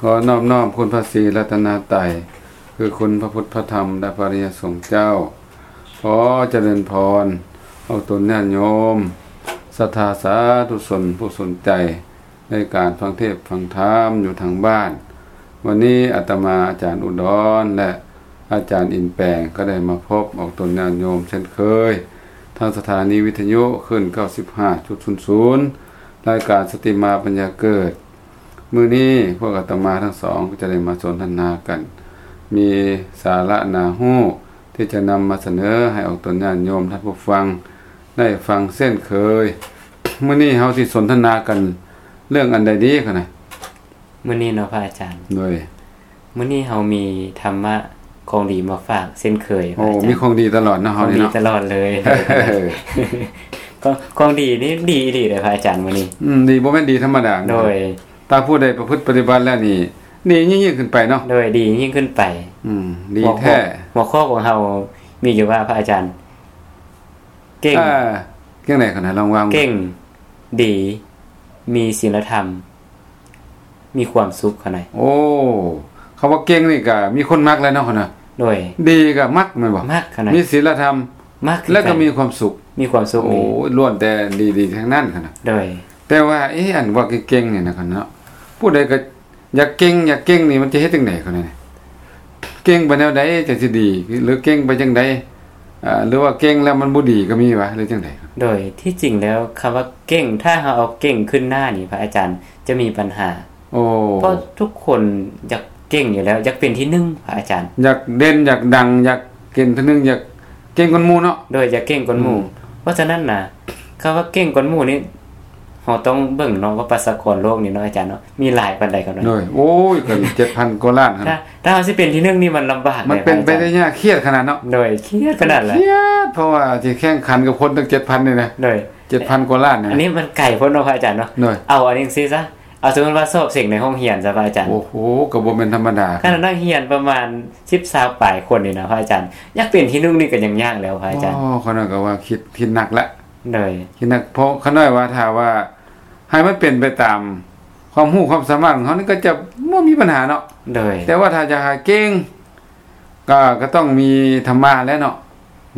ຂໍນອບນ້ອມຄຸນພະສີລັດຕະນະໄຕ ຄືຄຸນພະພຸດ ພະທຳ ແລະ ພະອະລິຍະສົງເຈົ້າ. ຂໍຈະເລີນພອນອອກຕົນຍາດໂຍມ ສັດທາສາທຸຊົນຜູ້ສົນໃຈໃນການຟັງເທດຟັງທຳຢູ່ທາງບ້ານ. ວັນນີ້ອາດຕະມາ ອາຈານອຸດອນ ແລະ ອາຈານອິນແປງ ກໍໄດ້ມາພົບອອກຕົນຍາດໂຍມເຊັ່ນເຄີຍ ທາງສະຖານີວິທະຍຸຄື້ນ ເກົ້າສິບຫ້າຈຸດສູນສູນ ລາຍການສະຕິມາປັນຍາເກີດ. ມື້ນີ້ພວກອາດຕະມາທັງສອງກໍຈະໄດ້ມາສົນທະນາກັນ ມີສາລະໜ້າຮູ້ທີ່ຈະນຳມາສະເໜີໃຫ້ອອກຕົນຍາດໂຍມທ່ານຜູ້ຟັງໄດ້ຟັງເຊັ່ນເຄີຍ. ມື້ນີ້ເຮົາຊິສົນທະນາກັນເລື່ອງອັນໃດດີຄະນະ? ມື້ນີ້ເນາະພະອາຈານ. ໂດຍ. ມື້ນີ້ເຮົາມີທຳມະຂອງດີມາຝາກເຊັ່ນເຄີຍ. ໂອ້ ພະອາຈານ. ມີຂອງດີຕະຫຼອດເນາະ ເຮົານີ້ເນາະ. ຂອງດີຕະຫຼອດເລີຍ. ຂອງ ຂອງດີນີ້ດີອີ່ຫຼີເດ້ພະອາຈານມື້ນີ້. ອືມ ດີ ບໍ່ແມ່ນດີທຳມະດາ. ໂດຍ. ຖ້າຜູ້ໃດປະພຶດປະຕິບັດແລ້ວນີ້ ດີຍິ່ງໆຂຶ້ນໄປເນາະ. ໂດຍ ດີຍິ່ງຂຶ້ນໄປ. ອືມ ດີແທ້. ຫົວຂໍ້ ຫົວຂໍ້ຂອງເຮົາມີຢູ່ວ່າ ພະອາຈານ ເກັ່ງ ອ່າ ຈັ່ງໃດຄະນະ? ລອງວ່າ ເກັ່ງ ດີ ມີສິນລະທຳ ມີຄວາມສຸກຄະນະ. ໂອ້ ຄຳວ່າເກັ່ງນີ້ກະມີຄົນມັກແລ້ວເນາະຄະນະ. ໂດຍ. ດີກະມັກແມ່ນບໍ່? ມັກຄະນະ. ມີສິນລະທຳ ມັກ ແລ້ວກະມີຄວາມສຸກ. ມີຄວາມສຸກ. ໂອ້ ລ້ວນແຕ່ດີໆທັງນັ້ນຄະນະ. ໂດຍ. ແຕ່ວ່າ ເອ ອັນວ່າເກັ່ງໆນີ້ນະຄະນະ ຜູ້ໃດກະຢາກເກັ່ງ ຢາກເກັ່ງນີ້ ມັນຈະເຮັດຈັ່ງໃດຄະນະ? ເກັ່ງໄປແນວໃດຈັ່ງຊິດີ ຫຼືເກັ່ງໄປຈັ່ງໃດ? ອ່າ ຫຼືວ່າເກັ່ງແລ້ວມັນບໍ່ດີກໍມີຫວາ ຫຼືຈັ່ງໃດ? ໂດຍ ທີ່ຈິງແລ້ວ ຄຳວ່າເກັ່ງ ຖ້າເຮົາເອົາເກັ່ງຂຶ້ນໜ້ານີ້ ພະອາຈານ ຈະມີບັນຫາ. ໂອ້ ເພາະທຸກຄົນຢາກເກັ່ງຢູ່ແລ້ວ ຢາກເປັນທີໜຶ່ງ ພະອາຈານ. ຢາກເດັ່ນ ຢາກດັງ ຢາກເປັນທີໜຶ່ງ ຢາກເກັ່ງກວ່າໝູ່ເນາະ. ໂດຍ ຢາກເກັ່ງກວ່າໝູ່. ອືມ ເພາະສະນັ້ນນະ ຄຳວ່າເກັ່ງກວ່າໝູ່ນີ້ ເຮົາຕ້ອງເບິ່ງເນາະວ່າປະຊາກອນໂລກນີ້ເນາະອາຈານເນາະ ມີຫຼາຍປານໃດກັນເນາະ. ໂດຍ. ໂອ້ຍ ກໍເຈັດພັນກວ່າລ້ານ. ຖ້າ ຖ້າເຮົາຊິເປັນທີໜຶ່ງນີ້ມັນລຳບາກ. ມັນເປັນໄປໄດ້ຍາກ ຄຽດຂະໜາດເນາະ. ໂດຍ ຄຽດຂະໜາດແຫຼະ. ຄຽດ ເພາະວ່າຊິແຂ່ງຂັນກັບຄົນຕັ້ງເຈັດພັນນີ້ນະ. ໂດຍ. ເຈັດພັນກວ່າລ້ານນີ້ ອັນນີ້ມັນໄກໂພດເນາະພະອາຈານເນາະ. ໂດຍ. ເອົາອັນນີ້ຊີ້ຊະ ເອົາສົມມຸດວ່າສອບເສັງໃນຫ້ອງຮຽນຊະພະອາຈານ. ໂອ້ໂຫ ກໍບໍ່ແມ່ນທຳມະດາ. ຂະໜາດນັກຮຽນປະມານສິບ ຊາວປາຍຄົນນີ້ນະພະອາຈານ ຢາກເປັນທີໜຶ່ງນີ້ກໍຍັງຍາກແລ້ວພະອາຈານ. ອໍ ຂ້ານ້ອຍກໍວ່າຄິດ ຄິດໜັກລະ. ໂດຍ. ຄິດໜັກ ເພາະຂ້ານ້ອຍວ່າ ຖ້າວ່າໃຫ້ມັນເປັນໄປຕາມຄວາມຮູ້ຄວາມສາມາດຂອງເຮົານີ້ ກໍຈະບໍ່ມີບັນຫາເນາະ. ໂດຍ. ແຕ່ວ່າຖ້າຢາກໃຫ້ເກັ່ງ ກໍ ກໍຕ້ອງມີທຳມະແຫຼະເນາະ.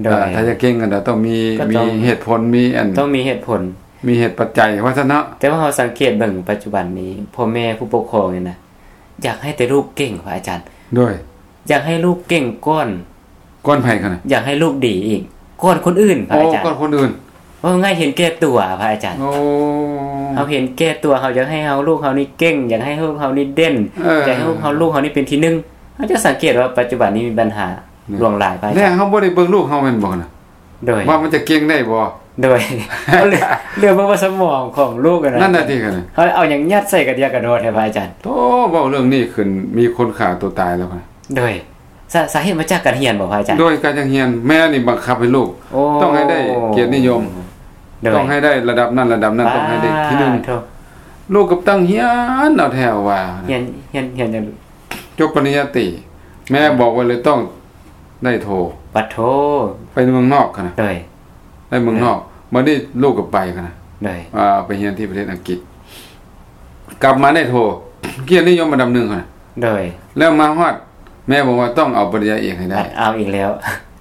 ໂດຍ. ເອີ ຖ້າຢາກເກັ່ງກໍຕ້ອງມີ ກໍຕ້ອງ ມີເຫດຜົນ ມີອັນ ຕ້ອງມີເຫດຜົນ ມີເຫດປັດໄຈວ່າຊັ້ນເນາະ. ແຕ່ວ່າເຮົາສັງເກດເບິ່ງປັດຈຸບັນນີ້ ພໍ່ແມ່ຜູ້ປົກຄອງນີ້ນະ ຢາກໃຫ້ແຕ່ລູກເກັ່ງ ພະອາຈານ. ໂດຍ. ຢາກໃຫ້ລູກເກັ່ງກ່ອນ ກ່ອນໃຜຄະນະ? ຢາກໃຫ້ລູກດີອີກ ກ່ອນຄົນອື່ນ ພະອາຈານ. ໂອ້ ກ່ອນຄົນອື່ນ. ເວົ້າງ່າຍເຫັນແກ່ຕົວ ພະອາຈານ. ໂອ້ ເຮົາເຫັນແກ່ຕົວ ເຮົາຢາກໃຫ້ເຮົາ ລູກເຮົານີ້ເກັ່ງ ຢາກໃຫ້ລູກເຮົານີ້ເດັ່ນ ເອີ ຢາກໃຫ້ລູກເຮົາ ລູກເຮົານີ້ເປັນທີໜຶ່ງ. ເຮົາຈະສັງເກດວ່າປັດຈຸບັນນີ້ມີບັນຫາ ໂດຍ ຫຼວງຫຼາຍ ພະອາຈານ. ແລ້ວເຮົາບໍ່ໄດ້ເບິ່ງລູກເຮົາແມ່ນບໍ່ນະ? ໂດຍ. ວ່າມັນຈະເກັ່ງໄດ້ບໍ່? ໂດຍ. ເຮົາເຫຼືອ ເຫຼືອເບິ່ງວ່າສະໝອງຂອງລູກຫັ້ນນະ. ນັ້ນນະຕິ ເຮົາເອົາຫຍັງຍັດໃສ່ກະເດຍກະດໍແທ້ ພະອາຈານ. ໂອ້ ເວົ້າເລື່ອງນີ້ຂຶ້ນ ມີຄົນຂ້າຕົວຕາຍແລ້ວ. ໂດຍ. ສາ ສາເຫດມາຈາກການຮຽນບໍ່ ພະອາຈານ? ໂດຍ ການຮຽນ ແມ່ນີ້ບັງຄັບໃຫ້ລູກ ໂອ້ ຕ້ອງໃຫ້ໄດ້ກຽດນິຍົມ. ໂດຍ. ຕ້ອງໃຫ້ໄດ້ລະດັບນັ້ນລະດັບນັ້ນ ປາ ຕ້ອງໃຫ້ໄດ້ທີໜຶ່ງ. ໂທ້ ລູກກໍຕັ້ງຮຽນເອົາແທ້ວ່າ ຮຽນ ຮຽນ ຮຽນຫຍັງ? ຈົບປະລິນຍາຕີ ແມ່ບອກໄວ້ເລີຍຕ້ອງໄດ້ໂທ. ປະໂທ ໄປເມືອງນອກຫັ້ນນະ. ໂດຍ. ໄປເມືອງນອກ ໂດຍ ບັດນີ້ລູກກໍໄປຫັ້ນນະ. ໂດຍ. ອ່າ ໄປຮຽນທີ່ປະເທດອັງກິດ ກັບມາໄດ້ໂທ ກຽດນິຍົມອັນດັບໜຶ່ງຫັ້ນນະ. ໂດຍ. ແລ້ວມາຮອດ ແມ່ບອກວ່າຕ້ອງເອົາປະລິນຍາເອກໃຫ້ໄດ້. ເອົາອີກແລ້ວ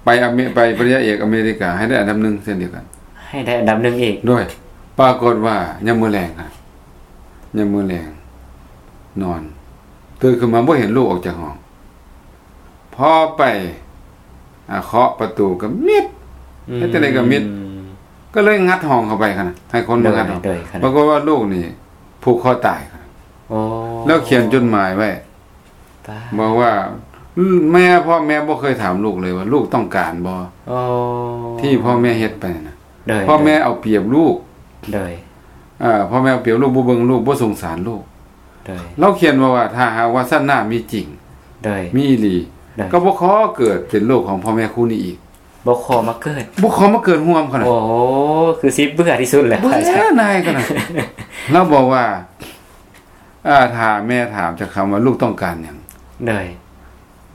ໄປອາເມ ໄປປະລິນຍາເອກອາເມລິກາ ໃຫ້ໄດ້ອັນດັບໜຶ່ງເຊັ່ນດຽວກັນ. ໃຫ້ໄດ້ອັນດັບໜຶ່ງອີກ. ໂດຍ. ປາກົດວ່າຍາມມື້ແລງຫັ້ນ ຍາມມື້ແລງນອນ ຕື່ນຂຶ້ນມາບໍ່ເຫັນລູກອອກຈາກຫ້ອງ. ພໍໄປ ອ່າ ເຄາະປະຕູກໍມິດ ອືມ ເຮັດຈັ່ງໃດກໍມິດ ກໍເລີຍງັດຫ້ອງເຂົ້າໄປຫັ້ນນະ ໃຫ້ຄົນມາງັດຫ້ອງ. ໂດຍ ໂດຍ ປາກົດວ່າລູກນີ້ຜູກຄໍຕາຍ. ໂອ້ ແລ້ວຂຽນຈົດໝາຍໄວ້ ປາ ບອກວ່າ ແມ່ ພໍ່ແມ່ບໍ່ເຄີຍຖາມລູກເລີຍວ່າລູກຕ້ອງການບໍ່? ໂອ້ ທີ່ພໍ່ແມ່ເຮັດໄປນະ. ໂດຍ ພໍ່ແມ່ເອົາປຽບລູກ. ໂດຍ ເອີ ພໍ່ແມ່ເອົາປຽບລູກ ບໍ່ເບິ່ງລູກ ບໍ່ສົງສານລູກ. ໂດຍ ລາວຂຽນມາວ່າ ຖ້າຫາກວ່າຊາດໜ້າມີຈິງ ໂດຍ ມີອີ່ຫຼີ ໂດຍ ກໍບໍ່ຂໍເກີດເປັນລູກຂອງພໍ່ແມ່ຄູ່ນີ້ອີກ. ບໍ່ຂໍມາເກີດ ບໍ່ຂໍມາເກີດຮ່ວມເຂົານະ. ໂອ້ ຄືຊິເບື່ອທີ່ສຸດແລ້ວ ເບື່ອນາຍເຂົານະ. ລາວບອກວ່າ ອ່າ ຖ້າແມ່ຖາມຈັກຄຳວ່າລູກຕ້ອງການຫຍັງ? ໂດຍ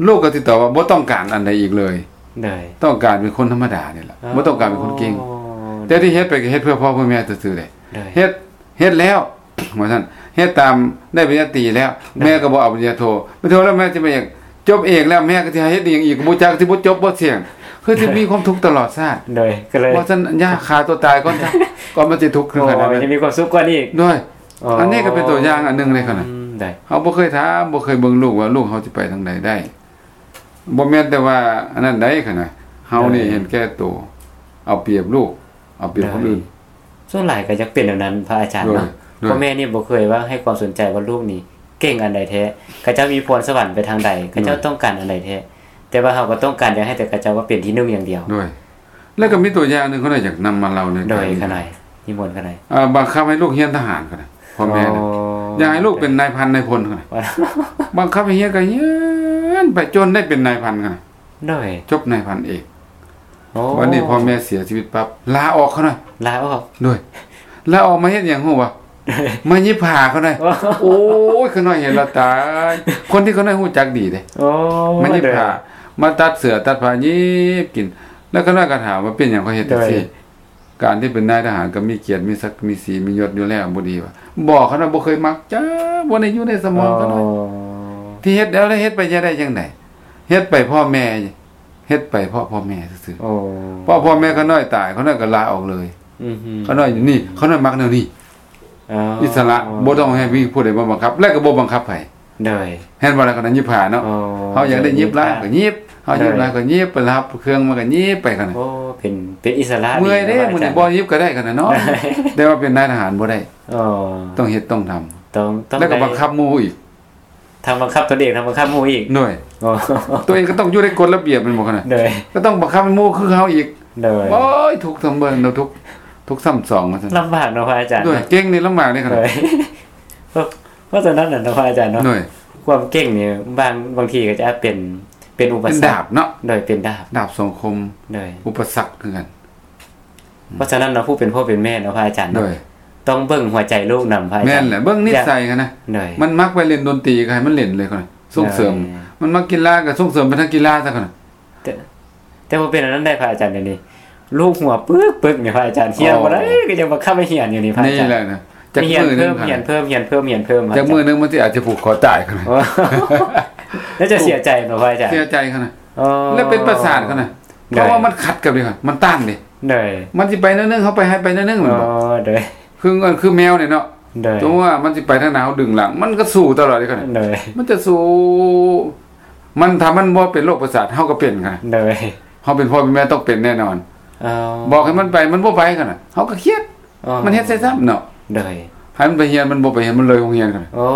ລູກກໍຊິຕອບວ່າບໍ່ຕ້ອງການອັນໃດອີກເລີຍ. ໂດຍ ຕ້ອງການເປັນຄົນທຳມະດານີ້ແຫຼະ. ອໍ ບໍ່ຕ້ອງການເປັນຄົນເກັ່ງ. ໂດຍ ແຕ່ທີ່ເຮັດໄປກໍເຮັດເພື່ອພໍ່ເພື່ອແມ່ຊື່ໆເດ້. ໂດຍ ເຮັດ ເຮັດແລ້ວ ວ່າຊັ້ນ. ເຮັດຕາມ ໄດ້ປະລິນຍາຕີແລ້ວ ໂດຍ ແມ່ກໍບໍ່ເອົາປະລິນຍາໂທ ໄປໂທແລ້ວແມ່ຈະມາເອກ ຈົບເອກແລ້ວແມ່ກໍຊິໃຫ້ເຮັດອີ່ຫຍັງອີກ ກໍບໍ່ຈັກ ຊິບໍ່ຈົບບໍ່ສ່ຽງ ຄືຊິມີຄວາມທຸກຕະຫຼອດຊາດ. ໂດຍ ກໍເລີຍ ວ່າຊັ້ນ ຢ່າຂ້າຕົວຕາຍກ່ອນຊະ ກ່ອນມັນຊິທຸກຂຶ້ນຂະໜາດນັ້ນ ໂອ້ຍ ຈະມີຄວາມສຸກກວ່ານີ້ອີກ. ໂດຍ ອໍ ອັນນີ້ກໍເປັນຕົວຢ່າງອັນໜຶ່ງເລີຍຂະນະ. ອືມ ໂດຍ ເຮົາບໍ່ເຄີຍຖາມ ບໍ່ເຄີຍເບິ່ງລູກວ່າລູກເຮົາຊິໄປທາງໃດໄດ້. ບໍ່ແມ່ນແຕ່ວ່າອັນນັ້ນໃດຂະນະ ເຮົານີ້ ໂດຍ ເຫັນແກ່ໂຕ ເອົາປຽບລູກ ເອົາປຽບຄົນອື່ນ. ໂດຍ ສ່ວນຫຼາຍກໍຢາກເປັນແນວນັ້ນພະອາຈານເນາະ. ໂດຍ ໂດຍ ພໍ່ແມ່ນີ້ບໍ່ເຄີຍວ່າໃຫ້ຄວາມສົນໃຈວ່າລູກນີ້ເກັ່ງອັນໃດແທ້ ເຂົາເຈົ້າມີພອນສະຫວັນໄປທາງໃດ ເຂົາເຈົ້າ ໂດຍ ຕ້ອງການອັນໃດແທ້ ແຕ່ວ່າເຮົາກໍຕ້ອງການຢາກໃຫ້ແຕ່ເຂົາເຈົ້າວ່າເປັນທີໜຶ່ງຢ່າງດຽວ. ໂດຍ ແລ້ວກໍມີຕົວຢ່າງໜຶ່ງ ຂ້ານ້ອຍຢາກນຳມາເລົ່າໃນ ໂດຍ ຂ້ານ້ອຍ ນິມົນຂ້ານ້ອຍ. ເອີ ບັງຄັບໃຫ້ລູກຮຽນທະຫານຂະນະ ພໍ່ແມ່ນະ ອໍ ຢາກໃຫ້ລູກເປັນນາຍພັນນາຍພົນຂະນະ ບັງຄັບໃຫ້ຮຽນກໍຮຽນໄປຈົນໄດ້ເປັນນາຍພັນຂະນະ. ໂດຍ ຈົບນາຍພັນເອກ. ໂອ້ ບັດນີ້ພໍ່ແມ່ເສຍຊີວິດປັບ ລາອອກຂະນ້ອຍ ລາອອກ. ໂດຍ ລາອອກມາເຮັດຫຍັງຮູ້ບໍ່? ມາຫຍິບຜ້າຂະນ້ອຍ. ໂອ້ ໂອ້ຍ ຂະນ້ອຍເຫັນແລ້ວຕາຍ ຄົນທີ່ຂະນ້ອຍຮູ້ຈັກດີເດ້. ໂອ້ ມາຫຍິບຜ້າ ໂດຍ ມາຕັດເສື້ອຕັດຜ້າ ຫຍິບກິນ. ແລ້ວຂະນ້ອຍກໍຖາມວ່າເປັນຫຍັງຂ້ອຍເຮັດຈັ່ງຊີ້ ໂດຍ ການທີ່ເປັນນາຍທະຫານກໍມີກຽດ ມີສັກ ມີສີ ມີຍົດຢູ່ແລ້ວ ບໍ່ດີຫວາ? ບໍ່ ຂະນ້ອຍບໍ່ເຄີຍມັກຈັກ ບໍ່ໄດ້ຢູ່ໃນສະໝອງຂະນ້ອຍ. ອໍ ທີ່ເຮັດແລ້ວ ເຮັດໄປຈະໄດ້ຈັ່ງໃດ? ເຮັດໄປເພາະແມ່ ເຮັດໄປເພາະພໍ່ແມ່ຊື່ໆ. ອໍ ເພາະພໍ່ແມ່ຂະນ້ອຍຕາຍ ຂະນ້ອຍກໍລາອອກເລີຍ. ອືຮຶ ຂະນ້ອຍຢູ່ນີ້ ຂະນ້ອຍມັກແນວນີ້. ອໍ ອິດສະຫຼະ ບໍ່ຕ້ອງໃຫ້ມີຜູ້ໃດມາບັງຄັບ ແລະກໍບໍ່ບັງຄັບໃຜ. ໂດຍ ເຫັນບໍ່ລະ ຂະນ້ອຍຫຍິບຜ້າເນາະ. ອໍ ເຮົາຢາກໄດ້ຫຍິບຫຼາຍກໍຫຍິບ ເຮົາຫຍິບຫຼາຍກໍຫຍິບ ໄປຮັບເຄື່ອງມາກໍຫຍິບໄປຂະນ້ອຍ. ໂອ້ ເປັນ ເປັນອິດສະຫຼະ ເມື່ອຍເດ້ ມື້ນີ້ບໍ່ຫຍິບກໍໄດ້ຂະນ້ອຍເນາະ. ແຕ່ວ່າເປັນນາຍທະຫານບໍ່ໄດ້. ອໍ ຕ້ອງເຮັດຕ້ອງທຳ ຕ້ອງ ຕ້ອງ ແລ້ວກໍບັງຄັບໝູ່ອີກ ທັງບັງຄັບຕົນເອງ ທັງບັງຄັບໝູ່ອີກ. ໂດຍ ອໍ ຕົວເອງກໍຕ້ອງຢູ່ໃນກົດລະບຽບແມ່ນບໍ່ຂະນ້ອຍ? ໂດຍ ກໍຕ້ອງບັງຄັບໃຫ້ໝູ່ຄືເຮົາອີກ. ໂດຍ ໂອ້ຍ ທຸກຊຳເບີງ ທຸກ ທຸກຊຳສອງວ່າຊັ້ນ. ລຳບາກເນາະພະອາຈານ. ໂດຍ ເກັ່ງນີ້ລຳບາກເດ້ຂະນ້ອຍ. ໂດຍ ເພາະ ເພາະສະນັ້ນນະເນາະພະອາຈານເນາະ. ໂດຍ ຄວາມເກັ່ງນີ້ບາງ ບາງທີກໍຈະເປັນ ເປັນອຸປະສັກ ເປັນດາບເນາະ. ໂດຍ ເປັນດາບ ດາບສອງຄົມ. ໂດຍ ອຸປະສັກຄືກັນ. ເພາະສະນັ້ນເນາະ ຜູ້ເປັນພໍ່ເປັນແມ່ເນາະພະອາຈານເນາະ ໂດຍ ຕ້ອງເບິ່ງຫົວໃຈລູກນຳພະອາຈານ. ແມ່ນແຫຼະ ເບິ່ງນິດໄສຫັ້ນນະ. ໂດຍ ມັນມັກໄປຫຼິ້ນດົນຕີກໍໃຫ້ມັນຫຼິ້ນເລີຍ ສົ່ງເສີມ. ໂດຍ ມັນມັກກິລາກໍສົ່ງເສີມໄປທາງກິລາຊະ. ແຕ່ ແຕ່ບໍ່ເປັນອັນນັ້ນໄດ້ພະອາຈານ ດຽວນີ້ລູກຫົວປຶກໆນີ້ພະອາຈານ ຮຽນບໍ່ໄດ້ ອໍ ກໍຍັງບັງຄັບໃຫ້ຮຽນຢູ່ນີ້ພະອາຈານ. ນີ້ແຫຼະນະ ຈັກມື້ໜຶ່ງຮຽນເພີ່ມ ຮຽນເພີ່ມ ຮຽນເພີ່ມ ຮຽນເພີ່ມ ຈັກມື້ໜຶ່ງມັນຊິອາດຈະຜູກຄໍຕາຍຂະນ້ອຍ. ອໍ ແລ້ວຈະເສຍໃຈເນາະພະອາຈານ. ເສຍໃຈຂະນ້ອຍ. ອໍ ແລ້ວເປັນປະສາດຂະນ້ອຍ. ໂດຍ ເພາະວ່າມັນຂັດກັບນີ້ ມັນຕ້ານເດ້. ໂດຍ ມັນຊິໄປແນວໜຶ່ງ ເຮົາໄປໃຫ້ໄປແນວໜຶ່ງແມ່ນບໍ່? ອໍ ໂດຍ ຄື ຄືແມວນີ້ເນາະ. ໂດຍ ສົມມຸດວ່າມັນຊິໄປທາງໃດ ເຮົາດຶງຫຼັງ ມັນກໍສູ້ຕະຫຼອດເດ້ຂະນ້ອຍ. ໂດຍ ມັນຈະສູ້ ມັນ ຖ້າມັນບໍ່ເປັນໂລກປະສາດ ເຮົາກໍເປັນຂະນ້ອຍ. ໂດຍ ເຮົາເປັນພໍ່ເປັນແມ່ຕ້ອງເປັນແນ່ນອນ. ອໍ ບອກໃຫ້ມັນໄປ ມັນບໍ່ໄປຂະນ້ອຍ ເຮົາກໍຄຽດ. ອໍ ມັນເຮັດໃສ່ຊ້ຳເນາະ. ໂດຍ ໃຫ້ມັນໄປຮຽນ ມັນບໍ່ໄປຮຽນ ມັນເລີຍໂຮງຮຽນຂະນ້ອຍ. ໂອ້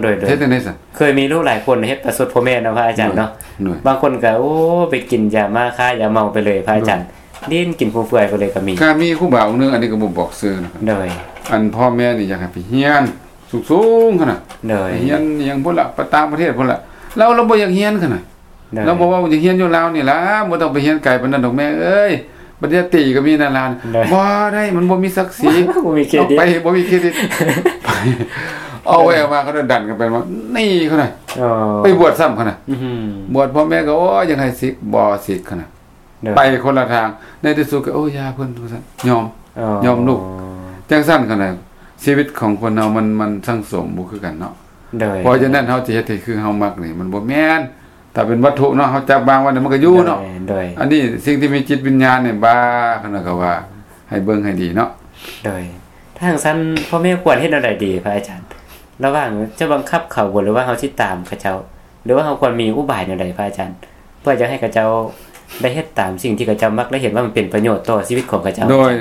ໂດຍ ໂດຍ ເຮັດຈັ່ງໃດຊັ້ນ? ເຄີຍມີລູກຫຼາຍຄົນເຮັດປະຊົດພໍ່ແມ່ເນາະພະອາຈານເນາະ. ໂດຍ ບາງຄົນກໍ ໂອ້ ໄປກິນຢາມ້າຄ້າຢາເມົາໄປເລີຍພະອາຈານ. ໂດຍ ຫຼິ້ນກິນຟຸມເຟືອຍໄປເລີຍກໍມີ. ກໍມີຄູບາອົງໜຶ່ງ ອັນນີ້ກໍບໍ່ບອກຊື່ນະ. ໂດຍ ອັນພໍ່ແມ່ນີ້ຢາກໃຫ້ໄປຮຽນສູງໆຂະນ້ອຍ. ໂດຍ ໄປຮຽນອີ່ຫຍັງພຸ້ນລະ ໄປຕ່າງປະເທດພຸ້ນລະ. ລາວ ລາວບໍ່ຢາກຮຽນຂະນ້ອຍ. ໂດຍ ລາວບອກວ່າ ຢາກຮຽນຢູ່ລາວນີ້ລະ ບໍ່ຕ້ອງໄປຮຽນໄກປານນັ້ນດອກແມ່ເອີຍ ປະລິນຍາຕີກໍມີໃນລາວ. ໂດຍ ບໍ່ໄດ້ ມັນບໍ່ມີສັກສີ. ບໍ່ມີເຄຣດິດ ໄປ ບໍ່ມີເຄຣດິດ. ເອົາໄວ້ເອົາມາ ເຂົາດັນກັນໄປມາ ໜີຂະນ້ອຍ. ອໍ ໄປບວດຊ້ຳຂະນ້ອຍ. ອືຮຶ ບວດ ພໍ່ແມ່ກໍ ໂອ້ຍ ຢາກໃຫ້ສິກ ບໍ່ສິກຂະນ້ອຍ. ໂດຍ ໄປຄົນລະທາງ ໃນທີ່ສຸດກໍ ໂອ້ ຢ່າເພິ່ນວ່າຊັ້ນ ຍອມ ອໍ ຍອມລູກ. ຈັ່ງຊັ້ນຂະນ້ອຍ ຊີວິດຂອງຄົນເຮົາມັນ ມັນສັງສົມບໍ່ຄືກັນເນາະ. ໂດຍ ເພາະສະນັ້ນເຮົາຈະເຮັດໃຫ້ຄືເຮົາມັກນີ້ ມັນບໍ່ແມ່ນ. ຖ້າເປັນວັດຖຸເນາະ ເຮົາຈັບວາງໄວ້ນີ້ ມັນກໍຢູ່ເນາະ. ໂດຍ ໂດຍ ອັນນີ້ສິ່ງທີ່ມີຈິດວິນຍານນີ້ ບາ ຂະນ້ອຍກໍວ່າໃຫ້ເບິ່ງໃຫ້ດີເນາະ. ໂດຍ ຖ້າຈັ່ງຊັ້ນ ພໍ່ແມ່ຄວນເຮັດແນວໃດດີພະອາຈານ? ລະຫວ່າງຈະບັງຄັບເຂົາບໍ່ ຫຼືວ່າເຮົາຊິຕາມເຂົາເຈົ້າ ຫຼືວ່າເຮົາຄວນມີອຸບາຍແນວໃດພະອາຈານ ເພື່ອຈະໃຫ້ເຂົາເຈົ້າໄດ້ເຮັດຕາມສິ່ງທີ່ເຂົາເຈົ້າມັກ ແລະ ເຫັນວ່າມັນເປັນປະໂຫຍດຕໍ່ຊີວິດຂອງເຂົາເຈົ້າ? ໂດຍ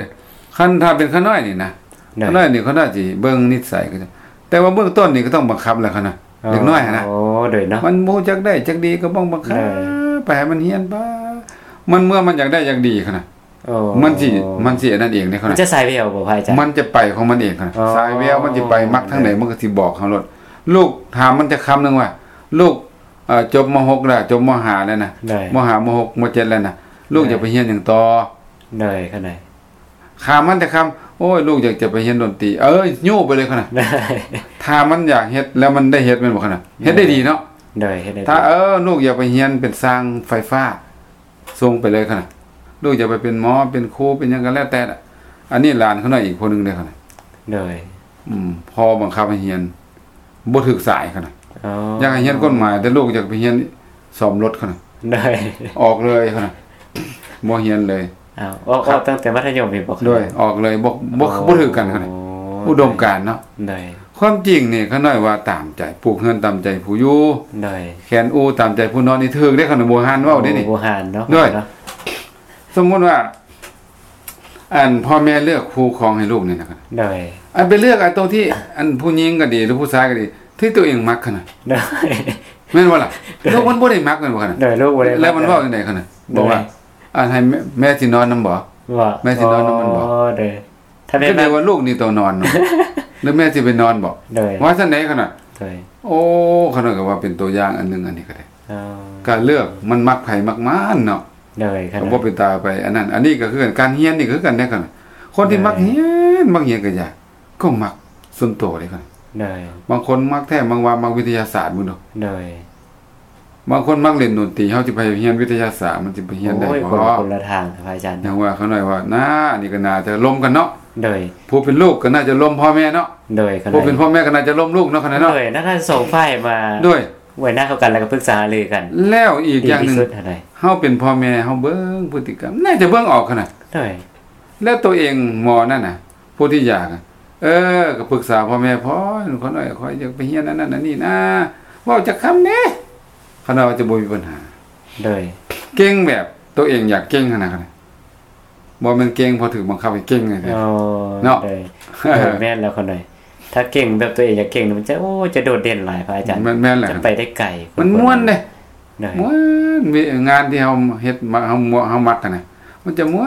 ຄັນຖ້າເປັນຂ້ານ້ອຍນີ້ນະ ໂດຍ ຂ້ານ້ອຍນີ້ ຂ້ານ້ອຍຊິເບິ່ງນິດໄສເຂົາເຈົ້າ ແຕ່ວ່າເບື້ອງຕົ້ນນີ້ກໍຕ້ອງບັງຄັບແຫຼະຂະນ້ອຍ. ອໍ ເດັກນ້ອຍຫັ້ນນະ ໂອ້ ໂດຍເນາະ ມັນບໍ່ຈັກໄດ້ຈັກດີກໍຕ້ອງບັງຄັບ ໂດຍ ໄປໃຫ້ມັນຮຽນໄປ ມັນເມື່ອມັນຢາກໄດ້ຢາກດີຂະນ້ອຍ. ອໍ ມັນຊິ ມັນຊິອັນນັ້ນເອງເດ້ຂະນ້ອຍ. ມັນຈະສາຍແວວບໍ່ພະອາຈານ? ມັນຈະໄປຂອງມັນເອງຂະນ້ອຍ. ອໍ ສາຍແວວມັນຊິໄປມັກທາງໃດ ໂດຍ ມັນກໍຊິບອກເຮົາໂລດ. ລູກ ຖາມມັນຈັກຄຳໜຶ່ງວ່າ ລູກ ເອີ ຈົບ ມໍຫົກ ແລ້ວ ຈົບ ມໍຫ້າ ແລ້ວນະ ໂດຍ ມໍຫ້າ ມໍຫົກ ມໍເຈັດ ແລ້ວນະ ລູກ ໂດຍ ຢາກໄປຮຽນຫຍັງຕໍ່? ໂດຍ ຂະນ້ອຍ ຖາມມັນຈັກຄຳ ໂອ້ຍ ລູກຢາກຈະໄປຮຽນດົນຕີ ເອີ ຍູ້ໄປເລີຍຂະນ້ອຍ. ໂດຍ ຖ້າມັນຢາກເຮັດ ແລ້ວມັນໄດ້ເຮັດແມ່ນບໍ່ຂະນ້ອຍ? ໂດຍ ເຮັດໄດ້ດີເນາະ. ໂດຍ ເຮັດໄດ້ດີ. ຖ້າ ເອີ ລູກຢາກໄປຮຽນເປັນຊ່າງໄຟຟ້າ ສົ່ງໄປເລີຍຂະນ້ອຍ ລູກຢາກໄປເປັນໝໍ ເປັນຄູ ເປັນຫຍັງກໍແລ້ວແຕ່ລະ. ອັນນີ້ຫຼານຂະນ້ອຍອີກຜູ້ໜຶ່ງເດ້ຂະນ້ອຍ. ໂດຍ ອືມ ພໍ່ບັງຄັບໃຫ້ຮຽນ ບໍ່ຖືກສາຍຂະໜາດ. ອໍ ຢາກໃຫ້ຮຽນກົດໝາຍ ແຕ່ລູກຢາກໄປຮຽນສ້ອມລົດຂະໜາດ. ໄດ້ ອອກເລີຍຂະໜາດ ບໍ່ຮຽນເລີຍ. ອ້າວ ອອກ ອອກຕັ້ງແຕ່ມັດທະຍົມນີ້ບໍ່? ໂດຍ ອອກເລີຍ ບໍ່ ບໍ່ ອໍ ບໍ່ຖືກກັນຂະໜາດ ອຸດົມການເນາະ. ໂດຍ ຄວາມຈິງນີ້ ຂະນ້ອຍວ່າຕາມໃຈ ປູກເຮືອນຕາມໃຈຜູ້ຢູ່. ໂດຍ ແຂນອູຕາມໃຈຜູ້ນອນ ນີ້ຖືກເດ້ ຂະນ້ອຍ ບູຮານເວົ້າເດ້ນີ້. ໂອ້ ບູຮານເນາະ. ໂດຍ ສະມຸດວ່າ ອັນພໍ່ແມ່ເລືອກຄູ່ຄອງໃຫ້ລູກນີ້ນະ. ໂດຍ ອັນໄປເລືອກເອົາຕົວທີ່ ອັນຜູ້ຍິງກໍດີ ຫຼືຜູ້ຊາຍກໍດີ ທີ່ຕົວເອງມັກຂະໜາດ. ໂດຍ ແມ່ນບໍ່ລະ? ໂດຍ ລູກມັນບໍ່ໄດ້ມັກແມ່ນບໍ່ຂະໜາດ? ໂດຍ ລູກບໍ່ໄດ້ມັກ ແລ້ວມັນເວົ້າຈັ່ງໃດຂະໜາດ? ໂດຍ ບອກວ່າ ອັນໃຫ້ແມ່ ແມ່ຊິນອນນຳບໍ່? ວ່າ ແມ່ຊິນອນນຳມັນບໍ່? ອໍ ໂດຍ ຖ້າແມ່ ກໍເລີຍວ່າລູກນີ້ຕ້ອງນອນເນາະ ແລ້ວແມ່ຊິໄປນອນບໍ່? ໂດຍ ວ່າຊັ້ນໃດຂະໜາດ. ໂດຍ ໂອ້ ຂະນ້ອຍກໍວ່າເປັນຕົວຢ່າງອັນໜຶ່ງ ອັນນີ້ກໍໄດ້. ອໍ ການເລືອກ ມັນມັກໃຜມັກມັນເນາະ. ໂດຍ ກໍບໍ່ເປັນຕາໄປອັນນັ້ນ. ອັນນີ້ກໍຄືກັນ ການຮຽນນີ້ກໍຄືກັນເດ້ ຄັນຄົນທີ່ມັກຮຽນ ມັກຮຽນກໍຢ່າ ກໍມັກສ່ວນໂຕເດ້. ໂດຍ ບາງຄົນມັກແທ້ ບາງວ່າມັກວິທະຍາສາດ ເບິ່ງດູ. ໂດຍ ບາງຄົນມັກຫຼິ້ນດົນຕີ ເຮົາຊິໄປຮຽນວິທະຍາສາດ ມັນຊິໄປຮຽນໄດ້ບໍ່? ໂອ້ຍ ຄົນ ຄົນລະທາງພະອາຈານ. ຢ່າງວ່າຂະນ້ອຍວ່າ ໜ້າ ອັນນີ້ກໍໜ້າຈະລົມກັນເນາະ. ໂດຍ ຜູ້ເປັນລູກກໍໜ້າຈະລົມພໍ່ແມ່ເນາະ. ໂດຍ ຜູ້ເປັນພໍ່ແມ່ກໍໜ້າຈະລົມລູກເນາະ ຂະນ້ອຍເນາະ. ໂດຍ ໜ້າທັງສອງຝ່າຍມາ ໂດຍ ໄວ້ໜ້າເຂົ້າກັນ ແລ້ວກໍປຶກສາຫາລືກັນ. ແລ້ວອີກຢ່າງໜຶ່ງ ເຮົາເປັນພໍ່ແມ່ ເຮົາເບິ່ງພຶດຕິກຳ ໜ້າຈະເບິ່ງອອກຂະໜາດ. ໂດຍ ແລ້ວຕົວເອງໝໍນັ້ນນະ ຜູ້ທີ່ຢາກ ເອີ ກໍປຶກສາພໍ່ແມ່ ພໍ່ ຂ້ອຍ ຂ້ອຍຢາກໄປຮຽນອັນນັ້ນອັນນີ້ນະ ເວົ້າຈັກຄຳແດ່ ຂະນ້ອຍວ່າຈະບໍ່ມີບັນຫາ. ໂດຍ ເກັ່ງແບບຕົວເອງຢາກເກັ່ງຫັ້ນນະ ບໍ່ແມ່ນເກັ່ງເພາະຖືກບັງຄັບໃຫ້ເກັ່ງເນາະ. ໂດຍ ໂດຍ ແມ່ນແລ້ວຂະນ້ອຍ ຖ້າເກັ່ງແບບຕົວເອງຢາກເກັ່ງນີ້ ມັນຈະ ໂອ້ ຈະໂດດເດັ່ນຫຼາຍພະອາຈານ. ແມ່ນ ແມ່ນແລ້ວ ຈະໄປໄດ້ໄກ ມັນມ່ວນເດ້. ໂດຍ ມ່ວນ ມີງານທີ່ເຮົາເຮັດ ເຮົາ ເຮົາມັກຫັ້ນນະ ມັນຈະມ່ວ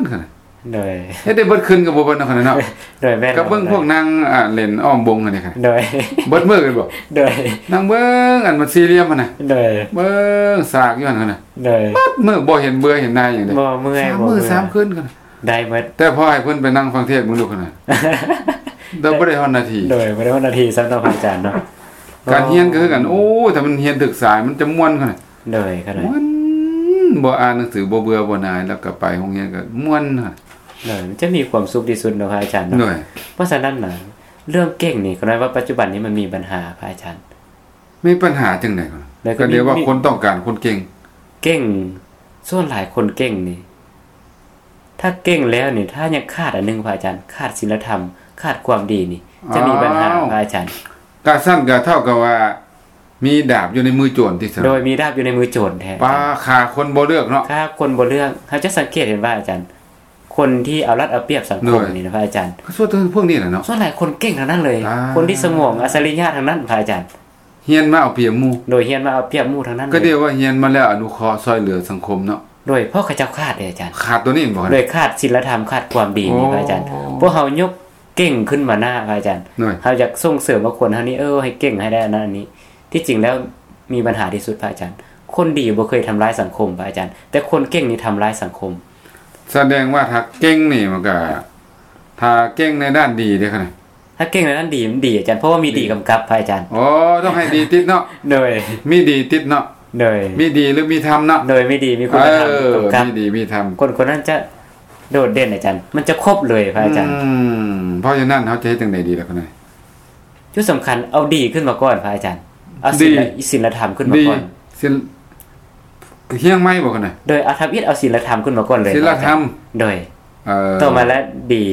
ນຂະໜາດ. ໂດຍ ເຮັດໄດ້ເບິດຄືນກໍບໍ່ເບິດເນາະ ຂະນ້ອຍເນາະ. ໂດຍ ແມ່ນ ກໍເບິ່ງພວກນາງ ອ່າ ຫຼິ້ນອ້ອມວົງຫັ້ນນີ້. ໂດຍ ເບິດມື້ແມ່ນບໍ່? ໂດຍ ນັ່ງເບິ່ງອັນມັນສີ່ຫຼ່ຽມຫັ້ນນະ. ໂດຍ ເບິ່ງສາກຢູ່ຫັ້ນນະ. ໂດຍ ເບິດມື້ ບໍ່ເຫັນເບື່ອເຫັນໜ່າຍຫຍັງເດ້. ບໍ່ເມື່ອຍ ສາມມື້ ບໍ່ເມື່ອຍ ສາມຄືນກັນ ໄດ້ເບິດ. ແຕ່ພໍໃຫ້ເພິ່ນໄປນັ່ງຟັງເທດເບິ່ງດູຂະໜາດ ແຕ່ບໍ່ໄດ້ຮອດນາທີ. ໂດຍ ບໍ່ໄດ້ຮອດນາທີຊ້ຳເນາະ ພະອາຈານເນາະ. ການຮຽນກໍຄືກັນ ໂອ້ຍ ຖ້າມັນຮຽນຖືກສາຍ ມັນຈະມ່ວນຂະໜາດ. ໂດຍ ຂະນ້ອຍ ມ່ວນ ບໍ່ອ່ານໜັງສື ບໍ່ເບື່ອບໍ່ໜ່າຍ ແລ້ວກໍໄປໂຮງຮຽນກໍມ່ວນຂະໜາດ. ໂດຍ ມັນຈະມີຄວາມສຸກທີ່ສຸດເນາະ ພະອາຈານເນາະ. ໂດຍ ເພາະສະນັ້ນນະ ເລື່ອງເກັ່ງນີ້ ຂະນ້ອຍວ່າປັດຈຸບັນນີ້ມັນມີບັນຫາ ພະອາຈານ. ມີບັນຫາຈັ່ງໃດ? ກໍເລີຍວ່າຄົນຕ້ອງການຄົນເກັ່ງ. ເກັ່ງ ສ່ວນຫຼາຍຄົນເກັ່ງນີ້ ຖ້າເກັ່ງແລ້ວນີ້ ຖ້າຍັງຂາດອັນໜຶ່ງ ພະອາຈານ ຂາດສິນລະທຳ ຂາດຄວາມດີນີ້ ຈະມີບັນຫາ ອ້າວ ພະອາຈານ. ກະຊັ້ນກະເທົ່າກັບວ່າມີດາບຢູ່ໃນມືໂຈນຕິຊັ້ນ. ໂດຍ ມີດາບຢູ່ໃນມືໂຈນແທ້. ປາ ຂ້າຄົນບໍ່ເລືອກເນາະ. ຂ້າຄົນບໍ່ເລືອກ. ເຮົາຈະສັງເກດເຫັນວ່າ ອາຈານ ຄົນທີ່ເອົາລັດເອົາປຽບສັງຄົມນີ້ນະ ພະອາຈານ ກໍສ່ວນພວກນີ້ແຫຼະເນາະ. ສ່ວນຫຼາຍຄົນເກັ່ງທັງນັ້ນເລີຍ. ຄົນທີ່ສະໝອງອັດສະລິຍະທັງນັ້ນ ພະອາຈານ. ຮຽນມາເອົາປຽບໝູ່. ໂດຍ ຮຽນມາເອົາປຽບໝູ່ທັງນັ້ນເລີຍ. ກໍເອີ້ນວ່າຮຽນມາແລ້ວອະນຸເຄາະຊ່ອຍເຫຼືອສັງຄົມເນາະ. ໂດຍ ເພາະເຂົາເຈົ້າຂາດເດ້ອາຈານ. ຂາດຕົວນີ້ບໍ່? ໂດຍ ຂາດສິນລະທຳ ຂາດຄວາມດີນີ້ ໂອ້ ພະອາຈານ. ພວກເຮົາຍົກເກັ່ງຂຶ້ນມາໜ້າ ພະອາຈານ. ໂດຍ ເຮົາຢາກສົ່ງເສີມວ່າຄົນເຮົານີ້ ເອີ ໃຫ້ເກັ່ງໃຫ້ໄດ້ອັນນັ້ນອັນນີ້. ທີ່ຈິງແລ້ວມີບັນຫາທີ່ສຸດ ພະອາຈານ. ຄົນດີບໍ່ເຄີຍທຳລາຍສັງຄົມ ພະອາຈານ, ແຕ່ຄົນເກັ່ງນີ້ທຳລາຍສັງຄົມ. ສະແດງວ່າຖ້າເກັ່ງນີ້ມັນກະ ຖ້າເກັ່ງໃນດ້ານດີເດ້ ຖ້າເກັ່ງໃນດ້ານດີ ມັນດີອາຈານ, ເພາະວ່າມີດີກຳກັບ ພະອາຈານ. ອໍ ຕ້ອງໃຫ້ດີຕິດເນາະ. ໂດຍ ມີດີຕິດເນາະ. ໂດຍ ມີດີຫຼືມີທຳເນາະ. ໂດຍ ມີດີມີຄຸນນະທຳ ເອີ ກຳກັບ ມີດີມີທຳ ຄົນຄົນນັ້ນຈະໂດດເດັ່ນອາຈານ, ມັນຈະຄົບເລີຍ ພະອາຈານ. ອືມ ເພາະສະນັ້ນເຮົາຈະເຮັດຈັ່ງໃດດີລະ ຄະນ້ອຍ? ຈຸດສຳຄັນ ເອົາດີຂຶ້ນມາກ່ອນ ພະອາຈານ. ເອົາສິນລະ ສິນລະທຳຂຶ້ນມາກ່ອນ. ສິນ ຮຽງໃໝ່ບໍ່ ຄະນ້ອຍ? ໂດຍ ເອົາທຳອິດ ເອົາສິນລະທຳຂຶ້ນມາກ່ອນເລີຍ ສິນລະທຳ. ໂດຍ ເອີ ຕໍ່ມາແລ້ວດີ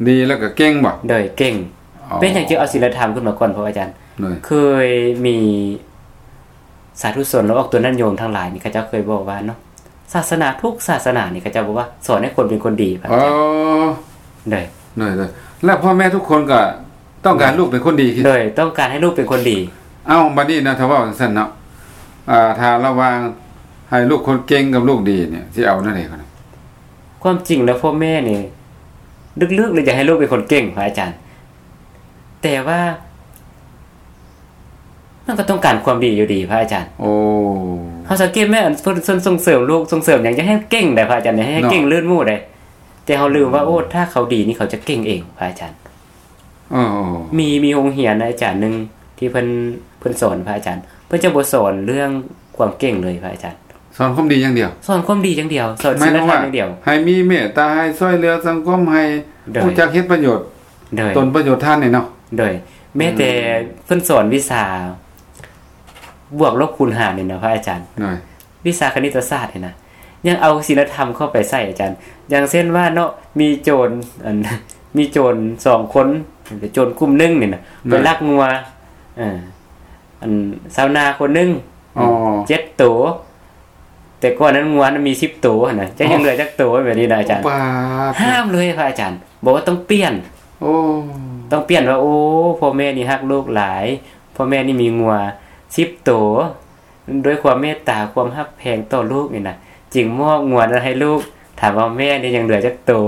ດີແລ້ວກໍເກັ່ງບໍ່? ໂດຍ ເກັ່ງ. ອໍ ເປັນຫຍັງຈຶ່ງເອົາສິນລະທຳຂຶ້ນມາກ່ອນ ພະອາຈານ? ໂດຍ ເຄີຍມີສາທຸຊົນ ແລະ ອອກຕົວຍາດໂຍມທັງຫຼາຍນີ້ ເຂົາເຈົ້າເຄີຍບອກວ່າເນາະ ສາສະໜາທຸກສາສະໜານີ້ ເຂົາເຈົ້າບອກວ່າສອນໃຫ້ຄົນເປັນຄົນດີ ພະອາຈານ. ອໍ ໂດຍ ໂດຍ ໂດຍ ແລະ ພໍ່ແມ່ທຸກຄົນກໍຕ້ອງການ ໂດຍ ລູກເປັນຄົນດີ. ໂດຍ ຕ້ອງການໃຫ້ລູກເປັນຄົນດີ. ເອົ້າ ບັດນີ້ນະ ຖ້າເວົ້າຈັ່ງຊັ້ນເນາະ ອ່າ ຖ້າລະຫວ່າງໃຫ້ລູກຄົນເກັ່ງກັບລູກດີນີ້ ຊິເອົາແນວໃດ? ຄວາມຈິງແລ້ວພໍ່ແມ່ນີ້ ລຶກໆ ແລ້ວຢາກໃຫ້ລູກເປັນຄົນເກັ່ງ ພະອາຈານ, ແຕ່ວ່າ ມັນກໍຕ້ອງການຄວາມດີຢູ່ດີ ພະອາຈານ. ໂອ້ ເຮົາສັງເກດແມ່ນ ອັນເພິ່ນ ເພິ່ນສົ່ງເສີມລູກ ສົ່ງເສີມຫຍັງ ຢາກໃຫ້ເກັ່ງໄດ໋ ພະອາຈານ, ຢາກໃຫ້ ເນາະ ເກັ່ງລື່ນໝູ່ໄດ໋, ແຕ່ເຮົາລືມວ່າ ໂອ້ ຖ້າເຂົາດີນີ້ ເຂົາຈະເກັ່ງເອງ ພະອາຈານ. ເອີ ມີ ມີໂຮງຮຽນອາຈານໜຶ່ງທີ່ເພິ່ນ ເພິ່ນສອນ ພະອາຈານ, ເພິ່ນຈະບໍ່ສອນເລື່ອງຄວາມເກັ່ງເລີຍ ພະອາຈານ. ສອນຄວາມດີຢ່າງດຽວ. ສອນຄວາມດີຢ່າງດຽວ. ສອນສິນລະທຳຢ່າງດຽວ. ໃຫ້ມີເມດຕາ ໃຫ້ຊ່ວຍເຫຼືອສັງຄົມ ໃຫ້ ໂດຍ ຮູ້ຈັກເຮັດປະໂຫຍດ ໂດຍ ຕົນປະໂຫຍດທານນີ້ເນາະ ໂດຍ ແມ້ແຕ່ ອືມ ເພິ່ນສອນວິຊາບວກລົບຄູນຫານນີ້ນະ ພະອາຈານ ໂດຍ ວິຊາຄະນິດຕະສາດນີ້ນະ ຍັງເອົາສິນລະທຳເຂົ້າໄປໃສ່ ອາຈານ. ຢ່າງເຊັ່ນວ່າເນາະ ມີໂຈນ ອັນ ມີໂຈນສອງຄົນ ໂຈນກຸ່ມໜຶ່ງນີ້ນະ ໄປລັກງົວ ເອີ ອັນ ຊາວນາຄົນໜຶ່ງ ອໍ ເຈັດໂຕ ແຕ່ກ່ອນນັ້ນງົວມັນມີສິບໂຕຫັ້ນນະ ຈັກຍັງເຫຼືອຈັກໂຕ ແບບນີ້ນະອາຈານ. ໂອ້ ປາດ ຫ້າມເລີຍພະອາຈານ ບອກວ່າຕ້ອງປ່ຽນ ໂອ້ ຕ້ອງປ່ຽນວ່າ ໂອ້ ພໍ່ແມ່ນີ້ຮັກລູກຫຼາຍ ພໍ່ແມ່ນີ້ມີງົວສິບໂຕ ດ້ວຍຄວາມເມດຕາ ຄວາມຮັກແພງຕໍ່ລູກນີ້ນະ ຈຶ່ງມອບງົວນັ້ນໃຫ້ລູກ ຖາມວ່າແມ່ນີ້ຍັງເຫຼືອຈັກໂຕ?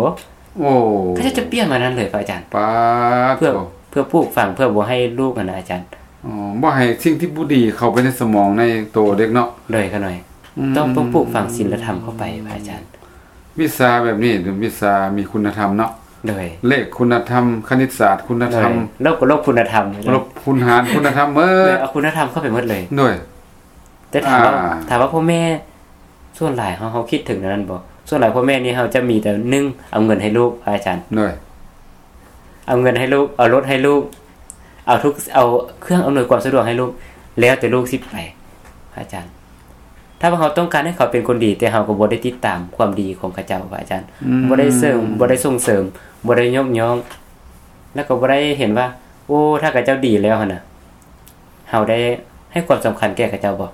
ໂອ້ ເຂົາເຈົ້າຈະປ່ຽນມານັ້ນເລີຍພະອາຈານ ປາດ ເພື່ອ ໂທ້ ເພື່ອປູກຝັງ ເພື່ອບໍ່ໃຫ້ລູກຫັ້ນນະອາຈານ ອໍ ບໍ່ໃຫ້ສິ່ງທີ່ບໍ່ດີເຂົ້າໄປໃນສະໝອງໃນໂຕເດັກເນາະ. ໂດຍ ຂະນ້ອຍ ອືມ ຕ້ອງ ຕ້ອງປູກຝັງສິນລະທຳເຂົ້າໄປພະອາຈານ. ວິຊາແບບນີ້ເປັນວິຊາມີຄຸນນະທຳເນາະ ໂດຍ ເລກຄຸນນະທຳ ຄະນິດສາດຄຸນນະທຳ ໂດຍ ລົບກໍລົບຄຸນນະທຳ ລົບຄູນຫານຄຸນນະທຳເໝິດ ໂດຍ ເອົາຄຸນນະທຳເຂົ້າໄປເໝິດເລີຍ ໂດຍ. ແຕ່ຖາມວ່າ ອ່າ ຖາມວ່າພໍ່ແມ່ສ່ວນຫຼາຍເຮົາ ເຮົາຄິດເຖິງແນວນັ້ນບໍ່? ສ່ວນຫຼາຍພໍ່ແມ່ນີ້ເຮົາຈະມີແຕ່ ໜຶ່ງ ເອົາເງິນໃຫ້ລູກ ພະອາຈານ ໂດຍ ເອົາເງິນໃຫ້ລູກ ເອົາລົດໃຫ້ລູກ ເອົາທຸກ ເອົາເຄື່ອງອຳນວຍຄວາມສະດວກໃຫ້ລູກ ແລ້ວແຕ່ລູກຊິໄປ ພະອາຈານ. ຖ້າວ່າເຮົາຕ້ອງການໃຫ້ເຂົາເປັນຄົນດີ ແຕ່ເຮົາກໍບໍ່ໄດ້ຕິດຕາມຄວາມດີຂອງເຂົາເຈົ້າ ພະອາຈານ ອືມ ບໍ່ໄດ້ເສີມ ບໍ່ໄດ້ສົ່ງເສີມ ບໍ່ໄດ້ຍົກຍ້ອງ ແລ້ວກໍບໍ່ໄດ້ເຫັນວ່າ ໂອ້ ຖ້າເຂົາເຈົ້າດີແລ້ວຫັ້ນນະ ເຮົາໄດ້ໃຫ້ຄວາມສຳຄັນແກ່ເຂົາເຈົ້າບໍ່?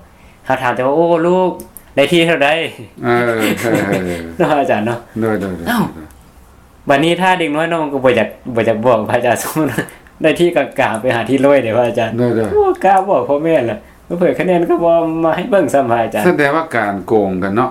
ເຮົາຖາມແຕ່ວ່າ ໂອ້ ລູກໄດ້ທີ່ເທົ່າໃດ? ເອີ ເນາະ ອາຈານເນາະ ໂດຍໆ ເອົ້າ ບັດນີ້ຖ້າເດັກນ້ອຍນ້ອງກໍບໍ່ຢາກ ບໍ່ຢາກບອກພະອາຈານ ສົມມຸດໄດ້ທີ່ກາງໆ ໄປຫາທີ່ຮ້ອຍເດ້ພະອາຈານ ໂດຍໆ ໂອ້ ກ້າບອກພໍ່ແມ່ລະ ເຜີຍຄະແນນກໍບໍ່ມາໃຫ້ເບິ່ງຊ້ຳພະອາຈານ. ສະແດງວ່າການໂກງກັນເນາະ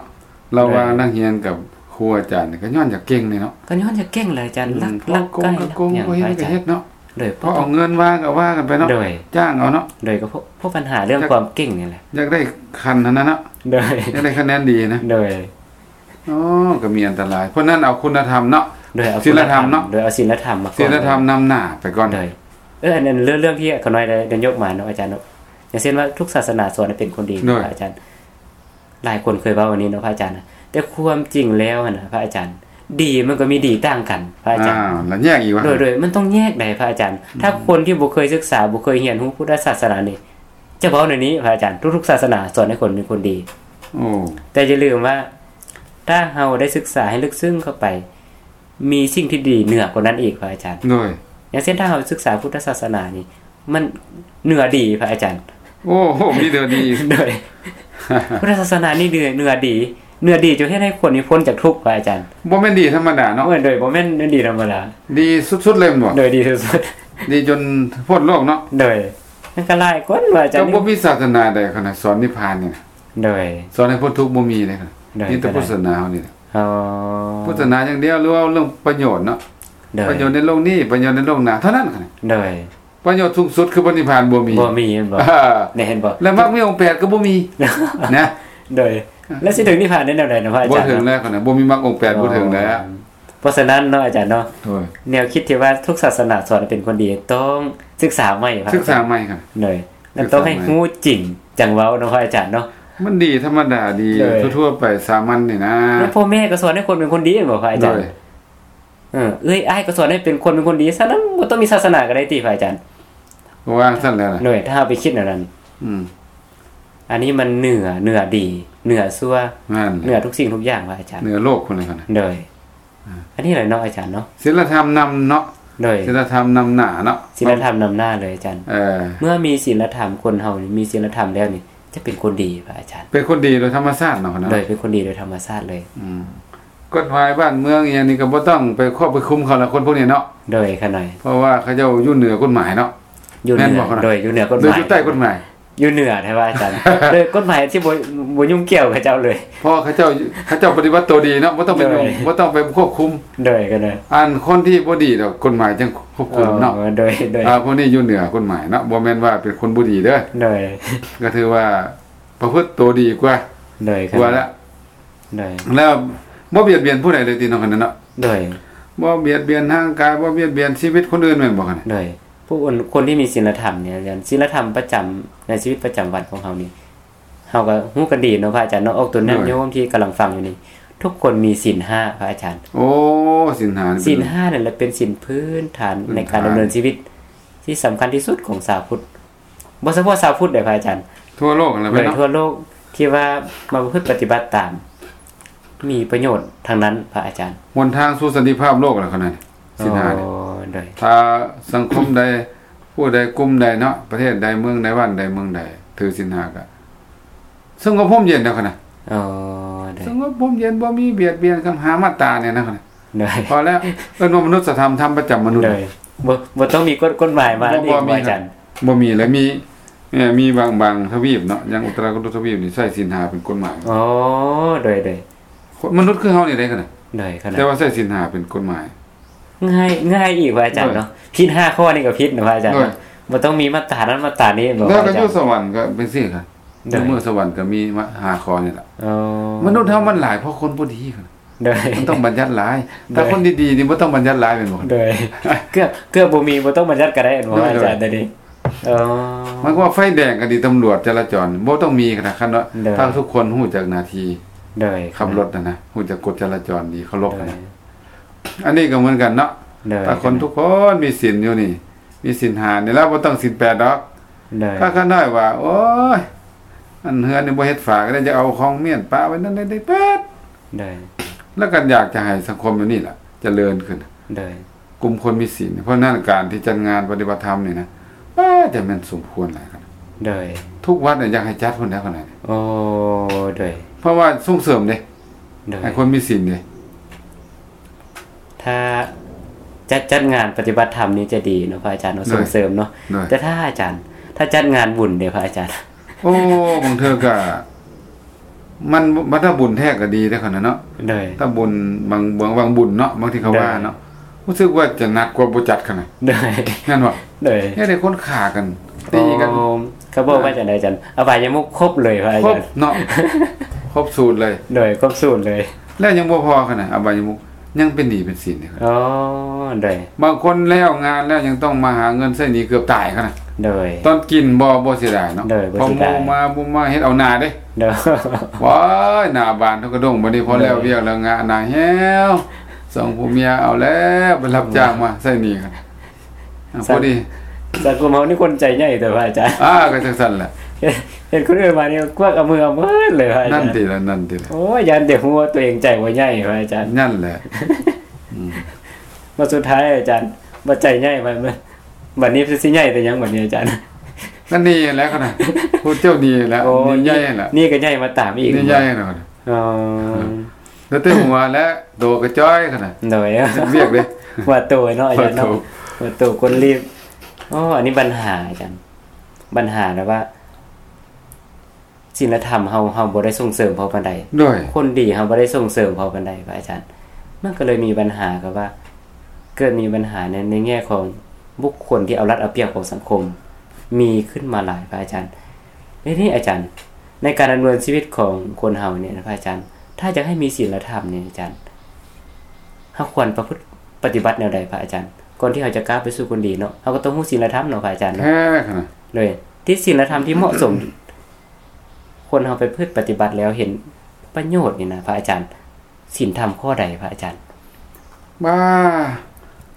ລະຫວ່າງ ໂດຍ ນັກຮຽນກັບຄູອາຈານນີ້ ກໍຍ້ອນຢາກເກັ່ງນີ້ເນາະ ກໍຍ້ອນຢາກເກັ່ງແຫຼະອາຈານ ອືມ ລັກ ລັກໄກ່ ລັກຫຍັງ ບໍ່ເຮັດກໍເຮັດເນາະ ໂດຍ ເພາະເອົາເງິນວ່າກໍວ່າກັນໄປເນາະ ໂດຍ ຈ້າງເອົາເນາະ ໂດຍ ກໍເພາະ ເພາະບັນຫາເລື່ອງ ຢາກ ຄວາມເກັ່ງນີ້ແຫຼະ ຢາກໄດ້ຂັ້ນຫັ້ນນະເນາະ ໂດຍ ຢາກໄດ້ຄະແນນດີນະ ໂດຍ ອໍ ກໍມີອັນຕະລາຍ ເພາະນັ້ນເອົາຄຸນນະທຳເນາະ ໂດຍ ເອົາ ສິນລະທຳເນາະ ໂດຍ ເອົາສິນລະທຳມາກ່ອນ ສິນລະທຳນຳໜ້າໄປກ່ອນ ໂດຍ ເອີ ອັນ ອັນເລື່ອງ ເລື່ອງທີ່ຂ້ານ້ອຍໄດ້ ໄດ້ຍົກມາເນາະອາຈານເນາະ ຢ່າງເຊັ່ນວ່າທຸກສາສະໜາສອນໃຫ້ເປັນຄົນດີ ໂດຍ ອາຈານ ຫຼາຍຄົນເຄີຍເວົ້າອັນນີ້ເນາະພະອາຈານນະ ແຕ່ຄວາມຈິງແລ້ວຫັ້ນນະ ພະອາຈານ ດີມັນກໍມີດີຕ່າງກັນ ພະອາຈານ ອ້າວ ລະແຍກອີກວ່າ ໂດຍ ໂດຍ ມັນຕ້ອງແຍກໃດ໋ພະອາຈານ ອືມ ຖ້າຄົນທີ່ບໍ່ເຄີຍສຶກສາ ບໍ່ເຄີຍຮຽນຮູ້ພຸດທະສາສະໜານີ້ ຈະເວົ້າແນວນີ້ພະອາຈານ ທຸກໆສາສະໜາສອນໃຫ້ຄົນເປັນຄົນດີ ໂອ້ ແຕ່ຢ່າລືມວ່າ ຖ້າເຮົາໄດ້ສຶກສາໃຫ້ເລິກເຊິ່ງເຂົ້າໄປ ມີສິ່ງທີ່ດີເໜືອກວ່ານັ້ນອີກພະອາຈານ ໂດຍ ຢ່າງເຊັ່ນ ຖ້າເຮົາສຶກສາພຸດທະສາສະໜານີ້ ມັນເໜືອດີພະອາຈານ ໂອ້ໂຫ ມີເໜືອດີ ໂດຍ ພຸດທະສາສະໜານີ້ເໜືອ ເໜືອດີ ເໜືອດີຈົນເຮັດໃຫ້ຄົນນີ້ພົ້ນຈາກທຸກພະອາຈານ ບໍ່ແມ່ນດີທຳມະດາເນາະ ໂດຍ ບໍ່ແມ່ນດີທຳມະດາ ດີສຸດໆເລີຍແມ່ນບໍ່? ໂດຍ ດີສຸດໆ ດີຈົນພົ້ນໂລກເນາະ ໂດຍ ມັນກໍຫຼາຍຄົນພະອາຈານ ກໍບໍ່ມີສາສະໜາໃດຂະໜາດສອນນິບພານນີ້ນະ ໂດຍ ສອນໃຫ້ພົ້ນທຸກບໍ່ມີເດ້ ໂດຍ ມີແຕ່ພຸດທະສາສະໜາເຮົານີ້ແຫຼະ ອໍ ພຸດທະສາສະໜາຢ່າງດຽວ ຫຼືວ່າເລື່ອງປະໂຫຍດເນາະ ໂດຍ ປະໂຫຍດໃນໂລກນີ້ ປະໂຫຍດໃນໂລກໜ້າເທົ່ານັ້ນ ໂດຍ ປະໂຫຍດສູງສຸດຄືພະນິບພານບໍ່ມີ ບໍ່ມີແມ່ນບໍ່? ອ່າ ແມ່ນບໍ່? ແລະມັກມີອົງແປດກໍບໍ່ມີ ນະ ໂດຍ ແລ້ວຊິເຖິງນິບພານໄດ້ແນວໃດນະພະອາຈານ? ບໍ່ເຖິງແລ້ວ ບໍ່ມີມັກອົງແປດ ອໍ ບໍ່ເຖິງແລ້ວ ເພາະສະນັ້ນເນາະອາຈານເນາະ ໂດຍ ແນວຄິດທີ່ວ່າທຸກສາສະໜາສອນໃຫ້ເປັນຄົນດີ ຕ້ອງສຶກສາໃໝ່ ສຶກສາໃໝ່ ໂດຍ ແລະຕ້ອງໃຫ້ຮູ້ຈິງຈັ່ງເວົ້າເນາະພະອາຈານເນາະ ມັນດີທຳມະດາດີ ໂດຍ ທົ່ວໆໄປ ສາມັນນີ້ນະ ແລະພໍ່ແມ່ກໍສອນໃຫ້ຄົນເປັນຄົນດີແມ່ນບໍ່ພະອາຈານ? ໂດຍ ເອີ ເອື້ອຍອ້າຍກໍສອນໃຫ້ເປັນຄົນເປັນຄົນດີ ສະນັ້ນບໍ່ຕ້ອງມີສາສະໜາກໍໄດ້ຕິພະອາຈານ ວ່າຊັ້ນແຫຼະ ໂດຍ ຖ້າເຮົາໄປຄິດແນວນັ້ນ ອືມ ອັນນີ້ມັນເໜືອ ເໜືອດີ ເໜືອຊົ່ວ ແມ່ນ ເໜືອທຸກສິ່ງທຸກຢ່າງພະອາຈານ ເໜືອໂລກພຸ້ນແຫຼະ ໂດຍ ອ່າ ອັນນີ້ແຫຼະເນາະອາຈານເນາະ ສິນລະທຳນຳເນາະ ໂດຍ ສິນລະທຳນຳໜ້າເນາະ ສິນລະທຳນຳໜ້າເລີຍອາຈານ ເອີ ເມື່ອມີສິນລະທຳ ຄົນເຮົານີ້ມີສິນລະທຳແລ້ວນີ້ ຈະເປັນຄົນດີພະອາຈານ ເປັນຄົນດີໂດຍທຳມະຊາດເນາະ ໂດຍ ເປັນຄົນດີໂດຍທຳມະຊາດເລີຍ ອືມ ກົດໝາຍບ້ານເມືອງອີ່ຫຍັງນີ້ກໍບໍ່ຕ້ອງໄປຄວບໄປຄຸມເຂົາລະ ຄົນພວກນີ້ເນາະ ໂດຍ ຂະນ້ອຍ ເພາະວ່າເຂົາເຈົ້າຢູ່ເໜືອກົດໝາຍເນາະ ຢູ່ເໜືອ ແມ່ນບໍ່ຂະນ້ອຍ? ໂດຍ ຢູ່ເໜືອກົດໝາຍ ຫຼືຢູ່ໃຕ້ກົດໝາຍ? ຢູ່ເໜືອແທ້ວ່າອາຈານ ໂດຍກົດໝາຍທີ່ບໍ່ ບໍ່ຫຍຸ້ງກ່ຽວເຂົາເຈົ້າເລີຍ ເພາະເຂົາເຈົ້າ ເຂົາເຈົ້າປະຕິບັດໂຕດີເນາະ ບໍ່ຕ້ອງໄປຫຍຸ້ງ ໂດຍ ບໍ່ຕ້ອງໄປຄວບຄຸມ ໂດຍ ຂະນ້ອຍ ອັນຄົນທີ່ບໍ່ດີດອກ ກົດໝາຍຈັ່ງຄວບຄຸມເນາະ ອໍ ໂດຍ ໂດຍ ອ່າ ພວກນີ້ຢູ່ເໜືອກົດໝາຍເນາະ ບໍ່ແມ່ນວ່າເປັນຄົນບໍ່ດີເດີ ໂດຍ ກໍຖືວ່າປະພຶດໂຕດີກວ່າ ໂດຍ ກວ່າລະ ໂດຍ ແລ້ວບໍ່ບຽດບຽນຜູ້ໃດເລີຍຕິເນາະ ຄັນນັ້ນເນາະ ໂດຍ ບໍ່ບຽດບຽນຮ່າງກາຍ ບໍ່ບຽດບຽນຊີວິດຄົນອື່ນແມ່ນບໍ່ ຄັນນັ້ນ ໂດຍ ຜູ້ຄົນ ຄົນທີ່ມີສິນລະທຳນີ້ ສິນລະທຳປະຈຳໃນຊີວິດປະຈຳວັນຂອງເຮົານີ້ ເຮົາກໍຮູ້ກັນດີເນາະພະອາຈານເນາະ ອອກຕົນຍາດໂຍມທີ່ກຳລັງຟັງຢູ່ນີ້ ທຸກຄົນມີສິນຫ້າ ພະອາຈານ. ໂອ້ ສິນຫ້ານີ້ເປັນ ສິນຫ້ານັ້ນແຫຼະເປັນສິນພື້ນຖານ ພື້ນຖານ ໃນການດຳເນີນຊີວິດທີ່ສຳຄັນທີ່ສຸດຂອງຊາວພຸດ. ບໍ່ສະເພາະຊາວພຸດເດ້ພະອາຈານ ທົ່ວໂລກຫັ້ນແຫຼະ ໂດຍເນາະ ທົ່ວໂລກທີ່ວ່າມາປະພຶດປະຕິບັດຕາມ ມີປະໂຫຍດທັງນັ້ນພະອາຈານ. ຫົນທາງສູ່ສັນຕິພາບໂລກແຫຼະຂະໜາດນີ້ ສິນຫ້ານີ້. ໂອ້ ໂດຍ ຖ້າສັງຄົມໃດ ຜູ້ໃດ ກຸ່ມໃດເນາະ ປະເທດໃດ ເມືອງໃດ ບ້ານໃດ ເມືອງໃດ ຖືສິນຫ້າກະສະຫງົບຮົ່ມເຢັນແລ້ວຂະໜາດ. ໂອ້ ໂດຍ ສະຫງົບຮົ່ມເຢັນ ບໍ່ມີບຽດບຽນກັນ ຫ້າມາດຕານີ້ນະຂະໜາດ. ໂດຍ ພໍແລ້ວ ເອີ້ນວ່າມະນຸດສະທຳ ທຳປະຈຳມະນຸດ. ໂດຍ ບໍ່ ບໍ່ຕ້ອງມີກົດ ກົດໝາຍມາ ບໍ່ ບໍ່ມີ ອີກ ອາຈານ. ບໍ່ມີ ແລະ ມີ ເອີ ມີບາງ ບາງທະວີບເນາະ ຢ່າງອຸດຕະຣາກຸຕຸທະວີບນີ້ໃຊ້ສິນຫ້າເປັນກົດໝາຍ. ໂອ້ ໂດຍ ໂດຍ ມະນຸດຄືເຮົານີ້ເດ້ຂະໜາດ. ໂດຍ ຂະໜາດ ແຕ່ວ່າໃຊ້ສິນຫ້າເປັນກົດໝາຍ. ງ່າຍ ງ່າຍອີກພະອາຈານເນາະ. ໂດຍ ຜິດຫ້າຂໍ້ນີ້ກໍຜິດນະພະອາຈານ. ໂດຍ ບໍ່ຕ້ອງມີມາດຕານັ້ນມາດຕານີ້. ແລ້ວກໍຢູ່ສະຫວັນກໍເປັນຊີ້ກະ ໂດຍ ຢູ່ເມືອງສະຫວັນກໍມີຫ້າຂໍ້ນີ້ລະ. ໂອ້ ມະນຸດເຮົາມັນຫຼາຍເພາະຄົນບໍ່ດີ. ໂດຍ ມັນຕ້ອງບັນຍັດຫຼາຍ. ໂດຍ ຖ້າຄົນດີໆນີ້ບໍ່ຕ້ອງບັນຍັດຫຼາຍແມ່ນບໍ່? ໂດຍ ເກືອບ ເກືອບບໍ່ມີ ບໍ່ຕ້ອງບັນຍັດກໍໄດ້ແມ່ນບໍ່ ໂດຍ ອາຈານ? ໂດຍ ໂດຍ ເອີ ໝາຍຄວາມວ່າໄຟແດງກໍດີ ຕຳຫຼວດຈະລາຈອນບໍ່ຕ້ອງມີຂະໜາດ ຄັນວ່າ ໂດຍ ຖ້າທຸກຄົນຮູ້ຈັກໜ້າທີ່ ໂດຍ ຂັບລົດຫັ້ນນະ ຮູ້ຈັກກົດຈະລາຈອນດີ ເຄົາລົບຫັ້ນນະ. ໂດຍ ອັນນີ້ກໍເໝືອນກັນເນາະ. ໂດຍ ຖ້າຄົນທຸກຄົນມີສິນຢູ່ນີ້ ມີສິນຫ້ານີ້ລະ ບໍ່ຕ້ອງສິນແປດດອກ. ໂດຍ ຖ້າຂະນ້ອຍວ່າ ໂອ້ຍ ອັນເຮືອນນີ້ບໍ່ເຮັດຝາກໍໄດ້ ຈະເອົາຂອງມ້ຽນປະໄວ້ນັ້ນໄດ້ເປີດ. ໂດຍ ແລ້ວກໍຢາກຈະໃຫ້ສັງຄົມແບບນີ້ລະຈະເລີນຂຶ້ນ. ໂດຍ ກຸ່ມຄົນມີສິນ. ເພາະນັ້ນການທີ່ຈັດງານປະຕິບັດທຳນີ້ນະ ປ້າ ຈະແມ່ນສົມຄວນຫຼາຍຂະໜາດ. ໂດຍ ທຸກວັດນີ້ຢາກໃຫ້ຈັດພຸ້ນແຫຼະຂະໜາດ. ໂອ້ ໂດຍ ເພາະວ່າສົ່ງເສີມເດ້. ໂດຍ ໃຫ້ຄົນມີສິນເດ້. ຖ້າຈັດ ຈັດງານປະຕິບັດທຳນີ້ຈະດີເນາະພະອາຈານເນາະ ໂດຍ ສົ່ງເສີມເນາະ. ໂດຍ ແຕ່ຖ້າອາຈານ ຖ້າຈັດງານບຸນເດ້ພະອາຈານ? ໂອ້ ບາງເທື່ອກະ ມັນ ບັດຖ້າບຸນແທ້ກໍດີເດ້ຂະໜາດເນາະ. ໂດຍ ຖ້າບຸນບາງ ບາງ ບາງບຸນເນາະ ບາງທີ່ເຂົາວ່າເນາະ ໂດຍ ຮູ້ສຶກວ່າຈະໜັກກວ່າບໍ່ຈັດຂະໜາດ. ໂດຍ ແມ່ນບໍ່? ໂດຍ ເຮັດໃຫ້ຄົນຂ້າກັນ ຕີກັນ. ໂອ້ ເຂົາບອກວ່າຈັ່ງໃດອາຈານ? ອະບາຍະມຸກຄົບເລີຍພະອາຈານ. ຄົບເນາະ ຄົບສູດເລີຍ. ໂດຍ ຄົບສູດເລີຍ. ແລ້ວຍັງບໍ່ພໍຂະໜາດອະບາຍະມຸກ ຍັງເປັນໜີ້ເປັນສິນເດ້. ອໍ ໂດຍ ບາງຄົນແລ້ວງານແລ້ວຍັງຕ້ອງມາຫາເງິນໃຊ້ໜີ້ເກືອບຕາຍຂະໜາດ. ໂດຍ ຕອນກິນບໍ່ ບໍ່ເສຍດາຍເນາະ. ໂດຍ ບໍ່ເສຍດາຍ ພໍໝູ່ມາບໍ່ມາເຮັດເອົາໜ້າເດ້. ໂດຍ ວ້າຍ ໜ້າບານເທົ່າກະດົງ ບັດນີ້ພໍແລ້ວວຽກແລ້ວງະໜ້າແຫ້ວ ສອງຜົວເມຍເອົາແລ້ວໄປຮັບຈ້າງມາໃຊ້ໜີ້. ອ່າ ສະ ພໍດີ ສັງຄົມເຮົານີ້ຄົນໃຈໃຫຍ່ແຕ່ວ່າອາຈານ. ອ່າ ກໍຈັ່ງຊັ້ນແຫຼະ ເຫັນ ເຫັນຄົນອື່ນມານີ້ກວັກເອົາມືເອົາໝົດເລີຍວ່າອາຈານ. ນັ້ນຕິລະ ນັ້ນຕິລະ. ໂອ້ຍ ຢ້ານແຕ່ຮູ້ວ່າຕົວເອງໃຈບໍ່ໃຫຍ່ວ່າອາຈານ. ນັ້ນແຫຼະ ອືມ ວ່າສຸດທ້າຍອາຈານວ່າໃຈໃຫຍ່ ບັດ ບັດນີ້ຊິໃຫຍ່ແຕ່ຫຍັງບັດນີ້ອາຈານ? ກໍໜີ້ແຫຼະຂະໜາດ ຜູ້ເຈົ້າໜີ້ແຫຼະ. ໂອ້ ໜີ້ໃຫຍ່ແຫຼະ ໜີ້ກໍໃຫຍ່ມາຕາມອີກ. ໜີ້ໃຫຍ່ແລ້ວ. ອໍ ເຫຼືອແຕ່ຫົວແລະ ໂຕກະຈ່ອຍຂະໜາດ. ໂດຍ ເຮັດວຽກເດ້ ຫົວໂຕເນາະອາຈານເນາະ ຫົວໂຕ ຫົວໂຕກົ້ນລີບ. ອໍ ອັນນີ້ບັນຫາອາຈານ ບັນຫາແບບວ່າ ສິນລະທຳເຮົາ ເຮົາບໍ່ໄດ້ສົ່ງເສີມພໍປານໃດ. ໂດຍ ຄົນດີເຮົາບໍ່ໄດ້ສົ່ງເສີມພໍປານໃດພະອາຈານ. ມັນກໍເລີຍມີບັນຫາກັບວ່າ ເກີດມີບັນຫາໃນ ໃນແງ່ຂອງບຸກຄົນທີ່ເອົາລັດເອົາປຽບຂອງສັງຄົມ ມີຂຶ້ນມາຫຼາຍພະອາຈານ. ແລ້ວນີ້ອາຈານ ໃນການດຳເນີນຊີວິດຂອງຄົນເຮົານີ້ນະພະອາຈານ ຖ້າຢາກໃຫ້ມີສິນລະທຳນີ້ອາຈານ ເຮົາຄວນປະພຶດປະຕິບັດແນວໃດພະອາຈານ? ກ່ອນທີ່ເຮົາຈະກ້າວໄປສູ່ຄົນດີເນາະ ເຮົາກໍຕ້ອງຮູ້ສິນລະທຳເນາະພະອາຈານເນາະ. ແທ້ຂະໜາດ ໂດຍ ທີ່ສິນລະທຳທີ່ເໝາະສົມ ຄົນເຮົາໄປປະພຶດປະຕິບັດແລ້ວເຫັນປະໂຫຍດນີ້ນະພະອາຈານ ສິນທຳຂໍ້ໃດພະອາຈານ? ວ່າ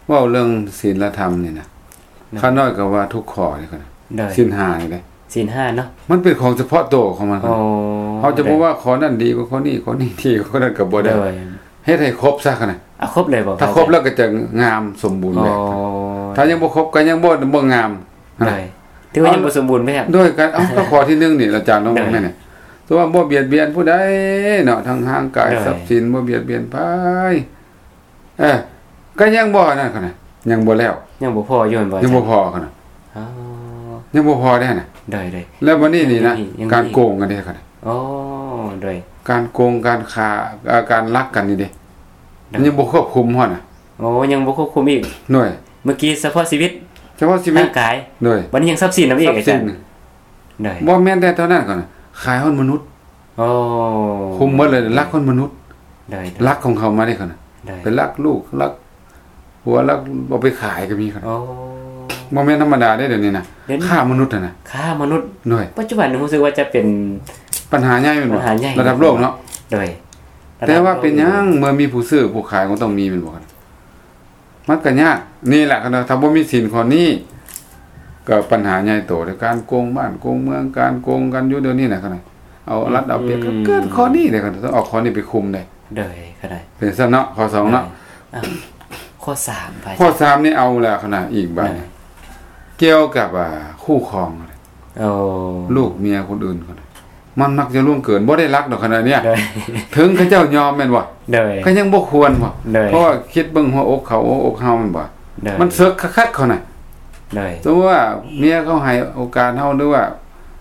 ເວົ້າເລື່ອງສິນລະທຳນີ້ນະ ໂດຍ ຂ້ານ້ອຍກໍວ່າທຸກຂໍ້ນີ້ ໂດຍ ສິນຫ້ານີ້ເດ້. ສິນຫ້າເນາະ ມັນເປັນຂອງສະເພາະໂຕຂອງມັນ. ໂອ້ ເຮົາຈະບໍ່ວ່າຂໍ້ນັ້ນດີກວ່າຂໍ້ນີ້ ໂດຍ ຂໍ້ນີ້ດີກວ່າຂໍ້ນັ້ນກໍບໍ່ໄດ້. ໂດຍ ເຮັດໃຫ້ຄົບຊະຂະໜາດ. ເອົາຄົບເລີຍບໍ່? ຖ້າຄົບແລ້ວກໍຈະງາມສົມບູນແບບ. ອໍ ຖ້າຍັງບໍ່ຄົບກໍຍັງບໍ່ ບໍ່ງາມ. ໂດຍ ຖືວ່າຍັງບໍ່ສົມບູນແບບ. ໂດຍ ການ ເອົາ ກໍຂໍ້ທີໜຶ່ງນີ້ອາຈານລອງເບິ່ງແມ່ນ. ໂດຍ ຖືວ່າບໍ່ບຽດບຽນຜູ້ໃດເນາະ ທັງຮ່າງກາຍ ໂດຍ ຊັບສິນ ບໍ່ບຽດບຽນໃຜ. ເອີ ກໍຍັງບໍ່ນັ້ນຂະໜາດ ຍັງບໍ່ແລ້ວ ຍັງບໍ່ພໍຢູ່ແມ່ນບໍ່? ຍັງບໍ່ພໍຂະໜາດ. ອໍ ຍັງບໍ່ພໍເດ້ຫັ້ນນະ. ໂດຍ ໂດຍ ແລ້ວບັດນີ້ນີ້ນະ ຍັງມີ ຍັງມີ ການໂກງກັນເດ້ຂະໜາດ. ອໍ ໂດຍ ການໂກງ ການຄ້າ ເອີ ການລັກກັນນີ້ເດ້ ໂດຍ ມັນຍັງບໍ່ຄວບຄຸມຮອດນະ. ໂອ້ ຍັງບໍ່ຄວບຄຸມອີກ. ໂດຍ ເມື່ອກີ້ສະເພາະຊີວິດ ສະເພາະຊີວິດ ຮ່າງກາຍ. ໂດຍ ບັດນີ້ຍັງຊັບສິນນຳອີກອາຈານ. ໂດຍ ບໍ່ແມ່ນແຕ່ເທົ່ານັ້ນຂະໜາດ ຂາຍຮອດມະນຸດ. ໂອ້ ຄຸມໝົດເລີຍ ລັກຄົນມະນຸດ. ໂດຍ ໂດຍ ລັກຂອງເຂົາມາເດ້ຂະນະ ໂດຍ ໄປລັກລູກ ລັກຜົວ ລັກເອົາໄປຂາຍກໍມີຂະນະ. ໂອ້ ບໍ່ແມ່ນທຳມະດາເດ້ດຽວນີ້ນະ ຄ້າມະນຸດຫັ້ນນະ. ຄ້າມະນຸດ. ໂດຍ ປັດຈຸບັນຮູ້ສຶກວ່າຈະເປັນ ປັນຫາໃຫຍ່ແມ່ນບໍ່? ບັນຫາໃຫຍ່ ລະດັບໂລກເນາະ. ໂດຍ ລ ແຕ່ວ່າເປັນຫຍັງ ເມື່ອມີຜູ້ຊື້ຜູ້ຂາຍກໍຕ້ອງມີ ແມ່ນບໍ່? ມັນກໍຍາກ ນີ້ແຫຼະ ຄັນວ່າຖ້າບໍ່ມີສິນຂໍ້ນີ້ ກໍປັນຫາໃຫຍ່ໂຕເດ້ ການໂກງບ້ານໂກງເມືອງ ການໂກງກັນຢູ່ດຽວນີ້ນະ ຄັນວ່າເອົາລັດເອົາປຽບ ອືມ ກໍເກີດຂໍ້ນີ້ເດ້ ຄັນວ່າຕ້ອງເອົາຂໍ້ນີ້ໄປຄຸມເດ້ ໂດຍ ກໍໄດ້ ເປັນຊັ້ນເນາະ ຂໍ້ສອງເນາະ ໂດຍ ອ່ະ ຂໍ້ສາມ ຂ້ອສາມນີ້ເອົາແລ້ວ ຄັນວ່າອີກບາດ ໂດຍ ກ່ຽວກັບ ອ່າ ຄູ່ຄອງ ໂອ້ ລູກເມຍຄົນອື່ນ ຄັນວ່າ ມັນມັກຈະລ່ວງເກີນ ບໍ່ໄດ້ລັກດອກ ຄັນວ່າເນຍ ໂດຍ ເຖິງເຂົາເຈົ້າຍອມແມ່ນບໍ່? ໂດຍ ກໍຍັງບໍ່ຄວນບໍ່? ໂດຍ ເພາະວ່າຄິດເບິ່ງຫົວອົກເຂົາ ຫົວອົກເຮົາແມ່ນບໍ່? ໂດຍ ມັນເສິກຄັກໆ ເຂົານະ ໂດຍ ສົມມຸດວ່າເມຍເຂົາໃຫ້ໂອກາດເຮົາ ຫຼືວ່າ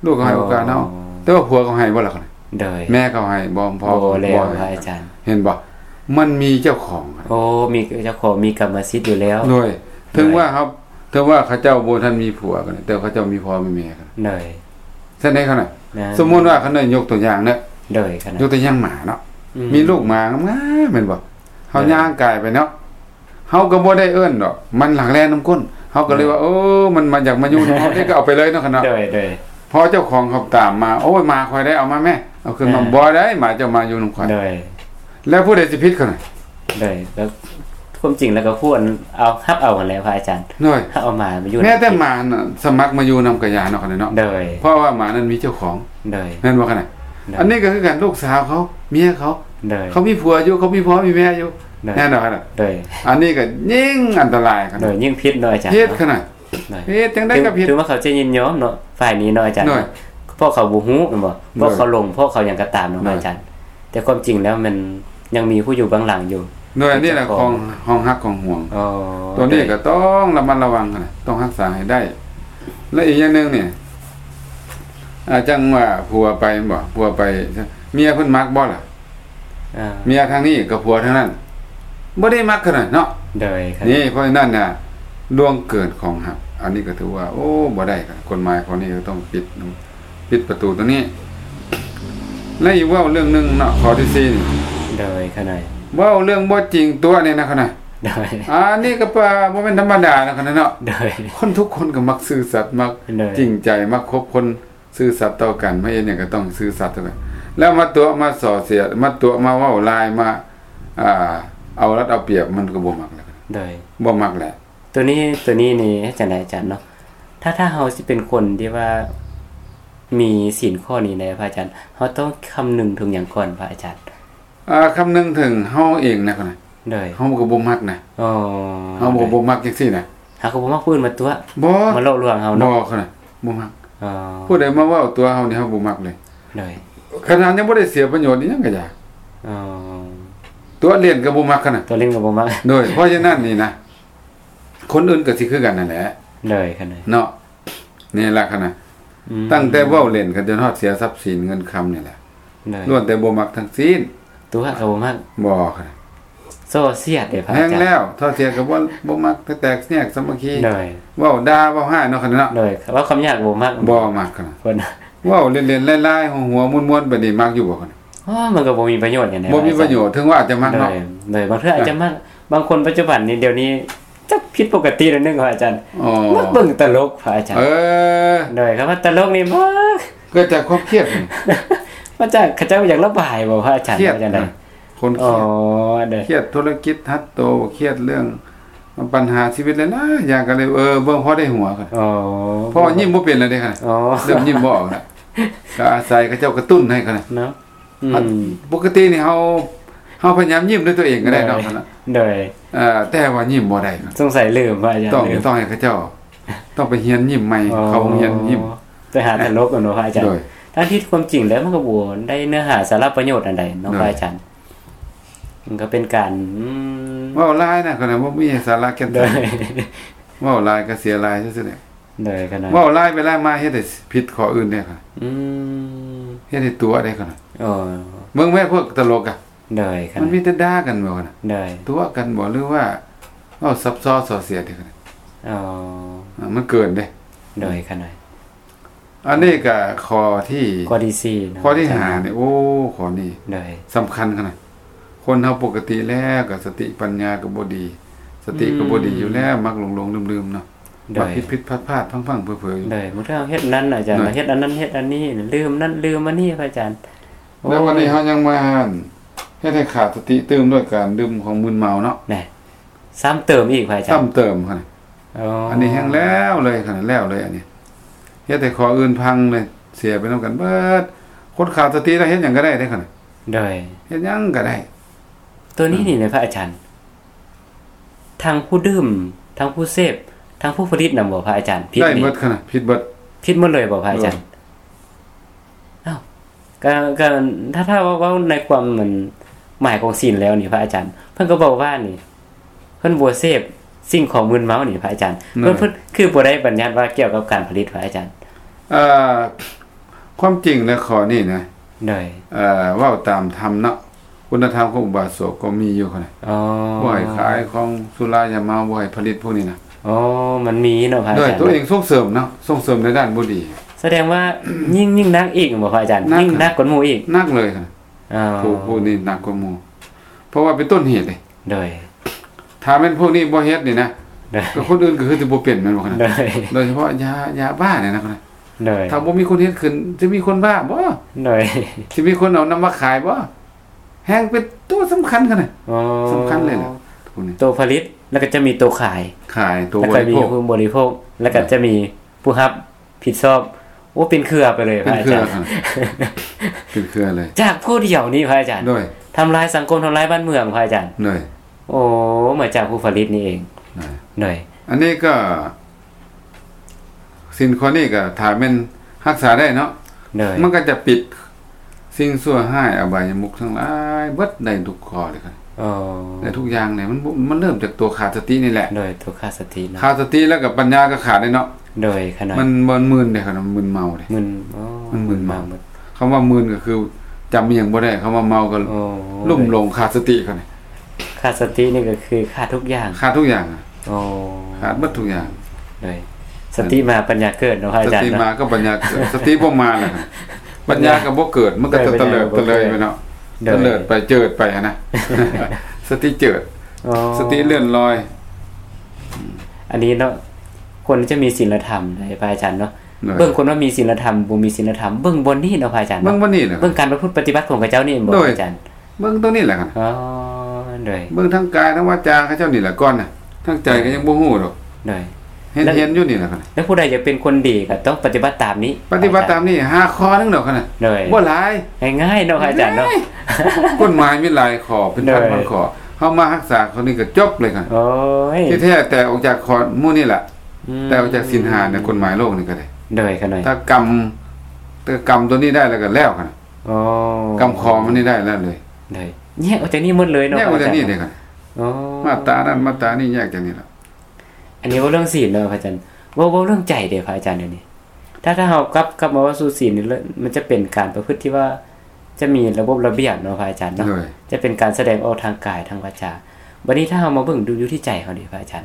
ລູກເຂົາໃຫ້ໂອກາດເຮົາ ອໍ ແຕ່ວ່າຜົວເຂົາໃຫ້ບໍ່ລະ? ໂດຍ ແມ່ເຂົາໃຫ້ບໍ່? ພໍ່ ບໍ່ແລ້ວ ບໍ່ໃຫ້ ພະອາຈານ ເຫັນບໍ່? ມັນມີເຈົ້າຂອງ ໂອ້ ມີເຈົ້າຂອງ ມີກຳມະສິດຢູ່ແລ້ວ ໂດຍ ໂດຍ ເຖິງວ່າເຮົາ ເຖິງວ່າເຂົາເຈົ້າບໍ່ທັນມີຜົວກໍໄດ້ ແຕ່ເຂົາເຈົ້າມີພໍ່ມີແມ່ກໍໄດ້ ໂດຍ ຊັ້ນໃດ ຄັນນະ ນະ ສົມມຸດວ່າ ຄັນນະ ຍົກຕົວຢ່າງເນາະ ໂດຍ ຄັນນະ ຍົກຕົວຢ່າງໝາເນາະ ອືມ ມີລູກໝາງາມໆ ແມ່ນບໍ່? ເຮົາ ໂດຍ ຍ່າງກາຍໄປເນາະ ເຮົາກໍບໍ່ໄດ້ເອີ້ນດອກ ມັນຫຼັກແລ່ນນຳກົ້ນ ເຮົາກໍເລີຍວ່າ ໂດຍ ເອີ ມັນມາ ຢາກມາຢູ່ນຳເຮົາເດ້ ກໍເອົາໄປເລີຍເນາະ ຄັນເນາະ ໂດຍ ໂດຍ ພໍເຈົ້າຂອງເຂົາຕາມມາ ໂອ້ຍ ໝາຂ້ອຍໄດ້ ເອົາມາແມ້ ເອົາຂຶ້ນມາ ເອີ ບໍ່ໄດ້ ໝາເຈົ້າມາຢູ່ນຳຂ້ອຍ ໂດຍ ແລ້ວຜູ້ໃດຊິຜິດ ຄັນນະ? ໂດຍ ແລ້ວຄວາມຈິງແລ້ວກໍຄວນເອົາ ຮັບເອົາຫັ້ນແຫຼະ ພະອາຈານ ໂດຍ ເອົາໝາມາຢູ່ ແມ້ແຕ່ໝານະ ສະໝັກມາຢູ່ນຳກໍຢ່າເນາະ ຄັນນະເນາະ ໂດຍ ເພາະວ່າໝານັ້ນມີເຈົ້າຂອງ ໂດຍ ແມ່ນບໍ່ ຄັນນະ? ໂດຍ ອັນນີ້ກໍຄືກັນ ລູກສາວເຂົາ ເມຍເຂົາ ໂດຍ ເຂົາມີຜົວຢູ່ ເຂົາມີພໍ່ມີແມ່ຢູ່ ໂດຍ ແມ່ນບໍ່ ຄັນນະ? ໂດຍ ອັນນີ້ກໍຍິ່ງອັນຕະລາຍ ຄັນນະ ໂດຍ ຍິ່ງຜິດເນາະອາຈານ ຜິດ ເນາະ ຄັນນະ ໂດຍ ຜິດຈັ່ງໃດກໍຜິດ ຖືວ່າເຂົາຈະຍິນຍອມເນາະ ຝ່າຍນີ້ເນາະອາຈານ ໂດຍ ເນາະ ເພາະເຂົາບໍ່ຮູ້ແມ່ນບໍ່? ໂດຍ ເພາະເຂົາຫຼົງ ເພາະເຂົາຫຍັງກໍຕາມເນາະ ໂດຍ ອາຈານ ແຕ່ຄວາມຈິງແລ້ວມັນຍັງມີຜູ້ຢູ່ເບື້ອງຫຼັງຢູ່ ໂດຍ ອັນນີ້ແຫຼະ ຂອງຫ້ອງຮັກຂອງຫວງ ອໍ ໂຕນີ້ ໂດຍ ກໍຕ້ອງລະມັດລະວັງຫັ້ນນະ ຕ້ອງຮັກສາໃຫ້ໄດ້ ແລະ ອີກຢ່າງໜຶ່ງນີ້ ອາ ຈັ່ງວ່າຜົວໄປແມ່ນບໍ່? ຜົວໄປ ເມຍເພິ່ນມັກບໍ່ລະ? ອ່າ ເມຍທາງນີ້ກັບຜົວທາງນັ້ນ ບໍ່ໄດ້ມັກກັນນະເນາະ ໂດຍ ນີ້ ເພາະສະນັ້ນນະ ລ່ວງເກີນຂອງຮັກ ອັນນີ້ກໍຖືວ່າ ໂອ້ ບໍ່ໄດ້ ກົດໝາຍຂໍ້ນີ້ກໍຕ້ອງປິດ ປິດປະຕູຕົວນີ້ ແລະ ອີກເວົ້າເລື່ອງໜຶ່ງເນາະ ຂໍ້ທີສີ່ນີ້ ໂດຍ ຂະໜ້ອຍ ເວົ້າເລື່ອງບໍ່ຈິງຕົວະນີ້ນະ ຂະໜ້ອຍ ໂດຍ ອັນນີ້ກໍປະ ບໍ່ແມ່ນທຳມະດານະ ຂະໜ້ອຍເນາະ ໂດຍ ຄົນທຸກຄົນກໍມັກຊື່ສັດ ມັກ ໂດຍ ຈິງໃຈ ມັກຄົບຄົນ ຊື່ສັດຕໍ່ກັນ ມາເຮັດຫຍັງກໍຕ້ອງຊື່ສັດເທົ່ານັ້ນ ແລ້ວມາຕົວະມາສໍ້ເສຍ ມາຕົວະມາເວົ້າລາຍ ມາ ອ່າ ເອົາລັດເອົາປຽບ ມັນກໍບໍ່ມັກແລ້ວ ໂດຍ ບໍ່ມັກແຫຼະ ໂຕນີ້ ໂຕນີ້ນີ້ເຮັດຈັ່ງໃດອາຈານເນາະ ຖ້າ ຖ້າເຮົາຊິເປັນຄົນທີ່ວ່າມີສິນຂໍ້ນີ້ນະ ພະອາຈານ ເຮົາຕ້ອງຄຳນຶງເຖິງຫຍັງກ່ອນ ພະອາຈານ? ອ່າ ຄຳນຶງເຖິງເຮົາເອງນະ ໂດຍ ເຮົາກໍບໍ່ມັກນະ ເຮົາກໍບໍ່ມັກຈັ່ງຊີ້ນະ ເຮົາກໍບໍ່ມັກຜູ້ອື່ນມາຕົວະ ບໍ່ ມາຫຼອກລວງເຮົາເນາະ ບໍ່ ບໍ່ມັກ ຜູ້ໃດມາເວົ້າຕົວະເຮົານີ້ ເຮົາບໍ່ມັກເລີຍ ໂດຍ ຂະໜາດຍັງບໍ່ໄດ້ເສຍປະໂຫຍດອີ່ຫຍັງກໍຢ່າ ຕົວະຫຼິ້ນກໍບໍ່ມັກ ຂະໜາດຕົວະຫຼິ້ນກໍບໍ່ມັກ ໂດຍ ເພາະສະນັ້ນນີ້ນະ ຄົນອື່ນກໍຊິຄືກັນນັ້ນແຫຼະ ໂດຍ ຂະໜາດເນາະ ນີ້ລະ ຂະໜາດ ອືມ ຕັ້ງແຕ່ເວົ້າຫຼິ້ນກັນຈົນຮອດເສຍຊັບສິນເງິນຄຳນີ້ແຫຼະ ໂດຍ ລ້ວນແຕ່ບໍ່ມັກທັງສິ້ນ ຕົວະກໍບໍ່ມັກ ບໍ່ ໂສ້ສຽດເດ້ ພະອາຈານ ແຮງແລ້ວ ໂສ້ສຽດກໍບໍ່ ບໍ່ມັກ ແຕກແຍກສາມັກຄີ ໂດຍ ເວົ້າດ່າເວົ້າຮ້າຍເນາະ ຂະໜາດເນາະ ໂດຍ ເວົ້າຄຳຫຍາບກໍບໍ່ມັກ ບໍ່ມັກ ຂະໜາດ ເວົ້າຫຼິ້ນໆລາຍໆ ຫົວໆມ່ວນໆ ບາດນີ້ມັກຢູ່ບໍ່ ຂະໜາດ ໂອ້ ມັນກໍບໍ່ມີປະໂຫຍດຫຍັງ ບໍ່ມີປະໂຫຍດ ເຖິງວ່າອາດຈະມັກເນາະ ໂດຍ ໂດຍ ບາງເທື່ອອາດຈະມັກ ບາງຄົນປັດຈຸບັນນີ້ ດຽວນີ້ ຈັກຜິດປົກກະຕິໜ້ອຍໜຶ່ງ ພະອາຈານ ອໍ ມັກເບິ່ງຕະຫຼົກ ພະອາຈານ ເອີ ໂດຍ ຄຳວ່າຕະຫຼົກນີ້ ມັກ ເກີດຈາກຄວາມຄຽດ ມາຈາກເຂົາເຈົ້າຢາກລະບາຍບໍ່ ພະອາຈານ ຄຽດຈັ່ງໃດ ຄົນຄຽດ ອໍ ໂດຍ ຄຽດທຸລະກິດຮັດໂຕ ຄຽດເລື່ອງບັນຫາຊີວິດຫຼາຍໆຢ່າງ ກໍເລີຍ ເອີ ເບິ່ງພໍໄດ້ຫົວ ອໍ ເພາະວ່າຍິ້ມບໍ່ເປັນແລ້ວເດ້ ອໍ ເລີ່ມຍິ້ມບໍ່ອອກແລ້ວ ກໍອາໄສເຂົາເຈົ້າກະຕຸ້ນໃຫ້ ເນາະ ອືມ ປົກກະຕິນີ້ເຮົາ ເຮົາພະຍາຍາມຍິ້ມດ້ວຍຕົວເອງກໍໄດ້ເນາະ ໂດຍ ໂດຍ ເອີ ແຕ່ວ່າຍິ້ມບໍ່ໄດ້ ສົງໄສລືມ ພະອາຈານ ຕ້ອງ ລືມ ຕ້ອງໃຫ້ເຂົາເຈົ້າ ຕ້ອງໄປຮຽນຍິ້ມໃໝ່ ອໍ ເຂົ້າໂຮງຮຽນຍິ້ມ ໄປຫາຕະຫຼົກເນາະ ພະອາຈານ ໂດຍ ທັງທີ່ຄວາມຈິງແລ້ວມັນກໍບໍ່ໄດ້ເນື້ອຫາສາລະປະໂຫຍດອັນໃດເນາະ ໂດຍ ພະອາຈານ ມັນກໍເປັນການ ອືມ ເວົ້າຫຼາຍນະ ກໍບໍ່ມີສາລະແກ່ນ ໂດຍ ເວົ້າຫຼາຍກໍເສຍຫຼາຍຊື່ໆແຫຼະ ໂດຍ ຂະໜາດ ເວົ້າຫຼາຍໄປຫຼາຍມາເຮັດໃຫ້ຜິດຂໍ້ອື່ນເດ້ ອືມ ເຮັດໃຫ້ຕົວະເດ້ ຂະໜາດ ເບິ່ງແມ້ພວກຕະຫຼົກກະ ໂດຍ ຂະໜາດ ມັນມີແຕ່ດ່າກັນບໍ່ ຂະໜາດ ໂດຍ ຕົວະກັນບໍ່ ຫຼືວ່າເວົ້າຊັບຊ້ອນສໍ້ສຽດເດ້ ຂະໜາດ ອໍ ມັນເກີນເດ້ ໂດຍ ຂະໜາດ ອັນນີ້ກະຂໍ້ທີ ຂໍ້ທີສີ່ເນາະ ຂໍ້ທີຫ້ານີ້ ໂອ້ ຂໍ້ນີ້ ໂດຍ ສຳຄັນຂະໜາດ ຄົນເຮົາປົກກະຕິແລ້ວກະສະຕິປັນຍາກໍບໍ່ດີ ສະຕິກໍບໍ່ດີຢູ່ແລ້ວ ອືມ ມັກຫຼົງໆລືມໆເນາະ ໂດຍ ມັກຜິດໆພາດໆ ພັງໆເຜີໆຢູ່ ໂດຍ ບາງເທື່ອເຮົາເຮັດນັ້ນອາຈານ ໂດຍ ເຮົາເຮັດອັນນັ້ນເຮັດອັນນີ້ ລືມນັ້ນລືມອັນນີ້ ພະອາຈານ ໂອ້ ແລ້ວວັນນີ້ເຮົາຍັງມາ ເຮັດໃຫ້ຂາດສະຕິຕື່ມດ້ວຍການດື່ມຂອງມຶນເມົາເນາະ ແນ່ ຊ້ຳເຕີມອີກພະອາຈານ ຊ້ຳເຕີມຫັ້ນນະ. ອໍ ອັນນີ້ແຮ່ງແລ້ວເລີຍຫັ້ນນະ ແລ້ວເລີຍອັນນີ້ ເຮັດໃຫ້ຂໍ້ອື່ນພັງເລີຍ ເສຍໄປນຳກັນເບິດ. ຄົນຂາດສະຕິແລ້ວເຮັດຫຍັງກໍໄດ້ເດ້ຫັ້ນນະ ໂດຍ ເຮັດຫຍັງກໍໄດ້. ໂຕນີ້ນີ້ນະພະອາຈານ ທັງຜູ້ດື່ມ ທັງຜູ້ເສບ ທັງຜູ້ຜະລິດນຳບໍ່ພະອາຈານ? ຜິດ ໄດ້ ນີ້ ເບິດຫັ້ນນະ ຜິດເບິດ ຜິດໝົດເລີຍບໍ່ພະອາຈານ? ໂດຍ ອ້າວ ກໍ ກໍ ຖ້າ ຖ້າເວົ້າ ເວົ້າໃນຄວາມ ມັນ ໝາຍຂອງສິນແລ້ວນີ້ພະອາຈານ ເພິ່ນກໍບອກວ່ານີ້ ເພິ່ນບໍ່ເສບສິ່ງຂອງມຶນເມົານີ້ພະອາຈານ ໂດຍ ເພິ່ນ ເພິ່ນຄືບໍ່ໄດ້ບັນຍັດວ່າກ່ຽວກັບການຜະລິດພະອາຈານ? ເອີ ຄວາມຈິງແລ້ວຂໍ້ນີ້ນະ ໂດຍ ເອີ ເວົ້າຕາມທຳເນາະ ຄຸນນະທຳຂອງອຸບາສົກກໍມີຢູ່ຫັ້ນນະ ອໍ ບໍ່ໃຫ້ຂາຍຂອງສຸລາຢາເມົາ ບໍ່ໃຫ້ຜະລິດພວກນີ້ນະ. ອໍ ມັນມີເນາະພະອາຈານ ໂດຍ ໂຕເອງສົ່ງເສີມເນາະ ສົ່ງເສີມໃນດ້ານບໍ່ດີ. ສະແດງວ່າ ຍິ່ງ ຍິ່ງໜັກອີກບໍ່ພະອາຈານ? ໜັກ ຍິ່ງໜັກກວ່າໝູ່ອີກ ໜັກເລີຍຫັ້ນນະ. ອໍ ຜູ້ ຜູ້ນີ້ໜັກກວ່າໝູ່ ເພາະວ່າເປັນຕົ້ນເຫດເດ້ ໂດຍ ຖ້າແມ່ນພວກນີ້ບໍ່ເຮັດນີ້ນະ ໂດຍ ກໍຄົນອື່ນກໍຄືຊິບໍ່ເປັນແມ່ນບໍ່? ໂດຍ ໂດຍສະເພາະຢາ ຢາບ້ານີ້ນະ ໂດຍ ຖ້າບໍ່ມີຄົນເຮັດຂຶ້ນ ຊິມີຄົນບ້າບໍ່? ໂດຍ ຊິມີຄົນເອົານຳມາຂາຍບໍ່? ແຮ່ງເປັນໂຕສຳຄັນຂະໜາດ ອໍ ສຳຄັນເລີຍແຫຼະ ໂຕຜະລິດ ແລ້ວກໍຈະມີໂຕຂາຍ ຂາຍ ໂຕ ແລ້ວກໍມີຜູ້ບໍລິໂພກ ແລ້ວກໍຈະມີຜູ້ຮັບຜິດຊອບ. ໂອ້ ເປັນເຄືອໄປເລີຍພະອາຈານ ເປັນເຄືອເລີຍ ຈາກຜູ້ດຽວນີ້ພະອາຈານ ໂດຍ ທຳລາຍສັງຄົມ ທຳລາຍບ້ານເມືອງພະອາຈານ ໂດຍ ໂອ້ ມາຈາກຜູ້ຜະລິດນີ້ເອງ ໂດຍ ໂດຍ ອັນນີ້ກໍ ສິນຂໍ້ນີ້ກໍຖ້າແມ່ນຮັກສາໄດ້ເນາະ ໂດຍ ມັນກໍຈະປິດສິ່ງຊົ່ວຮ້າຍ ອະບາຍະມຸກທັງຫຼາຍເບິດ ໄດ້ທຸກຂໍ້ເລີຍ ອໍ ໄດ້ທຸກຢ່າງເລີຍ. ມັນ ມັນເລີ່ມຈາກຕົວຂາດສະຕິນີ້ແຫຼະ ໂດຍ ຕົວຂາດສະຕິເນາະ ຂາດສະຕິແລ້ວກໍປັນຍາກໍຂາດເດ້ເນາະ ໂດຍ ຂະໜາດ ມັນ ມັນມຶນເດ້ ຂະໜາດມັນມຶນເມົາເດ້ ມຶນ ອໍ ມັນມຶນເມົາ ມຶນເມົາ ຄຳວ່າມຶນກໍຄືຈຳອີ່ຫຍັງບໍ່ໄດ້ ຄຳວ່າເມົາກໍ ອໍ ລຸ່ມຫຼົງຂາດສະຕິ ຂະໜາດ ຂາດສະຕິນີ້ກໍຄືຂາດທຸກຢ່າງ ຂາດທຸກຢ່າງ ອໍ ຂາດເບິດທຸກຢ່າງ ໂດຍ ສະຕິມາປັນຍາເກີດເນາະພະອາຈານ ສະຕິມາກໍປັນຍາເກີດ ສະຕິບໍ່ມາແລ້ວ ປັນຍາກໍບໍ່ເກີດ ມັນກໍ ໂດຍ ຕະເລີດ ຕະເລີຍໄປເນາະ ໂດຍ ຕະເລີດໄປ ເຈີດໄປຫັ້ນນະ ສະຕິເຈີດ ອໍ ສະຕິເລື່ອນລອຍ. ອັນນີ້ເນາະ ຄວນຈະມີສິນລະທຳເດ້ພະອາຈານເນາະ ໂດຍ ເບິ່ງຄົນວ່າມີສິນລະທຳ ບໍ່ມີສິນລະທຳ ເບິ່ງບ່ອນນີ້ເນາະພະອາຈານເນາະ ເບິ່ງບ່ອນນີ້ແຫຼະ ເບິ່ງການປະພຶດປະຕິບັດຂອງເຂົາເຈົ້ານີ້ແມ່ນບໍ່ ໂດຍ ອາຈານ? ເບິ່ງຕົວນີ້ແຫຼະ ອໍ ໂດຍ ເບິ່ງທາງກາຍທາງວາຈາເຂົາເຈົ້ານີ້ແຫຼະກ່ອນນະ ທາງໃຈກໍຍັງບໍ່ຮູ້ດອກ ໂດຍ ເຫັນ ເຫັນຢູ່ນີ້ແຫຼະ ແລ້ວຜູ້ໃດຢາກເປັນຄົນດີກໍຕ້ອງປະຕິບັດຕາມນີ້ ປະຕິບັດຕາມນີ້ ຫ້າຂໍ້ໜຶ່ງດອກ ໂດຍ ບໍ່ຫຼາຍ ງ່າຍໆເນາະພະອາຈານເນາະ ກົດໝາຍມີຫຼາຍຂໍ້ ເປັນພັນໆຂໍ້ ເຮົາມາຮັກສາຂໍ້ນີ້ກໍຈົບເລີຍ ໂອ້ຍ ທີ່ແທ້ແຕ່ອອກຈາກຂໍ້ໝູ່ນີ້ແຫຼະ ອືມ ແຕ່ອອກຈາກສິນຫ້າໃນກົດໝາຍໂລກນີ້ກໍໄດ້ ໂດຍ ຂະໜາດ ຖ້າກຳ ແຕ່ກຳຕົວນີ້ໄດ້ແລ້ວກໍແລ້ວ ອໍ ກຳຂໍ້ມັນນີ້ໄດ້ແລ້ວເລີຍ ໂດຍ ແຍກອອກຈາກນີ້ໝົດເລີຍເນາະ ແຍກອອກຈາກນີ້ເດ້ ອໍ ມາດຕານັ້ນມາດຕານີ້ແຍກຈາກນີ້ລະ. ອັນນີ້ເວົ້າເລື່ອງສິນເນາະພະອາຈານ ເວົ້າ ເວົ້າເລື່ອງໃຈເດ້ພະອາຈານ ດຽວນີ້ ຖ້າ ຖ້າເຮົາກັບ ກັບມາເວົ້າສູ່ສິນນີ້ ມັນຈະເປັນການປະພຶດທີ່ວ່າຈະມີລະບົບລະບຽບເນາະພະອາຈານເນາະ ໂດຍ ຈະເປັນການສະແດງອອກທາງກາຍທາງວາຈາ ບັດນີ້ຖ້າເຮົາມາເບິ່ງດູຢູ່ທີ່ໃຈເຮົາເດພະອາຈານ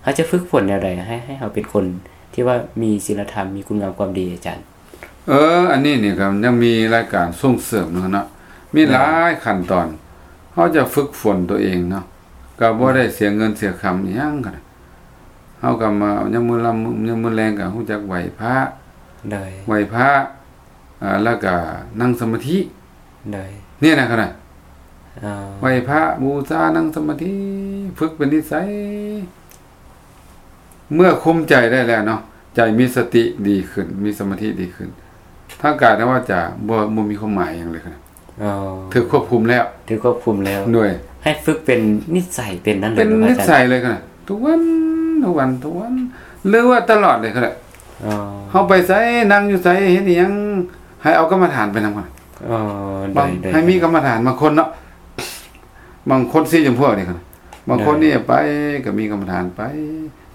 ເຮົາຈະຝຶກຝົນແນວໃດໃຫ້ ໃຫ້ເຮົາເປັນຄົນທີ່ວ່າມີສິນລະທຳ ມີຄຸນງາມຄວາມດີອາຈານ? ເອີ ອັນນີ້ນີ້ກໍຍັງມີລາຍການສົ່ງເສີມເນາະ ມີ ໂດຍ ຫຼາຍຂັ້ນຕອນ ເຮົາຈະຝຶກຝົນຕົວເອງເນາະ ກໍບໍ່ໄດ້ເສຍເງິນເສຍຄຳອີ່ຫຍັງ ເຮົາກໍມາ ຍາມມື້ລຳ ຍາມມື້ແລງກໍຮູ້ຈັກໄຫວ້ພະ ໂດຍ ໄຫວ້ພະ ອ່າ ແລ້ວກໍນັ່ງສະມາທິ ໂດຍ ນີ້ນະ ຂະໜາດ ອໍ ໄຫວ້ພະ ບູຊາ ນັ່ງສະມາທິ ຝຶກເປັນນິໄສ ເມື່ອຄຸມໃຈໄດ້ແລ້ວເນາະ ໃຈມີສະຕິດີຂຶ້ນ ມີສະມາທິດີຂຶ້ນ ທາງກາຍທາງວາຈາບໍ່ ບໍ່ມີຄວາມໝາຍຫຍັງເລີຍ ອໍ ຖືກຄວບຄຸມແລ້ວ ຖືກຄວບຄຸມແລ້ວ ໂດຍ ໃຫ້ຝຶກເປັນນິໄສ ເປັນນັ້ນເລີຍ ເປັນນິໄສເລີຍ ທຸກວັນ ທຸກວັນ ທຸກວັນ ຫຼືວ່າຕະຫຼອດເລີຍ ອໍ ເຮົາໄປໃສ ນັ່ງຢູ່ໃສ ເຮັດອີ່ຫຍັງ ໃຫ້ເອົາກຳມະຖານໄປນຳ ອໍ ໂດຍ ໃຫ້ມີກຳມະຖານ ບາງຄົນເນາະ ບາງຄົນສີ່ຈຳພວກນີ້ ບາງຄົນນີ້ໄປກໍມີກຳມະຖານໄປ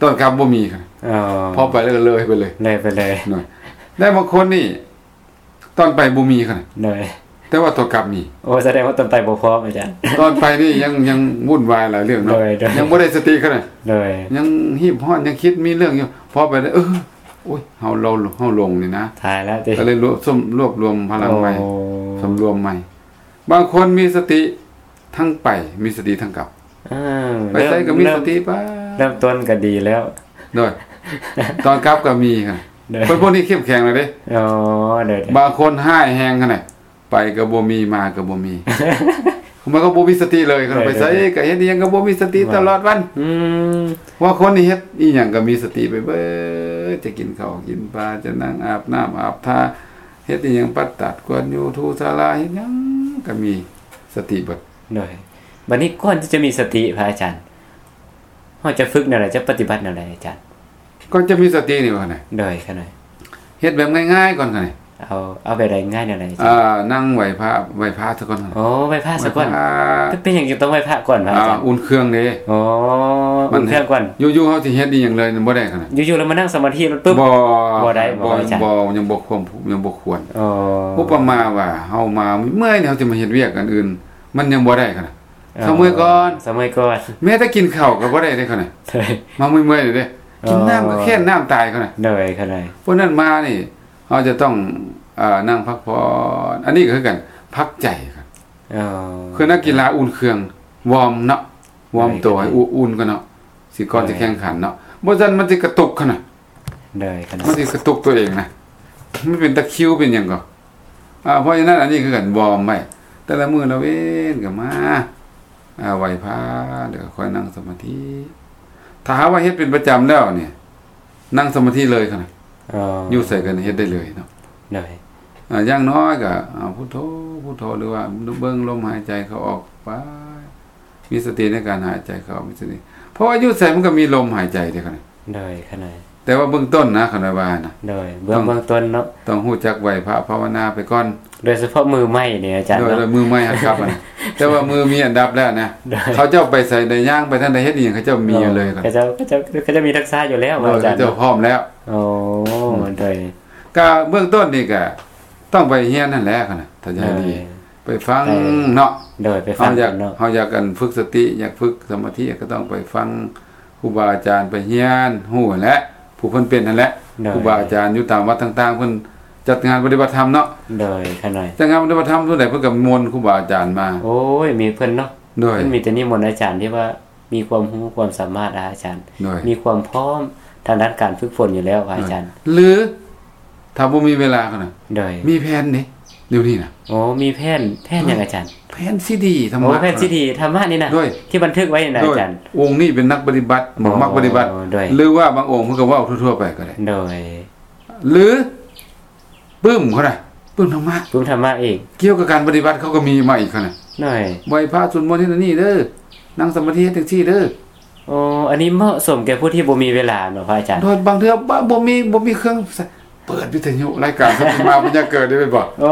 ຕອນກັບບໍ່ມີ ອໍ ພໍໄປແລ້ວກໍເລີຍໄປເລີຍ ເລີຍໄປເລີຍ ໂດຍ ແລະບາງຄົນນີ້ຕອນໄປບໍ່ມີ ໂດຍ ແຕ່ວ່າຕອນກັບມີ ໂອ້ ສະແດງວ່າຕອນໄປບໍ່ພ້ອມອາຈານ ຕອນໄປນີ້ຍັງ ຍັງວຸ່ນວາຍຫຼາຍເລື່ອງເນາະ ໂດຍ ໂດຍ ຍັງບໍ່ໄດ້ສະຕິຂະໜາດ ໂດຍ ຍັງຮີບຮ້ອນ ຍັງຄິດມີເລື່ອງຢູ່ ພໍໄປແລ້ວ ເອີ ໂອ້ຍ ເຮົາ ເຮົາ ເຮົາຫຼົງນີ້ນະ ຕາຍແລ້ວຕິ ກໍເລີຍລວບ ລວບລວມພະລັງໃໝ່ ໂອ້ ສຳລວມໃໝ່ ບາງຄົນມີສະຕິທັງໄປ ມີສະຕິທັງກັບ ເອີ ໄປໃສກໍມີສະຕິໄປ ເລີ່ມ ເລີ່ມຕົ້ນກໍດີແລ້ວ ໂດຍ ຕອນກັບກໍມີ ໂດຍ ຄົນພວກນີ້ເຂັ້ມແຂງແລ້ວເດ້ ອໍ ໂດຍ ບາງຄົນຮ້າຍແຮງຂະໜາດ ໄປກໍບໍ່ມີ ມາກໍບໍ່ມີ ມັນກໍບໍ່ມີສະຕິເລີຍ ຄັນໄປໃສກໍເຮັດອີ່ຫຍັງກໍບໍ່ມີສະຕິຕະຫຼອດວັນ. ອືມ ວ່າຄົນນີ້ເຮັດອີ່ຫຍັງກໍມີສະຕິໄປເບີດ ຈະກິນເຂົ້າກິນປາ ຈະນັ່ງອາບນ້ຳອາບທ່າ ເຮັດອີ່ຫຍັງ ປັດຕາດກວນຢູ່ ຖູສາລາ ເຮັດຫຍັງກໍມີສະຕິເບິດ. ໂດຍ ບັດນີ້ກ່ອນທີ່ຈະມີສະຕິ ພະອາຈານ ເຮົາຈະຝຶກແນວໃດ ຈະປະຕິບັດແນວໃດອາຈານ? ກ່ອນຈະມີສະຕິນີ້ວ່າໄງ? ໂດຍ ຂະນ້ອຍ ເຮັດແບບງ່າຍໆກ່ອນຂະນ້ອຍ. ເອົາ ເອົາແບບໃດງ່າຍແນວໃດອາຈານ? ອ່າ ນັ່ງໄຫວ້ພະ ໄຫວ້ພະຊະກ່ອນ. ໂອ້ ໄຫວ້ພະຊະກ່ອນ. ໄຫວ້ພະ ເປັນຫຍັງຈຶ່ງຕ້ອງໄຫວ້ພະກ່ອນວະອາຈານ? ອ່າ ອຸ່ນເຄື່ອງເດ້. ອໍ ອຸ່ນເຄື່ອງກ່ອນ. ຢູ່ໆເຮົາຊິເຮັດອີ່ຫຍັງເລີຍບໍ່ໄດ້ຂະນ້ອຍ. ຢູ່ໆແລ້ວມານັ່ງສະມາທິເລີຍປຶບ ບໍ່ ບໍ່ໄດ້ບໍ່ອາຈານ? ບໍ່ ຍັງບໍ່ຄວນ ຍັງບໍ່ຄວນ. ອໍ ອຸປະມາວ່າເຮົາມາເມື່ອຍໆ ເຮົາຊິມາເຮັດວຽກອັນອື່ນ ມັນຍັງບໍ່ໄດ້ຂະນ້ອຍ. ອໍ ສະເໝີຍກ່ອນ ສະເໝີຍກ່ອນ. ແມ້ແຕ່ກິນເຂົ້າກໍບໍ່ໄດ້ເດ້ຂະນ້ອຍ. ມາເມື່ອຍໆເດ້ ກິນນ້ຳກໍແຄ້ນນ້ຳຕາຍຂະນ້ອຍ. ໂດຍ ຂະນ້ອຍ. ພວກນັ້ນມານີ້ ເຮົາຈະຕ້ອງ ເອີ ນັ່ງພັກຜ່ອນ. ອັນນີ້ກໍຄືກັນ ພັກໃຈ. ອໍ ຄືນັກກິລາອຸ່ນເຄື່ອງ ວອມເນາະ ວອມໂຕໃຫ້ອຸ່ນກ່ອນເນາະ ຊິກ່ອນຊິແຂ່ງຂັນເນາະ ບໍ່ຊັ້ນມັນຊິກະຕຸກຂະນ້ອຍ. ໂດຍ ມັນຊິກະຕຸກຕົວເອງນະ ມັນເປັນຕະຄິວເປັນຫຍັງກໍ. ອ່າ ເພາະສະນັ້ນ ອັນນີ້ຄືກັນ ວອມໄວ້ ແຕ່ລະມື້ລະເວນກໍມາ ອ່າ ໄຫວ້ພະ ແລ້ວກໍຄ່ອຍນັ່ງສະມາທິ. ຖ້າຫາກວ່າເຮັດເປັນປະຈຳແລ້ວນີ້ ນັ່ງສະມາທິເລີຍຂະນ້ອຍ. ອໍ ຢູ່ໃສກໍເຮັດໄດ້ເລີຍເນາະ. ໂດຍ ອ່າ ຢ່າງນ້ອຍກໍ ອ່າ ພຸດໂທ ພຸດໂທ ຫຼືວ່າເບິ່ງລົມຫາຍໃຈເຂົ້າອອກໄປ ມີສະຕິໃນການຫາຍໃຈເຂົ້າ ມີສະຕິ ເພາະວ່າຢູ່ໃສມັນກໍມີລົມຫາຍໃຈເດ້ຂະນ້ອຍ. ໂດຍ ຂະນ້ອຍ. ແຕ່ວ່າເບື້ອງຕົ້ນນະ ຂະນ້ອຍວ່ານະ. ໂດຍ ເບື້ອງ ເບື້ອງຕົ້ນເນາະ ຕ້ອງຮູ້ຈັກໄຫວ້ພະພາວະນາໄປກ່ອນ ໂດຍສະເພາະມືໃໝ່ນີ້ອາຈານ. ໂດຍ ເນາະ ໂດຍ ມືໃໝ່ຫັດຂັບນະ ແຕ່ວ່າມືມີອັນດັບແລ້ວນະ. ໂດຍ ເຂົາເຈົ້າໄປໃສໄດ້ຍ່າງໄປທາງໃດເຮັດອີ່ຫຍັງ ເຂົາເຈົ້າມີຢູ່ເລີຍ. ໂດຍ ເຂົາເຈົ້າ ເຂົາເຈົ້າ ເຂົາເຈົ້າມີທັກສະຢູ່ແລ້ວ ໂດຍ ອາຈານ ເຂົາເຈົ້າພ້ອມແລ້ວ. ໂອ້ ອືມ ໂດຍ ກະເບື້ອງຕົ້ນນີ້ກະຕ້ອງໄປຮຽນຫັ້ນແຫຼະຂະນ້ອຍ ຖ້າຈະໃຫ້ດີ ໂດຍ ໄປຟັງເນາະ. ໂດຍ ໄປຟັງເນາະ ເຮົາຢາກ ເຮົາຢາກອັນຝຶກສະຕິ ຢາກຝຶກສະມາທິ ກໍຕ້ອງໄປຟັງຄູບາອາຈານ ໄປຮຽນຮູ້ຫັ້ນແຫຼະ ຜູ້ເພິ່ນເປັນຫັ້ນແຫຼະ. ໂດຍ ຄູບາອາຈານຢູ່ຕາມວັດຕ່າງໆ ເພິ່ນຈັດງານປະຕິບັດທຳເນາະ. ໂດຍ ຂະນ້ອຍ ຈັດງານປະຕິບັດທຳສ່ວນໃຫຍ່ເພິ່ນກໍນິມົນຄູບາອາຈານມາ. ໂອ້ຍ ມີເພິ່ນເນາະ. ໂດຍ ເພິ່ນມີແຕ່ນິມົນອາຈານທີ່ວ່າມີຄວາມຮູ້ຄວາມສາມາດ ອາຈານ ໂດຍ ມີຄວາມພ້ອມທາງດ້ານການຝຶກຝົນຢູ່ແລ້ວ ອາຈານ. ໂດຍ ຫຼື ຖ້າບໍ່ມີເວລາຂະນ້ອຍ ໂດຍ ມີແຜ່ນເດ້ ດຽວນີ້ນະ. ໂອ້ ມີແຜ່ນ ແຜ່ນຫຍັງອາຈານ? ແຜ່ນຊີດີທຳມະ. ໂອ້ ແຜ່ນຊີດີທຳມະນີ້ນະ. ໂດຍ ທີ່ບັນທຶກໄວ້ນະ ໂດຍ ອາຈານ. ອົງນີ້ເປັນນັກປະຕິບັດ ໂອ້ ມັກປະຕິບັດ ໂດຍ ຫຼືວ່າບາງອົງເພິ່ນກໍເວົ້າທົ່ວໆໄປກໍໄດ້. ໂດຍ ຫຼື ປຶ້ມເຂົານະ ປຶ້ມທຳມະ ປຶ້ມທຳມະອີກ ກ່ຽວກັບການປະຕິບັດເຂົາກໍມີມາອີກເຂົານະ. ໂດຍ ໄຫວ້ພະ ສວດມົນເຮັດອັນນີ້ເດີ ນັ່ງສະມາທິເຮັດຈັ່ງຊີ້ເດີ. ໂອ້ ອັນນີ້ເໝາະສົມແກ່ຜູ້ທີ່ບໍ່ມີເວລາເນາະ ພະອາຈານ. ໂດຍ ບາງເທື່ອບໍ່ ບໍ່ມີ ບໍ່ມີເຄື່ອງ ເປີດວິທະຍຸ ລາຍການສັນຕິມາບັນຍາເກີດໄດ້ແມ່ນບໍ່? ໂອ້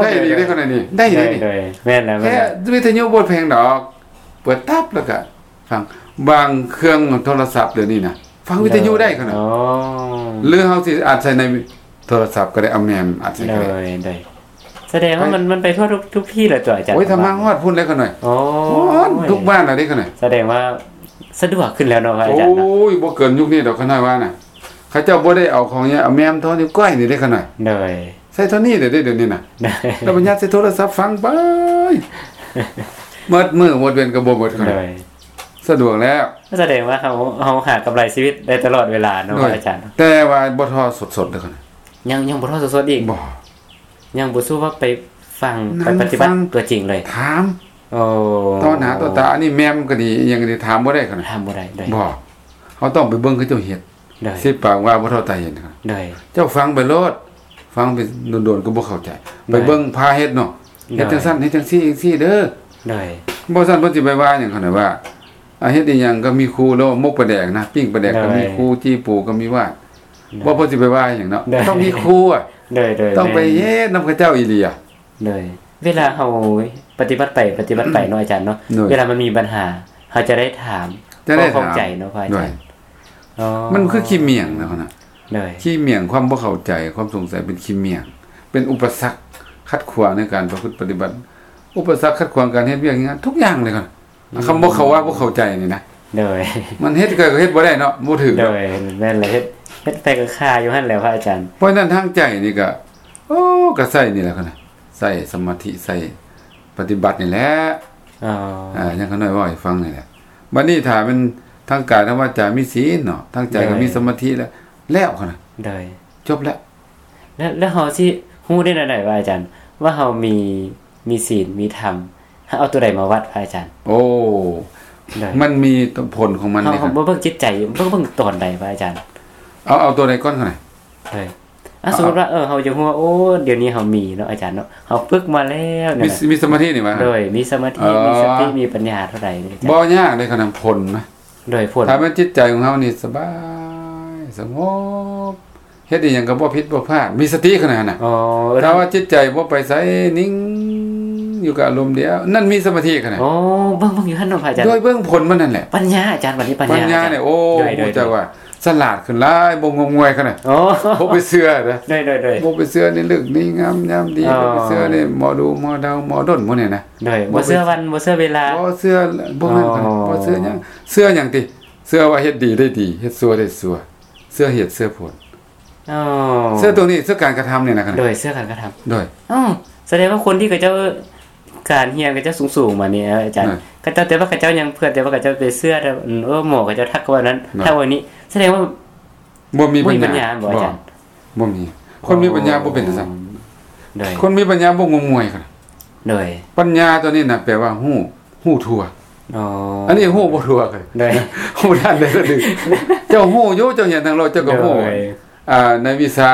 ໄດ້ດີເດ້ຂະນ້ອຍນີ້ ໄດ້ດີ. ໂດຍ ໂດຍ ແມ່ນແລ້ວ ແຄ່ວິທະຍຸບໍ່ແພງດອກ ເປີດຕັບແລ້ວກະຟັງ. ບາງເຄື່ອງໂທລະສັບດຽວນີ້ນະ ຟັງວິທະຍຸໄດ້ຂະນ້ອຍ. ໂອ້ ຫຼືເຮົາຊິອັດໃສ່ໃນໂທລະສັບກໍໄດ້ ເອົາແມມອັດໃສ່ກໍໄດ້. ໂດຍ ໂດຍ ສະແດງວ່າມັນ ມັນໄປທົ່ວທຸກ ທຸກທີ່ແລ້ວຕົວອາຈານ. ໂອ້ຍ ທຳມະຮອດພຸ້ນແລ້ວຂະນ້ອຍ. ໂອ້ຍ ຮອດທຸກບ້ານແລ້ວເດ້ຂະນ້ອຍ. ສະແດງວ່າສະດວກຂຶ້ນແລ້ວເນາະ ພະອາຈານເນາະ. ໂອ້ຍ ບໍ່ເກີນຍຸກນີ້ດອກຂະນ້ອຍວ່ານະ. ເຂົາເຈົ້າບໍ່ໄດ້ເອົາຂອງຫຍັງ ເອົາແມມທໍ່ນິ້ວກ້ອຍນີ້ເດ້ຂະນ້ອຍ. ໂດຍ ໃສ່ທໍ່ນີ້ເດ້ດຽວນີ້ນະ. ໂດຍ ແລ້ວບັນຍັດໃສ່ໂທລະສັບຟັງໄປ ໝົດມື້ໝົດເວັນກໍບໍ່ໝົດຂະນ້ອຍ. ໂດຍ ສະດວກແລ້ວ. ສະແດງວ່າເຮົາ ເຮົາຫາກຳໄລຊີວິດໄດ້ຕະຫຼອດເວລາເນາະ ໂດຍ ອາຈານ. ແຕ່ວ່າບໍ່ທໍ່ສົດໆເດີຂະນ້ອຍ. ຍັງ ຍັງບໍ່ທໍ່ສົດໆອີກ. ບໍ່ ຍັງບໍ່ສູ້ວ່າໄປຟັງ ໄປປະຕິບັດຕົວຈິງເລີຍ ຖາມ. ໂອ້ ຕໍ່ໜ້າຕໍ່ຕາ ອັນນີ້ແມມກໍດີ ອີ່ຫຍັງກໍດີ ຖາມບໍ່ໄດ້ຂະນ້ອຍ. ຖາມບໍ່ໄດ້. ໂດຍ ບໍ່ ເຮົາຕ້ອງໄປເບິ່ງເຂົາເຈົ້າເຮັດ. ໂດຍ ສິບປາກວ່າບໍ່ເທົ່າຕາເຫັນ. ໂດຍ ເຈົ້າຟັງໄປໂລດ ຟັງໄປດົນໆກໍບໍ່ເຂົ້າໃຈ. ໂດຍ ໄປເບິ່ງພາເຮັດເນາະ. ເຮັດຈັ່ງຊັ້ນ ເຮັດຈັ່ງຊີ້ຈັ່ງຊີ້ເດີ. ໂດຍ ບໍ່ຊັ້ນເພິ່ນຊິໄປວ່າຫຍັງຂະນ້ອຍວ່າ ອາ ເຮັດອີ່ຫຍັງກໍມີຄູໂລດ ໝົກປາແດກນະ ປີ້ງປາແດກກໍມີຄູ ໂດຍ ຈີ່ປູກໍມີວາດ. ໂດຍ ບໍ່ ເພິ່ນຊິໄປວ່າຫຍັງເນາະ. ໂດຍ ຕ້ອງມີຄູອະ. ໂດຍ ໂດຍ ຕ້ອງໄປເຮັດນຳເຂົາເຈົ້າອີ່ຫຼີອະ. ໂດຍ ເວລາເຮົາປະຕິບັດໄປ ປະຕິບັດໄປເນາະອາຈານເນາະ. ໂດຍ ເວລາມັນມີບັນຫາ ເຮົາຈະໄດ້ຖາມ ຈະໄດ້ຖາມ ເຂົ້າໃຈເນາະ ພະອາຈານ. ໂດຍ ອໍ ມັນຄືຂີ້ໝ້ຽງນະ. ໂດຍ ຂີ້ໝ້ຽງ ຄວາມບໍ່ເຂົ້າໃຈ ຄວາມສົງໄສເປັນຂີ້ໝ້ຽງ ເປັນອຸປະສັກຂັດຂວາງໃນການປະພຶດປະຕິບັດ ອຸປະສັກຂັດຂວາງການເຮັດວຽກເຮັດງານທຸກຢ່າງເລີຍ. ອືມ ຄຳບໍ່ເຂົ້າ ວ່າບໍ່ເຂົ້າໃຈນີ້ນະ. ໂດຍ ມັນເຮັດກໍເຮັດບໍ່ໄດ້ເນາະ ບໍ່ຖືກ. ໂດຍ ແມ່ນແຫຼະ ເຮັດ ເຮັດໄປກໍຄາຢູ່ຫັ້ນແຫຼະ ພະອາຈານ. ເພາະນັ້ນທາງໃຈນີ້ກໍ ໂອ້ ກໍໃສ່ນີ້ແຫຼະຂະນ້ອຍ ໃສ່ສະມາທິ ໃສ່ປະຕິບັດນີ້ແຫຼະ. ອໍ ອາ ຫຍັງຂະນ້ອຍເວົ້າໃຫ້ຟັງນີ້ແຫຼະ. ບັດນີ້ຖ້າແມ່ນທາງກາຍທາງວາຈາມີສິນເນາະ ທາງໃຈກໍມີສະມາທິແລ້ວ ແລ້ວຂະນ້ອຍ. ໂດຍ ຈົບແລ້ວ. ແລ້ວ ແລ້ວເຮົາຊິຮູ້ໄດ້ແນວໃດວ່າອາຈານ ວ່າເຮົາມີ ມີສິນ ມີທຳ ເອົາໂຕໃດມາວັດ ພະອາຈານ? ໂອ້ ໂດຍ ມັນມີຜົນຂອງມັນເດ້ ເຮົາ ເຮົາບໍ່ເບິ່ງຈິດໃຈ ເບິ່ງ ເບິ່ງຕອນໃດ ພະອາຈານ? ເອົາ ເອົາໂຕໃດກ່ອນກໍໄດ້ ໂດຍ ອ່າ ສົມມຸດວ່າ ເອີ ເຮົາຢາກຮູ້ວ່າ ໂອ້ ດຽວນີ້ເຮົາມີເນາະ ອາຈານເນາະ ເຮົາຝຶກມາແລ້ວ ມີ ນັ້ນນະ ມີສະມາທິນີ້ຫວາ? ໂດຍ ມີສະມາທິ ອໍ ມີສະຕິ ມີປັນຍາເທົ່າໃດ ອາຈານ? ບໍ່ຍາກເດ້ ຂະໜາດຜົນນະ ໂດຍ ຜົນ ຖ້າແມ່ນຈິດໃຈຂອງເຮົານີ້ສະບາຍ ສະຫງົບ ເຮັດອີ່ຫຍັງກໍບໍ່ຜິດບໍ່ພາດ ມີສະຕິຂະໜາດນັ້ນນະ ອໍ ເອີ ຖ້າວ່າຈິດໃຈບໍ່ໄປໃສ ນິ່ງຢູ່ກັບອາລົມດຽວ ນັ້ນມີສະມາທິຂະໜາດ ອໍ ເບິ່ງ ເບິ່ງຢູ່ຫັ້ນເນາະ ພະອາຈານ ໂດຍ ເບິ່ງຜົນມັນນັ້ນແຫຼະ ປັນຍາ ອາຈານ ບັດນີ້ປັນຍາ ປັນຍານີ້ ອາຈານ ໂອ້ ໂດຍ ຮູ້ຈັກວ່າ ສະຫຼາດຂຶ້ນຫຼາຍ ບໍ່ງົມງວາຍຂະໜາດ ອໍ ບໍ່ໄປເຊື່ອເດີ ໂດຍໆໆ ບໍ່ໄປເຊື່ອໃນເລິກໃນງາມຍາມດີ ອໍ ບໍ່ໄປເຊື່ອໃນໝໍດູໝໍເດົາ ໝໍດົນ ໝໍນີ້ນະ ໂດຍ ບໍ່ເຊື່ອວັນ ບໍ່ເຊື່ອເວລາ ບໍ່ເຊື່ອ ບໍ່ແມ່ນ ອໍ ບໍ່ເຊື່ອຫຍັງ ເຊື່ອຫຍັງຕິ ເຊື່ອວ່າເຮັດດີໄດ້ດີ ເຮັດຊົ່ວໄດ້ຊົ່ວ ເຊື່ອເຫດເຊື່ອຜົນ ອໍ ເຊື່ອຕົວນີ້ ເຊື່ອການກະທຳນີ້ນະ ໂດຍ ເຊື່ອການກະທຳ ໂດຍ ອໍ ສະແດງວ່າຄົນທີ່ເຂົາເຈົ້າ ການຮຽນເຂົາເຈົ້າສູງໆມານີ້ ອາຈານ ໂດຍ ເຂົາເຈົ້າ ແຕ່ວ່າເຂົາເຈົ້າຍັງເພື່ອ ແຕ່ວ່າເຂົາເຈົ້າໄປເຊື່ອ ແຕ່ ເອີ ໝໍເຂົາເຈົ້າທັກວ່ານັ້ນ ໂດຍ ທັກວ່ານີ້ ສະແດງວ່າ ບໍ່ມີ ບໍ່ມີປັນຍາ ບັນຍາບໍ່ ອາຈານ? ບໍ່ມີ ຄົນມີປັນຍາບໍ່ເປັນຈັ່ງຊັ້ນ ອໍ ໂດຍ ຄົນມີປັນຍາບໍ່ງົມງວາຍຂະໜາດ ໂດຍ ປັນຍາຕົວນີ້ນະ ແປວ່າຮູ້ ຮູ້ທົ່ວ ອໍ ອັນນີ້ຮູ້ບໍ່ທົ່ວ ໂດຍ ຮູ້ທັນໄດ້ ເຈົ້າຮູ້ຢູ່ ເຈົ້າຮຽນທາງໂລກ ເຈົ້າກໍຮູ້ ໂດຍ ອ່າ ໃນວິຊາ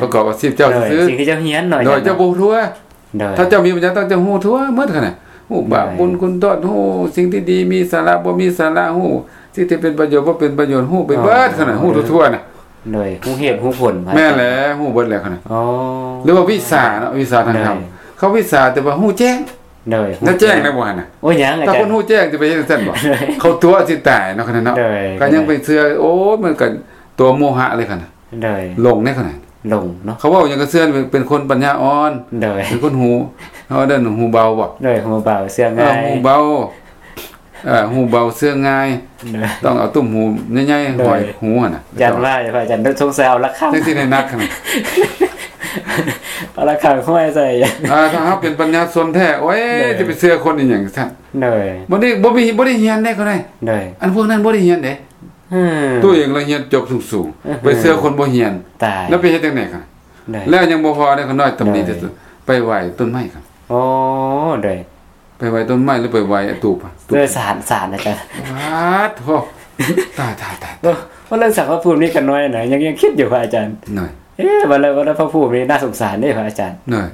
ປະກອບອາຊີບເຈົ້າ ໂດຍ ຊື່ໆ ສິ່ງທີ່ເຈົ້າຮຽນເນາະ ໂດຍ ອາຈານ ເຈົ້າບໍ່ຮູ້ທົ່ວ ໂດຍ ຖ້າເຈົ້າມີປັນຍາ ຕ້ອງເຈົ້າຮູ້ທົ່ວໝົດຫັ້ນນະ ຮູ້ບາບ ໂດຍ ບຸນຄຸນໂທດ ຮູ້ສິ່ງທີ່ດີມີສາລະ ບໍ່ມີສາລະ ຮູ້ສິ່ງທີ່ເປັນປະໂຫຍດ ບໍ່ເປັນປະໂຫຍດ ຮູ້ໄປເບິດຫັ້ນນະ ອໍ ຮູ້ທົ່ວໆນະ ໂດຍ ຮູ້ເຫດຮູ້ຜົນ ແມ່ນແຫຼະ ຮູ້ເບິດແຫຼະຫັ້ນນະ ອໍ ຫຼືວ່າວິຊາເນາະ ວິຊາທາງທຳ ໂດຍ ເຂົາວິຊາ ແຕ່ວ່າຮູ້ແຈ້ງ ໂດຍ ແລ້ວແຈ້ງແລ້ວບໍ່ຫັ້ນນະ ໂອ້ຍ ຍັງ ອາຈານ ຖ້າຄົນຮູ້ແຈ້ງຈະໄປເຮັດຈັ່ງຊັ້ນບໍ່ ໂດຍ ເຂົາຕົວະຊິຕາຍເນາະ ຂະໜາດເນາະ ໂດຍ ກໍຍັງໄປເຊື່ອ ໂອ້ຍ ມັນກໍຕົວະໂມຫະເລີຍຫັ້ນນະ ໂດຍ ຫຼົງເດ້ຂະໜາດ ຫຼົງເນາະ ເຂົາເວົ້າຫຍັງກໍເຊື່ອ ເປັນຄົນປັນຍາອ່ອນ ໂດຍ ເປັນຄົນຫູ ເຮົາເອີ້ນຫູເບົາບໍ່ ໂດຍ ຫູເບົາເຊື່ອງ່າຍ ເອີ ຫູເບົາ ເອີ ຫູເບົາເຊື່ອງ່າຍ ໂດຍ ຕ້ອງເອົາຕຸ້ມຫູໃຫຍ່ໆ ໂດຍ ຫ້ອຍຫູຫັ້ນນະ ຢ້ານວ່າ ພະອາຈານ ສົງໄສເອົາລະຄັງ ຈັ່ງຊິໄດ້ໜັກຂະໜາດ ເອົາລະຄັງຫ້ອຍໃສ່ ອ່າ ຖ້າເຮົາເປັນປັນຍາຊົນແທ້ ໂອ້ຍ ໂດຍ ຈະໄປເຊື່ອຄົນອີ່ຫຍັງຊັ້ນ ໂດຍ ບໍ່ໄດ້ ບໍ່ມີ ບໍ່ໄດ້ຮຽນເດ້ ເຂົາໄດ້ ໂດຍ ອັນພວກນັ້ນບໍ່ໄດ້ຮຽນເດ້ ອືມ ຕົວເອງລະຮຽນຈົບສູງໆ ອືມ ໄປເຊື່ອຄົນບໍ່ຮຽນ ຕາຍ ແລ້ວໄປເຮັດຈັ່ງໃດຄັນ ໂດຍ ແລ້ວຍັງບໍ່ພໍເດ້ ຂ້ານ້ອຍຕຳໜິ ໂດຍ ທີ່ສຸດ ໄປໄຫວ້ຕົ້ນໄມ້ຄັນ ໂອ້ ໂດຍ ໄປໄຫວ້ຕົ້ນໄມ້ ຫຼືໄປໄຫວ້ຕູບ ໂດຍ ສານ ສານ ອາຈານ ປາດໂທ ຕາຍໆໆ ໂອ້ ວ່າເລື່ອງສານພະພູມນີ້ຂ້ານ້ອຍນະ ຍັງ ຍັງຄິດຢູ່ ພະອາຈານ ໂດຍ ເອ ວ່າແລ້ວ ວ່າແລ້ວພະພູມນີ້ໜ້າສົງສານເດ້ ພະອາຈານ ໂດຍ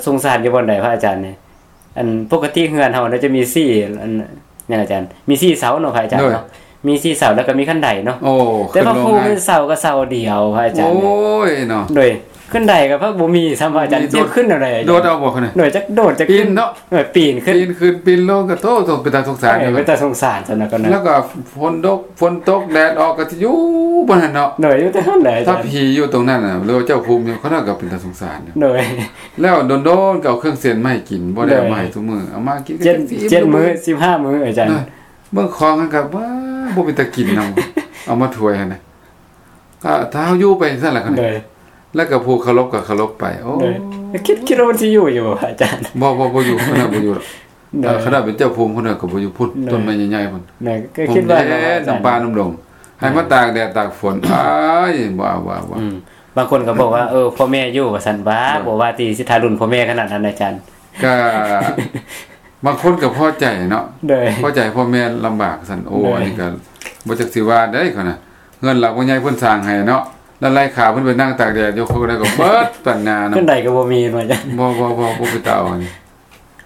ສົງສານຢູ່ບ່ອນໃດ ພະອາຈານນີ້? ອັນ ປົກກະຕິເຮືອນເຮົານະຈະມີສີ່ ອັນ ຫຍັງອາຈານ ມີສີ່ເສົາເນາະ ພະອາຈານເນາະ ໂດຍ ມີສີ່ເສົາ ແລ້ວກໍມີຂັ້ນໄດເນາະ ໂອ້ ແຕ່ວ່າພູມີເສົາກໍເສົາດຽວ ພະອາຈານ ໂອ້ຍເນາະ ໂດຍ ຂັ້ນໄດກໍພັກບໍ່ມີຊ້ຳ ພະອາຈານ ບໍ່ມີ ຈະຂຶ້ນແນວໃດ ໂດດເອົາບໍ່ ໂດຍ ຈັກໂດດຈັກ ປີນເນາະ ເອີ ປີນຂຶ້ນ ປີນຂຶ້ນປີນລົງກໍ ໂທ້ ເປັນຕາສົງສານ ເອີ ເປັນຕາສົງສານຊັ້ນນະ ກໍນະ ແລ້ວກໍຝົນຕົກ ຝົນຕົກແດດອອກກໍຊິຢູ່ບ່ອນນັ້ນເນາະ ໂດຍ ຢູ່ແຕ່ຫັ້ນແຫຼະ ຖ້າຜີຢູ່ຕົງນັ້ນນະ ຫຼືວ່າເຈົ້າພູມຢູ່ ຂະນ້ອຍກໍເປັນຕາສົງສານຢູ່ ໂດຍ ແລ້ວດົນໆກໍເອົາເຄື່ອງເສັ້ນມາໃຫ້ກິນ ບໍ່ໄດ້ເອົາມາໃຫ້ ໂດຍ ທຸກມື້ ເອົາມາກິນ ເຈັດ ເຈັດມື້ ສິບຫ້າມື້ ອາຈານ ໂດຍ ເບິ່ງຂອງຫັ້ນກໍ ວ້າ ບໍ່ເປັນຕາກິນນຳ ເອົາມາຖ້ວຍຫັ້ນນະ ກໍຖ້າເຮົາຢູ່ໄປຈັ່ງຊັ້ນລະ ໂດຍ ແລ້ວກໍຜູ້ເຄົາລົບກໍເຄົາລົບໄປ ໂອ້ ໂດຍ ຄິດ ຄິດວ່າມັນຊິຢູ່ຢູ່ບໍ່ ອາຈານ? ບໍ່ ບໍ່ ບໍ່ຢູ່ ຂະນ້ອຍບໍ່ຢູ່ດອກ ໂດຍ ເອີ ຂະນ້ອຍເປັນເຈົ້າພູມ ຂະນ້ອຍກໍບໍ່ຢູ່ພຸ້ນ ໂດຍ ຕົ້ນໄມ້ໃຫຍ່ໆພຸ້ນ ໂດຍ ກໍຄິດວ່າເນາະ ອາຈານ ນຳປ່ານຳດົງ ໃຫ້ມາຕາກແດດຕາກຝົນ ອ້າຍ ບໍ່ເອົາ ບໍ່ເອົາ ບໍ່ເອົາ ອືມ ບາງຄົນກໍບອກວ່າ ເອີ ພໍ່ແມ່ຢູ່ວ່າຊັ້ນ ບໍ່ ໂດຍ ບໍ່ວ່າທີ່ຊິທາລຸນພໍ່ແມ່ຂະໜາດນັ້ນ ອາຈານ ກະ ບາງຄົນກໍພໍໃຈເນາະ ໂດຍ ພໍໃຈພໍ່ແມ່ລຳບາກຊັ້ນ ໂອ້ ໂດຍ ອັນນີ້ກໍບໍ່ຈັກຊິວ່າໃດ໋ ເຂົານະ ເຮືອນຫຼັງບັກໃຫຍ່ເພິ່ນສ້າງໃຫ້ເນາະ ແລ້ວໄລ່ຂ້າເພິ່ນໄປນັ່ງຕາກແດດຢູ່ ເຂົາກໍໄດ້ກໍເບິດປັນຍາເນາະ ເພິ່ນໃດກໍບໍ່ມີວ່າຊັ້ນ ບໍ່ ບໍ່ ບໍ່ ບໍ່ໄປຕາເອົາອັນນີ້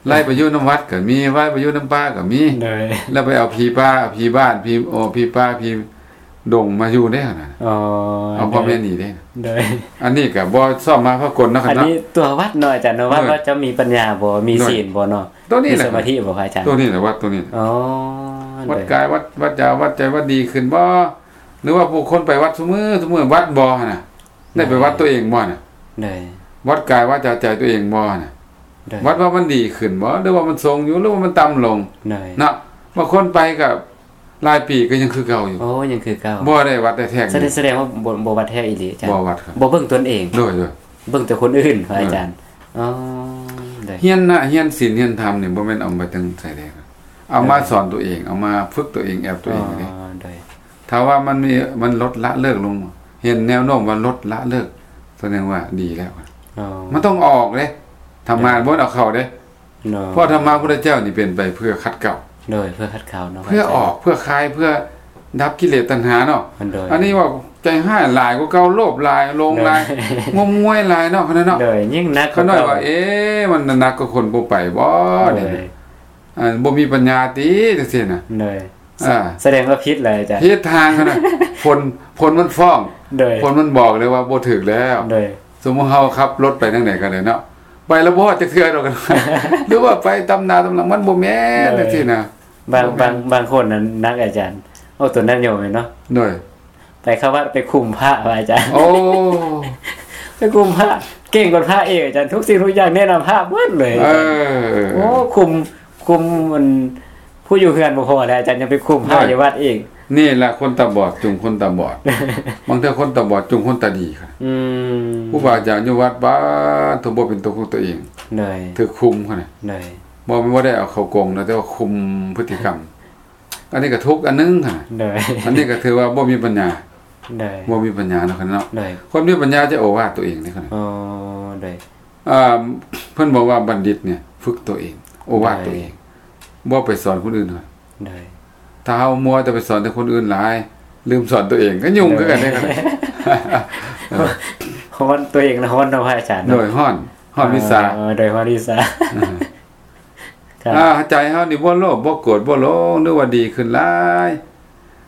ໄລ່ໄປຢູ່ນຳວັດກໍມີ ໄລ່ໄປຢູ່ນຳປ່າກໍມີ ໂດຍ ແລ້ວໄປເອົາຜີປ່າ ຜີບ້ານ ຜີ ໂອ ຜີປ່າ ຜີດົງມາຢູ່ເດ້ຫັ້ນນະ ອໍ ເອົາພໍ່ແມ່ໜີເດ້ ໂດຍ ອັນນີ້ກໍບໍ່ຊອບມາພາກົນເນາະ ອັນນີ້ຕົວວັດເນາະ ອາຈານເນາະ ວັດ ໂດຍ ວ່າເຈົ້າມີປັນຍາບໍ່ ມີ ໂດຍ ສີນບໍ່ເນາະ ຕົວນີ້ແຫຼະ ມີສະມາທິບໍ່ ພະອາຈານ? ຕົວນີ້ແຫຼະ ວັດຕົວນີ້ ອໍ ວັດກາຍ ວັດ ວັດວາຈາ ວັດໃຈ ວັດດີຂຶ້ນບໍ່ ຫຼືວ່າຜູ້ຄົນໄປວັດຊຸມື້ ຊຸມື້ ວັດບໍ່ຫັ້ນນະ ໄດ້ໄປວັດຕົວເອງບໍ່ນະ? ໂດຍ ວັດກາຍ ວາຈາ ໃຈຕົວເອງບໍ່ນະ? ໂດຍ ວັດວ່າມັນດີຂຶ້ນບໍ່ ຫຼືວ່າມັນຊົງຢູ່ ຫຼືວ່າມັນຕ່ຳລົງ? ໂດຍ ເນາະ ບາງຄົນໄປກໍຫຼາຍປີກໍຍັງຄືເກົ່າຢູ່. ໂອ້ ຍັງຄືເກົ່າ ບໍ່ໄດ້ວັດໄດ້ແທກ ສະແດງ ສະແດງວ່າບໍ່ ບໍ່ວັດແທ້ອີ່ຫຼີ ອາຈານ ບໍ່ວັດ ບໍ່ເບິ່ງຕົນເອງ. ໂດຍ ໂດຍ ເບິ່ງແຕ່ຄົນອື່ນ ພະອາຈານ. ໂດຍ ອໍ ໂດຍ ຮຽນນະ ຮຽນສິນຮຽນທຳນີ້ ບໍ່ແມ່ນເອົາມາແຕ່ໃສເດ້ ເອົາມາ ໂດຍ ສອນຕົວເອງ ເອົາມາຝຶກຕົວເອງ ແອບຕົວເອງເດ້. ອໍ ໂດຍ ຖ້າວ່າມັນມີ ມັນລົດລະເລີກລົງ ເຫັນແນວໂນ້ມວ່າລົດລະເລີກ ສະແດງວ່າດີແລ້ວ. ອໍ ມັນຕ້ອງອອກເດ້ ທຳມາ ໂດຍ ບໍ່ແມ່ນເອົາເຂົ້າເດ້. ໂດຍ ເພາະທຳມະພຸດທະເຈົ້ານີ້ເປັນໄປເພື່ອຂັດເກາ ໂດຍ ເພື່ອຂັດເກາເນາະ ເພື່ອອອກ ເພື່ອຄາຍ ເພື່ອດັບກິເລດຕັນຫາເນາະ ໂດຍ ອັນນີ້ເວົ້າໃຈຮ້າຍຫຼາຍກວ່າເກົ່າ ໂລບຫຼາຍ ຫຼົງຫຼາຍ ໂດຍ ງົມງວາຍຫຼາຍເນາະ ຂະໜາດເນາະ ໂດຍ ຍິ່ງໜັກ ຂະໜາດວ່າ ເອ ມັນໜັກກວ່າຄົນບໍ່ໄປບໍ່ ໂດຍ ນີ້ນະ ອ່າ ບໍ່ມີປັນຍາຕິ ຈັ່ງຊີ້ນະ ໂດຍ ອ່າ ສະແດງວ່າຜິດແລ້ວອາຈານ ຜິດທາງຂະໜາດ ຝົນ ຝົນມັນຟ້ອງ ໂດຍ ຝົນມັນບອກເລີຍວ່າບໍ່ຖືກແລ້ວ ໂດຍ ສົມມຸດເຮົາຂັບລົດໄປທາງໃດກໍໄດ້ເນາະ ໄປແລ້ວບໍ່ຮອດຈັກເທື່ອດອກ ຫຼືວ່າໄປຕຳໜ້າຕຳຫຼັງ ມັນບໍ່ແມ່ນ ໂດຍ ຈັ່ງຊີ້ນະ ບາງ ບໍ່ແມ່ນ ບາງ ບາງຄົນນັ້ນໜັກອາຈານ ເອົາຕົວນັ້ນໂຍມເນາະ ໂດຍ ໄປເຂົ້າວັດໄປຄຸມພະວ່າອາຈານ ໂອ້ ໄປຄຸມພະ ເກັ່ງກວ່າພະອີກອາຈານ ທຸກສິ່ງທຸກຢ່າງແນະນຳພະເບິດເລີຍ ເອີ ໂອ້ ຄຸມ ຄຸມມັນ ຜູ້ຢູ່ເຮືອນບໍ່ພໍແລ້ວອາຈານ ຍັງໄປຄຸມພະ ໂດຍ ຢູ່ວັດອີກ ນີ້ລະຄົນຕາບອດຈູງຄົນຕາບອດ ບາງເທື່ອຄົນຕາບອດຈູງຄົນຕາດີ ອືມ ຄູບາອາຈານຢູ່ວັດບາດ ຖືກບໍ່ເປັນຕົວຂອງຕົວເອງ ໂດຍ ຖືກຄຸມຫັ້ນນະ ໂດຍ ບໍ່ແມ່ນວ່າໄດ້ເອົາເຂົ້າກົງນະ ແຕ່ວ່າຄຸມພຶດຕິກຳ ອັນນີ້ກໍທຸກອັນໜຶ່ງຫັ້ນນະ ໂດຍ ອັນນີ້ກໍຖືວ່າບໍ່ມີປັນຍາ ໂດຍ ບໍ່ມີປັນຍາເນາະ ຂະໜາດເນາະ ໂດຍ ຄົນມີປັນຍາຈະໂອວາດຕົວເອງເດ້ ຂະໜາດ ອໍ ໂດຍ ອ່າ ເພິ່ນບອກວ່າບັນດິດນີ້ຝຶກຕົວເອງ ໂອວາດຕົວເອງ ໂດຍ ບໍ່ໄປສອນຄົນອື່ນ ໂດຍ ຖ້າເຮົາມົວແຕ່ໄປສອນແຕ່ຄົນອື່ນຫຼາຍ ລືມສອນຕົວເອງ ກໍຫຍຸ້ງຄືກັນເດ້ ໂດຍ ຮ້ອນ ຕົວເອງນະຮ້ອນເນາະພະອາຈານເນາະ ໂດຍ ຮ້ອນ ຮ້ອນວິຊາ ເອີ ໂດຍ ຮ້ອນວິຊາ ອ່າ ໃຈເຮົານີ້ບໍ່ໂລບ ບໍ່ໂກດ ບໍ່ຫຼົງ ຫຼືວ່າດີຂຶ້ນຫຼາຍ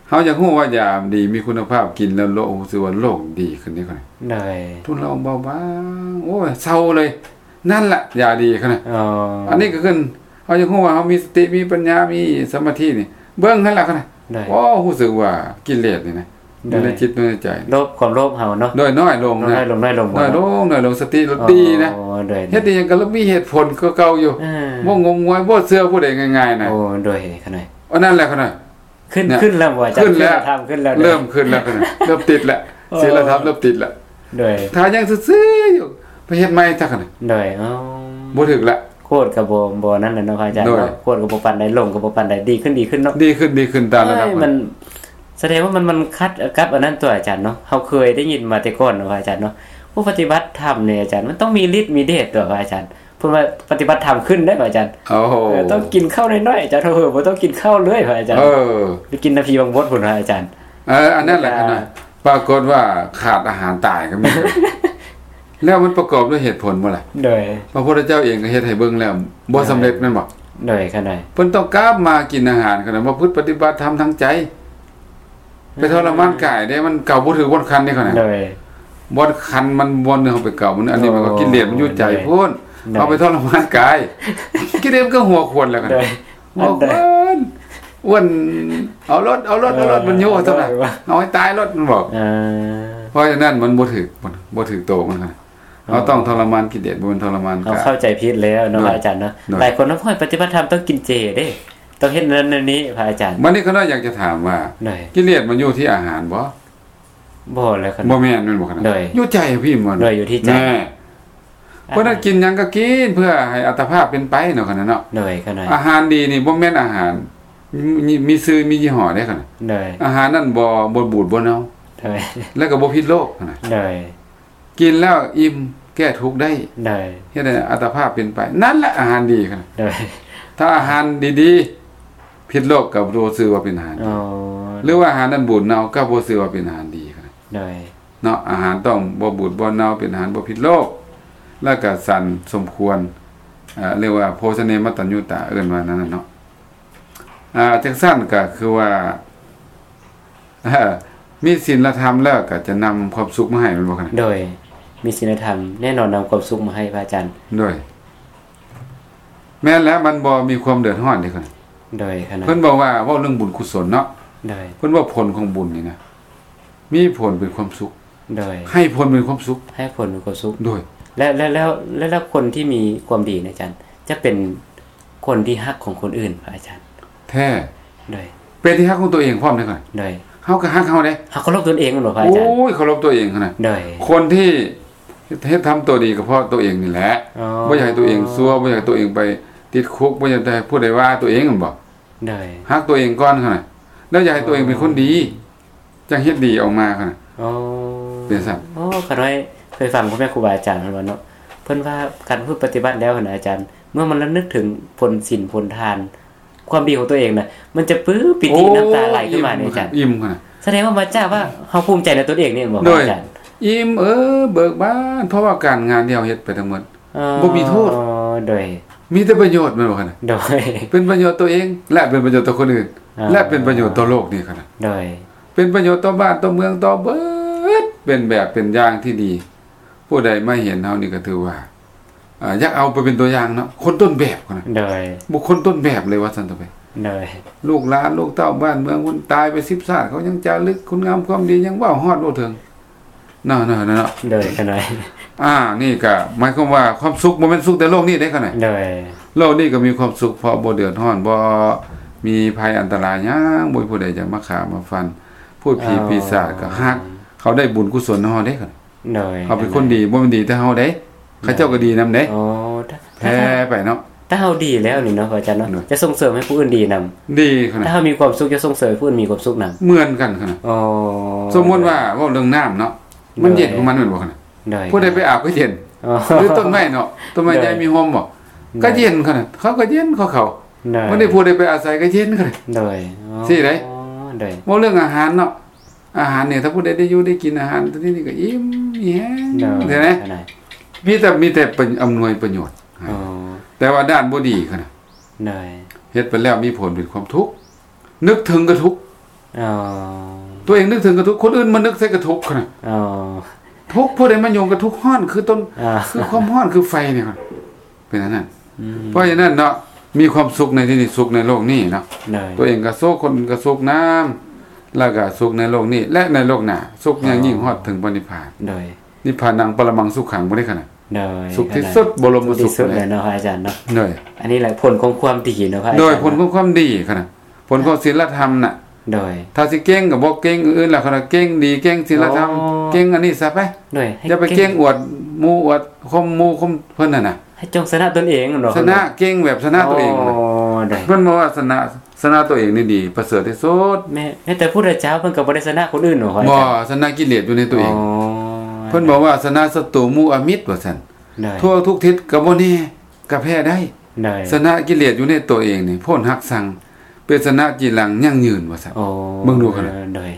ເຮົາຢາກຮູ້ວ່າຢາດີມີຄຸນນະພາບ ກິນແລ້ວໂລກ ຮູ້ສຶກວ່າໂລກດີຂຶ້ນເດ້ ໂດຍ ທຸນລະອອງເບົາບາງ ໂອ້ຍ ເຊົາເລີຍ ນັ້ນລະຢາດີ ຂະໜາດ ອໍ ອັນນີ້ກໍຄືເຮົາຢາກຮູ້ວ່າເຮົາມີສະຕິ ມີປັນຍາ ມີສະມາທິນີ້ ເບິ່ງຫັ້ນລະ ຂະໜາດ ໂດຍ ໂອ້ ຮູ້ສຶກວ່າກິເລດນີ້ນະ ໂດຍ ຢູ່ໃນຈິດໃນໃຈ ໂລບ ຄວາມໂລບເຮົາເນາະ ໂດຍ ນ້ອຍລົງ ນ້ອຍລົງ ນ້ອຍລົງ ນ້ອຍລົງ ສະຕິລະດີນະ ໂດຍ ເຮັດອີ່ຫຍັງກໍລະມີເຫດຜົນກວ່າເກົ່າຢູ່ ອ່າ ບໍ່ງົມງວາຍ ບໍ່ເຊື່ອຜູ້ໃດງ່າຍໆນະ ໂອ້ ໂດຍ ຂະໜາດ ອັນນັ້ນແຫຼະ ຂະໜາດ ຂຶ້ນ ຂຶ້ນແລ້ວບໍ່ອາຈານ ຂຶ້ນແລ້ວ ຂຶ້ນແລ້ວ ເລີ່ມຂຶ້ນແລ້ວ ເລີ່ມຕິດແລ້ວ ໂອ້ ສີລະທຳເລີ່ມຕິດແລ້ວ ໂດຍ ຖ້າຍັງຊື່ໆຢູ່ ໄປເຮັດໃໝ່ຊະ ຂະໜາດ ໂດຍ ອໍ ບໍ່ຖືກລະ ໂຄດກໍບໍ່ ບໍ່ນັ້ນແຫຼະເນາະພະອາຈານ ໂດຍ ເນາະ ໂຄດກໍບໍ່ປານໃດ ຫຼົງກໍບໍ່ປານໃດ ດີຂຶ້ນ ດີຂຶ້ນເນາະ ດີຂຶ້ນ ດີຂຶ້ນຕາມລະດັບ ເອີຍ ມັນ ມັນສະແດງວ່າມັນ ມັນຂັດກັບອັນນັ້ນຕົວະອາຈານເນາະ ເຮົາເຄີຍໄດ້ຍິນມາແຕ່ກ່ອນເນາະພະອາຈານເນາະ ຜູ້ປະຕິບັດທຳນີ້ອາຈານ ມັນຕ້ອງມີລິດມີເດດຕົວະພະອາຈານ ເພິ່ນວ່າປະຕິບັດທຳຂຶ້ນເດ້ພະອາຈານ ໂອ້ໂຫ ເອີ ຕ້ອງກິນເຂົ້ານ້ອຍໆ ອາຈານ ເອີ ບໍ່ຕ້ອງກິນເຂົ້າເລີຍພະອາຈານ ເອີ ໄປກິນນຳຜີບັງບົດພຸ້ນພະອາຈານ ເອີ ອັນນັ້ນແຫຼະ ແລ້ວກໍ ຂະໜາດ ປາກົດວ່າຂາດອາຫານຕາຍກໍມີ ແລ້ວມັນປະກອບດ້ວຍເຫດຜົນບໍ່ລະ? ໂດຍ ພະພຸດທະເຈົ້າເອງກໍເຮັດໃຫ້ເບິ່ງແລ້ວບໍ່ສຳເລັດແມ່ນບໍ່? ໂດຍ ຂະໜາດ ເພິ່ນຕ້ອງກັບມາກິນອາຫານ ຂະໜາດປະພຶດປະຕິບັດທຳທາງໃຈ ໄປທໍລະມານກາຍເດ້ ມັນເກົາບໍ່ຖືກບ່ອນຄັນເດ້ ຂະໜາດ ໂດຍ ບ່ອນຄັນມັນ ບ່ອນໜຶ່ງເຮົາໄປເກົາມັນ ອັນນີ້ມັນກໍ ໂອ້ ກິເລດມັນຢູ່ໃຈ ໂດຍ ພຸ້ນ ໂດຍ ເຮົາໄປທໍລະມານກາຍ ກິເລດມັນກໍຫົວຂວັນແລ້ວ ຂະໜາດ ໂດຍ ໂອ້ ອັນໃດ ອ້ວນ ອ້ວນ ເອົາໂລດ ເອົາໂລດ ເອົາໂລດ ເອີ ມັນໂຍກຊັ້ນນະ ເອົາໃຫ້ຕາຍໂລດ ມັນບອກ ເອີ ເພາະສະນັ້ນມັນບໍ່ຖືກ ບໍ່ຖືກໂຕມັນນະ ເຮົາຕ້ອງທໍລະມານກິເລດ ບໍ່ແມ່ນທໍລະມານກາຍ ເຮົາເຂົ້າໃຈຜິດແລ້ວເນາະ ໂດຍ ພະອາຈານເນາະ ໂດຍ ຫຼາຍຄົນເນາະ ໂອ້ຍ ປະຕິບັດທຳຕ້ອງກິນເຈເດ້ ຕ້ອງເຮັດນັ້ນເຮັດນີ້ ພະອາຈານ ບັດນີ້ຂ້ານ້ອຍຢາກຈະຖາມວ່າ ໂດຍ ກິເລດມັນຢູ່ທີ່ອາຫານບໍ່? ບໍ່ແລ້ວ ບໍ່ແມ່ນ ແມ່ນບໍ່ຂະໜາດ ໂດຍ ຢູ່ໃຈພີ້ມັນ ໂດຍ ຢູ່ທີ່ໃຈ ແນ່ ເພາະນັ້ນກິນຫຍັງກໍກິນເພື່ອໃຫ້ອັດຕະພາບເປັນໄປເນາະ ຂະໜາດເນາະ ໂດຍ ຂະໜາດ ອາຫານດີນີ້ບໍ່ແມ່ນອາຫານມີ ມີຊື່ມີຍີ່ຫໍ້ເດ້ ຂະໜາດ ໂດຍ ອາຫານນັ້ນບໍ່ ບໍ່ບູດບໍ່ເນົ່າ ໂດຍ ແລ້ວກໍບໍ່ຜິດໂລກ ຂະໜາດ ໂດຍ ກິນແລ້ວອີ່ມແກ້ທຸກໄດ້ ໂດຍ ເຮັດໃຫ້ອັດຕະພາບເປັນໄປ ນັ້ນແຫຼະອາຫານດີ ຂະໜາດ ໂດຍ ຖ້າອາຫານດີໆ ຜິດໂລກກໍບໍ່ຊື່ວ່າເປັນອາຫານດີ ອໍ ຫຼືວ່າອາຫານນັ້ນບູດເນົ່າກໍບໍ່ຊື່ວ່າເປັນອາຫານດີ ຂະໜາດ ໂດຍ ເນາະ ອາຫານຕ້ອງບໍ່ບູດບໍ່ເນົ່າ ເປັນອາຫານບໍ່ຜິດໂລກ ແລ້ວກໍສັນສົມຄວນ ເອີ ເອີ້ນວ່າໂພຊະເນມັດຕັນຍຸຕາ ເອີ້ນວ່ານັ້ນນະເນາະ ອ່າ ຈັ່ງຊັ້ນກໍຄືວ່າ ເອີ ມີສິນລະທຳແລ້ວກໍຈະນຳຄວາມສຸກມາໃຫ້ ແມ່ນບໍ່ຂະນະ? ໂດຍ ມີສິນລະທຳແນ່ນອນນຳຄວາມສຸກມາໃຫ້ ພະອາຈານ ໂດຍ ແມ່ນແລ້ວ ມັນບໍ່ມີຄວາມເດືອດຮ້ອນເດ້ ໂດຍ ຂະນະ ເພິ່ນບອກວ່າ ເວົ້າເລື່ອງບຸນກຸສົນເນາະ ໂດຍ ເພິ່ນວ່າຜົນຂອງບຸນນີ້ນະ ມີຜົນເປັນຄວາມສຸກ ໂດຍ ໃຫ້ຜົນເປັນຄວາມສຸກ ໃຫ້ຜົນເປັນຄວາມສຸກ ໂດຍ ແລ້ວ ແລ້ວ ແລ້ວ ແລ້ວຄົນທີ່ມີຄວາມດີນະອາຈານ ຈະເປັນຄົນທີ່ຮັກຂອງຄົນອື່ນ ພະອາຈານ ແທ້ ໂດຍ ເປັນທີ່ຮັກຂອງຕົວເອງພ້ອມເດ້ ໂດຍ ເຮົາກໍຮັກເຮົາເດ້ ເຮົາເຄົາລົບຕົນເອງແມ່ນບໍ່ ພະອາຈານ ໂອ້ຍ ເຄົາລົບຕົວເອງຫັ້ນນະ ໂດຍ ຄົນທີ່ເຮັດ ເຮັດທຳຕົວດີກໍເພາະຕົວເອງນີ້ແຫຼະ ອໍ ບໍ່ຢາກໃຫ້ຕົວເອງຊົ່ວ ບໍ່ຢາກໃຫ້ຕົວເອງໄປຕິດຄຸກ ບໍ່ຢາກໃຫ້ຜູ້ໃດວ່າຕົວເອງແມ່ນບໍ່ ໂດຍ ຮັກຕົວເອງກ່ອນຫັ້ນນະ ແລ້ວຢາກໃຫ້ຕົວເອງເປັນຄົນດີ ຈັ່ງເຮັດດີອອກມາຫັ້ນນະ ອໍ ເປັນຊັ້ນ ໂອ້ ຂ້ານ້ອຍເຄີຍຟັງພໍ່ແມ່ຄູບາອາຈານເພິ່ນວ່າເນາະ ເພິ່ນວ່າການປະພຶດປະຕິບັດແລ້ວຫັ້ນນະອາຈານ ເມື່ອມັນລະນຶກເຖິງຜົນສິນຜົນທານ ຄວາມດີຂອງຕົວເອງນະ ມັນຈະປຶ້ມປີຕິ ໂອ້ຍ ນ້ຳຕາໄຫຼຂຶ້ນມາເດອາຈານ ອີ່ມ ເອີ່ມ ອີ່ມຫັ້ນນະ ສະແດງວ່າມາຈາກວ່າເຮົາພູມໃຈໃນຕົນເອງນີ້ແມ່ນບໍ່ ໂດຍ ອາຈານ? ອີ່ມເອີເບີກບານ ເພາະວ່າການງານທີ່ເຮົາເຮັດໄປທັງໝົດ ເອີ ບໍ່ມີໂທດ ໂດຍ ມີແຕ່ປະໂຫຍດແມ່ນບໍ່ຫັ້ນນະ? ໂດຍ ເປັນປະໂຫຍດຕົວເອງ ແລະ ເປັນປະໂຫຍດຕໍ່ຄົນອື່ນ ເອີ ແລະ ເປັນປະໂຫຍດຕໍ່ໂລກນີ້ຫັ້ນນະ ໂດຍ ເປັນປະໂຫຍດຕໍ່ບ້ານຕໍ່ເມືອງຕໍ່ເບິດ ເປັນແບບເປັນຢ່າງທີ່ດີ ຜູ້ໃດມາເຫັນເຮົານີ້ກໍຖືວ່າ ອ່າ ຢາກເອົາໄປເປັນຕົວຢ່າງເນາະ ຄົນຕົ້ນແບບຫັ້ນນະ ໂດຍ ບຸກຄົນຕົ້ນແບບເລີຍວ່າຊັ້ນເຖາະ ໂດຍ ລູກຫຼານລູກເຕົ້າບ້ານເມືອງພຸ້ນ ຕາຍໄປສິບຊາດ ເຂົາຍັງຈາລຶກຄຸນງາມຄວາມດີ ຍັງເວົ້າຮອດເວົ້າເຖິງ ເນາະ ເນາະ ເນາະ ໂດຍ ຂະນ້ອຍ ອ່າ ນີ້ກໍໝາຍຄວາມວ່າຄວາມສຸກບໍ່ແມ່ນສຸກແຕ່ໂລກນີ້ເດ້ຂະນ້ອຍ ໂດຍ ໂລກນີ້ກໍມີຄວາມສຸກ ເພາະບໍ່ເດືອດຮ້ອນ ບໍ່ມີໄພອັນຕະລາຍຫຍັງ ບໍ່ມີຜູ້ໃດຈະມາຂ້າມາຟັນ ພູດຜີ ອໍ ປີສາດກໍຮັກ ເຂົາໄດ້ບຸນກຸສົນນຳເຮົາເດ້ຂະນ້ອຍ ໂດຍ ເຮົາເປັນຄົນດີ ບໍ່ແມ່ນດີແຕ່ເຮົາເດ້ ເຂົາເຈົ້າກໍດີນຳເດ້ ອໍ ແຜ່ໄປເນາະ ຖ້າເຮົາດີແລ້ວນີ້ເນາະ ພະອາຈານເນາະ ໂດຍ ຈະສົ່ງເສີມໃຫ້ຜູ້ອື່ນດີນຳ ດີຂະນ້ອຍ ຖ້າເຮົາມີຄວາມສຸກ ຈະສົ່ງເສີມໃຫ້ຜູ້ອື່ນມີຄວາມສຸກນຳ ເໝືອນກັນຂະນ້ອຍ ອໍ ສົມມຸດວ່າເວົ້າເລື່ອງນ້ຳເນາະ ມັນເຢັນຂອງມັນແມ່ນບໍ່ຂະນ້ອຍ ໂດຍ ຜູ້ໃດໄປອາບກໍເຢັນ ອໍ ຫຼືຕົ້ນໄມ້ເນາະ ຕົ້ນໄມ້ໃຫຍ່ມີຮົ່ມບໍ່ ໂດຍ ກໍເຢັນຂະນ້ອຍ ເຂົາກໍເຢັນຂອງເຂົາ ໂດຍ ບັດນີ້ຜູ້ໃດໄປອາໄສກໍເຢັນຂະນ້ອຍ ໂດຍ ອໍ ຊີ້ເດ້ ໂດຍ ເວົ້າເລື່ອງອາຫານເນາະ ອາຫານນີ້ ຖ້າຜູ້ໃດໄດ້ຢູ່ໄດ້ກິນອາຫານຕົວນີ້ນີ້ກໍອີ່ມມີແຮງ ໂດຍ ເຫັນໄໝ ຂະນ້ອຍ ມີແຕ່ ມີແຕ່ປະ ອຳນວຍປະໂຫຍດ ອໍ ແຕ່ວ່າດ້ານບໍ່ດີຂະນ້ອຍ ໂດຍ ເຮັດໄປແລ້ວມີຜົນເປັນຄວາມທຸກ ນຶກເຖິງກໍທຸກ ອໍ ຕົວເອງນຶກເຖິງກໍທຸກ ຄົນອື່ນມານຶກໃສ່ກໍທຸກຂະນ້ອຍ ອໍ ທຸກ ຜູ້ໃດມາຫຍຸ້ງກໍທຸກ ຮ້ອນຄືຕົ້ນ ອໍ ຄືຄວາມຮ້ອນຄືໄຟນີ້ ເປັນອັນນັ້ນ ອືມ ເພາະສະນັ້ນເນາະ ມີຄວາມສຸກໃນທີ່ນີ້ ສຸກໃນໂລກນີ້ເນາະ ໂດຍ ຕົວເອງກໍສຸກ ຄົນອື່ນກໍສຸກນຳ ແລ້ວກໍສຸກໃນໂລກນີ້ ແລະ ໃນໂລກໜ້າ ສຸກຢ່າງຍິ່ງຮອດເຖິງພະນິບພານ ໂດຍ ນິບພານັງປະລະມັງສຸຂັງ ບໍ່ໄດ້ຂະໜາດ ໂດຍ ສຸກທີ່ສຸດ ບໍລົມສຸກ ສຸດເລີຍເນາະ ພະອາຈານເນາະ ໂດຍ ອັນນີ້ແຫຼະຜົນຂອງຄວາມດີເນາະ ພະອາຈານ ໂດຍ ຜົນຂອງຄວາມດີຂະໜາດ ຜົນຂອງສິນລະທຳນະ ໂດຍ ຖ້າຊິເກັ່ງກໍບໍ່ເກັ່ງອື່ນລະ ຄັນວ່າເກັ່ງດີ ເກັ່ງສິນລະທຳ ໂອ້ ເກັ່ງອັນນີ້ຊະໄປ ໂດຍ ຢ່າໄປເກັ່ງອວດໝູ່ອວດຄົມໝູ່ຄົມເພິ່ນຫັ້ນນະ ໃຫ້ຈົ່ງຊະນະຕົນເອງເນາະ ຊະນະ ເກັ່ງແບບຊະນະຕົວເອງ ອໍ ໂດຍ ເພິ່ນບອກວ່າຊະນະ ຊະນະຕົວເອງນີ້ດີປະເສີດທີ່ສຸດ ແມ່ນ ແມ່ນແຕ່ພຸດທະເຈົ້າເພິ່ນກໍບໍ່ໄດ້ຊະນະຄົນອື່ນເນາະ ພະອາຈານ ບໍ່ ຊະນະກິເລດຢູ່ໃນຕົວເອງ ອໍ ເພິ່ນບອກວ່າຊະນະສັດຕູໝູ່ອາມິດວ່າຊັ້ນ ໂດຍ ທົ່ວທຸກທິດກໍບໍ່ແນ່ ກໍແພ້ໄດ້ ໂດຍ ຊະນະກິເລດຢູ່ໃນຕົວເອງນີ້ ໂພດຮັກຊັງ ເປັນຊະນະຈີລັງຢັ້ງຍືນວ່າຊັ້ນ ໂອ້ ເບິ່ງດູຂະໜາດ ໂດຍ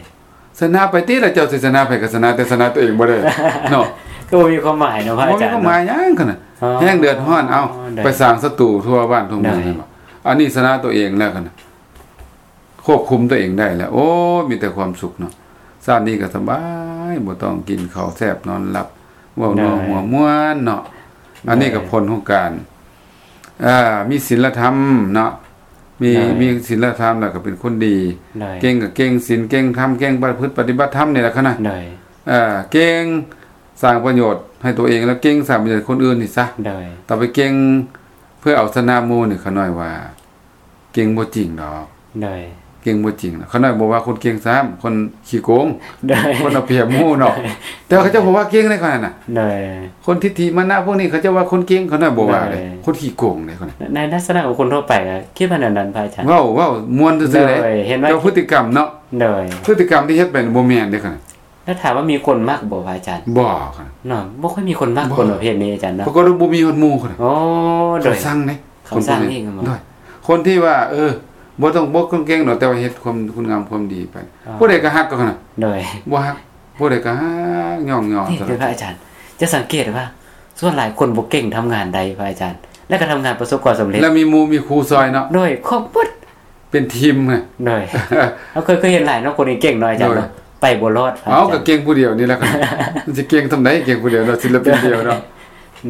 ຊະນະໄປຕິລະ ເຈົ້າຊິຊະນະໃຜກໍຊະນະ ແຕ່ຊະນະຕົວເອງບໍ່ໄດ້ເນາະ ກໍບໍ່ມີຄວາມໝາຍເນາະ ພະອາຈານ ບໍ່ມີຄວາມໝາຍຫຍັງຂະໜາດ ອໍ ແຮງເດືອດຮ້ອນ ເອົາ ໂດຍ ໄປສ້າງສັດຕູທົ່ວບ້ານທົ່ວເມືອງ ໂດຍ ແມ່ນບໍ່ ອັນນີ້ຊະນະຕົວເອງແລ້ວຂະໜາດ ຄວບຄຸມຕົວເອງໄດ້ແລ້ວ ໂອ້ຍ ມີແຕ່ຄວາມສຸກເນາະ ຊາດນີ້ກໍສະບາຍ ບໍ່ຕ້ອງກິນເຂົ້າແຊບນອນຫຼັບ ເວົ້ານົວຫົວມ່ວນເນາະ ໂດຍ ອັນນີ້ກໍຜົນຂອງການ ເອີ ມີສິນລະທຳເນາະ ມີ ໂດຍ ມີສິນລະທຳ ແລ້ວກໍເປັນຄົນດີ ໂດຍ ເກັ່ງກໍເກັ່ງສິນ ເກັ່ງທຳ ເກັ່ງປະພຶດປະຕິບັດທຳນີ້ແຫຼະຂະນະ ໂດຍ ເອີ ເກັ່ງສ້າງປະໂຫຍດໃຫ້ຕົວເອງ ແລ້ວເກັ່ງສ້າງປະໂຫຍດໃຫ້ຄົນອື່ນນີ້ຊະ ໂດຍ ຕ້ອງໄປເກັ່ງເພື່ອເອົາຊະນະໝູ່ນີ້ ຂະນ້ອຍວ່າ ເກັ່ງບໍ່ຈິງດອກ ໂດຍ ເກັ່ງບໍ່ຈິງ ຂ້ານ້ອຍບໍ່ວ່າຄົນເກັ່ງຊ້ຳ ຄົນຂີ້ໂກງ ໂດຍ ຄົນເອົາປຽບໝູ່ເນາະ ໂດຍ ແຕ່ວ່າເຂົາເຈົ້າບໍ່ວ່າເກັ່ງໃດ໋ຂ້ານ້ອຍນະ ໂດຍ ຄົນທິດຖິມານະພວກນີ້ ເຂົາເຈົ້າວ່າຄົນເກັ່ງ ຂ້ານ້ອຍບໍ່ວ່າເດ້ ໂດຍ ຄົນຂີ້ໂກງເດ້ຂ້ານ້ອຍ ໃນ ໃນລັກສະນະຂອງຄົນທົ່ວໄປກໍຄິດວ່າແນວນັ້ນ ພະອາຈານ ເວົ້າ ເວົ້າມ່ວນຊື່ໆເດ້ ໂດຍ ເຫັນວ່າ ແຕ່ວ່າພຶດຕິກຳເນາະ ໂດຍ ພຶດຕິກຳທີ່ເຮັດໄປບໍ່ແມ່ນເດ້ຂ້ານ້ອຍ ແລ້ວຖາມວ່າມີຄົນມັກບໍ່ ພະອາຈານ? ບໍ່ຄັບ ເນາະ ບໍ່ຄ່ອຍມີຄົນມັກ ບໍ່ ຄົນປະເພດນີ້ອາຈານເນາະ ປາກົດວ່າບໍ່ມີຮອດໝູ່ຄົນ ອໍ ໂດຍ ເຂົາຊັງເດ້ ເຂົາຊັງອີກ ຄົນພວກນີ້ ໂດຍ ຄົນທີ່ວ່າ ເອີ ບໍ່ຕ້ອງ ບໍ່ຕ້ອງເກັ່ງດອກ ແຕ່ວ່າເຮັດຄວາມ ຄຸນງາມຄວາມດີໄປ ອໍ ຜູ້ໃດກໍຮັກເຂົານະ ໂດຍ ບໍ່ຮັກ ຜູ້ໃດກໍຮັກ ຍ້ອງຍໍ ນີ້ເດີພະອາຈານ ຈະສັງເກດວ່າ ສ່ວນຫຼາຍຄົນບໍ່ເກັ່ງທຳງານໄດ້ ພະອາຈານ ແລ້ວກໍທຳງານປະສົບຄວາມສຳເລັດ ແລ້ວມີໝູ່ມີຄູ່ຊ່ອຍເນາະ ໂດຍ ຄອບໝົດ ເປັນທີມນະ ໂດຍ ເຮົາເຄີຍ ເຄີຍເຫັນຫຼາຍເນາະ ຄົນເກັ່ງໆເນາະອາຈານເນາະ ໂດຍ ໄປບໍ່ລອດ ເອົ້າ ພະອາຈານ ກໍເກັ່ງຜູ້ດຽວນີ້ແຫຼະ ມັນຊິເກັ່ງສ່ຳໃດ ເກັ່ງຜູ້ດຽວເນາະ ສິນລະປິນດຽວເນາະ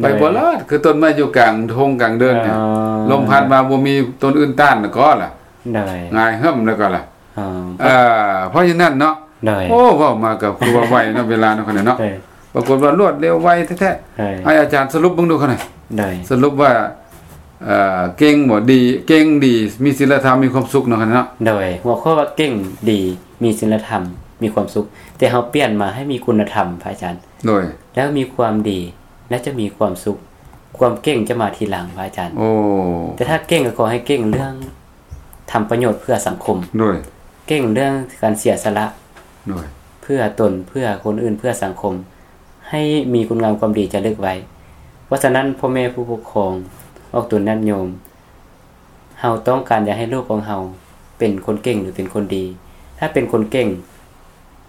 ໂດຍ ໄປບໍ່ລອດ ຄືຕົ້ນໄມ້ຢູ່ກາງທົ່ງກາງເດີ່ນນີ້ ອໍ ລົມພັດມາບໍ່ມີຕົ້ນອື່ນຕ້ານກໍລະ ໂດຍ ຫງາຍຫຶ້ມແລ້ວກໍລະ ອໍ ເອີ ເພາະສະນັ້ນເນາະ ໂດຍ ໂອ້ ເວົ້າມາກໍຄືວ່າໄວເນາະ ເວລາເນາະ ຂະນ້ອຍເນາະ ໂດຍ ປາກົດວ່າລວດເລັວໄວແທ້ໆ ໂດຍ ໃຫ້ອາຈານສະຫຼຸບເບິ່ງດູຂະນ້ອຍ ໂດຍ ສະຫຼຸບວ່າ ເອີ ເກັ່ງບໍ່ ດີ ເກັ່ງດີ ມີສິນລະທຳ ມີຄວາມສຸກເນາະ ຂະນ້ອຍເນາະ ໂດຍ ຫົວຂໍ້ວ່າເກັ່ງດີ ມີສິນລະທຳ ມີຄວາມສຸກ ແຕ່ເຮົາປ່ຽນມາໃຫ້ມີຄຸນນະທຳ ພະອາຈານ ໂດຍ ແລ້ວມີຄວາມດີ ແລ້ວຈະມີຄວາມສຸກ ຄວາມເກັ່ງຈະມາທີຫຼັງ ພະອາຈານ ໂອ້ ແຕ່ຖ້າເກັ່ງກໍຂໍໃຫ້ເກັ່ງເລື່ອງ ທຳປະໂຫຍດເພື່ອສັງຄົມ ໂດຍ ເກັ່ງເລື່ອງການເສຍສະຫຼະ ໂດຍ ເພື່ອຕົນ ເພື່ອຄົນອື່ນ ເພື່ອສັງຄົມ ໃຫ້ມີຄຸນງາມຄວາມດີຈາລຶກໄວ້ ເພ ພາະສະນັ້ນ ພໍ່ແມ່ຜູ້ປົກຄອງ ອອກຕົນຍາດໂຍມ ເຮົາຕ້ອງການຢາກໃຫ້ລູກຂອງເຮົາເປັນຄົນເກັ່ງ ຫຼື ເປັນຄົນດີ. ຖ້າເປັນຄົນເກັ່ງ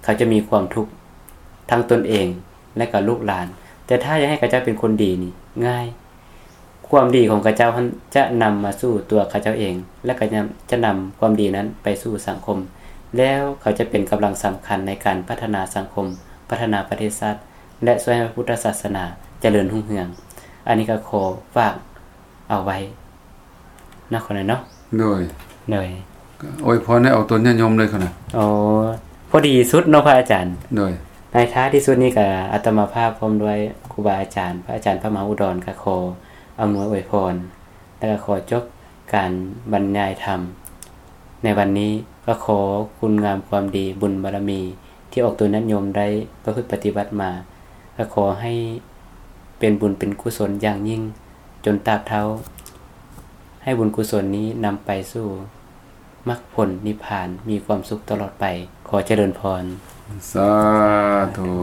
ເຂົາຈະມີຄວາມທຸກທັງຕົນເອງ ແລະ ກໍລູກຫຼານ. ແຕ່ຖ້າຢາກໃຫ້ເຂົາເຈົ້າເປັນຄົນດີນີ້ງ່າຍ. ຄວາມດີຂອງເຂົາເຈົ້າຫັ້ນຈະນຳມາສູ່ຕົວເຂົາເຈົ້າເອງ ແລະ ກໍຍັງຈະນຳຄວາມດີນັ້ນໄປສູ່ສັງຄົມ ແລ້ວເຂົາຈະເປັນກຳລັງສຳຄັນໃນການພັດທະນາສັງຄົມ, ພັດທະນາປະເທດຊາດ ແລະ ຊ່ວຍໃຫ້ພະພຸດທະສາສະໜາຈະເລີນຮຸ່ງເຮືອງ. ອັນນີ້ກໍຂໍຝາກເອົາໄວ້ເນາະ ຂອງນ້ອຍເນາະ. ໂດຍ ໂດຍ ກໍອວຍພອນໃຫ້ອອກຕົນຍາດໂຍມເລີຍຂະນະ. ອໍ ພໍດີສຸດເນາະພະອາຈານ. ໂດຍ ໃນທ້າຍທີ່ສຸດນີ້ກໍອາດຕະມາພາບພ້ອມດ້ວຍຄູບາອາຈານ ພະອາຈານພະມະຫາອຸດອນ ກໍຂໍອຳນວຍອວຍພອນ ແລະ ກໍຂໍຈົບການບັນຍາຍທຳໃນວັນນີ້. ກໍຂໍຄຸນງາມຄວາມດີ ບຸນບາລະມີທີ່ອອກຕົນຍາດໂຍມໄດ້ປະພຶດປະຕິບັດມາ ກໍຂໍໃຫ້ເປັນບຸນເປັນກຸສົນຢ່າງຍິ່ງຈົນຕາບເທົ່າ, ໃຫ້ບຸນກຸສົນນີ້ນຳໄປສູ່ມັກຜົນນິບພານ ມີຄວາມສຸກຕະຫຼອດໄປ. ຂໍຈະເລີນພອນ. ສາທຸ.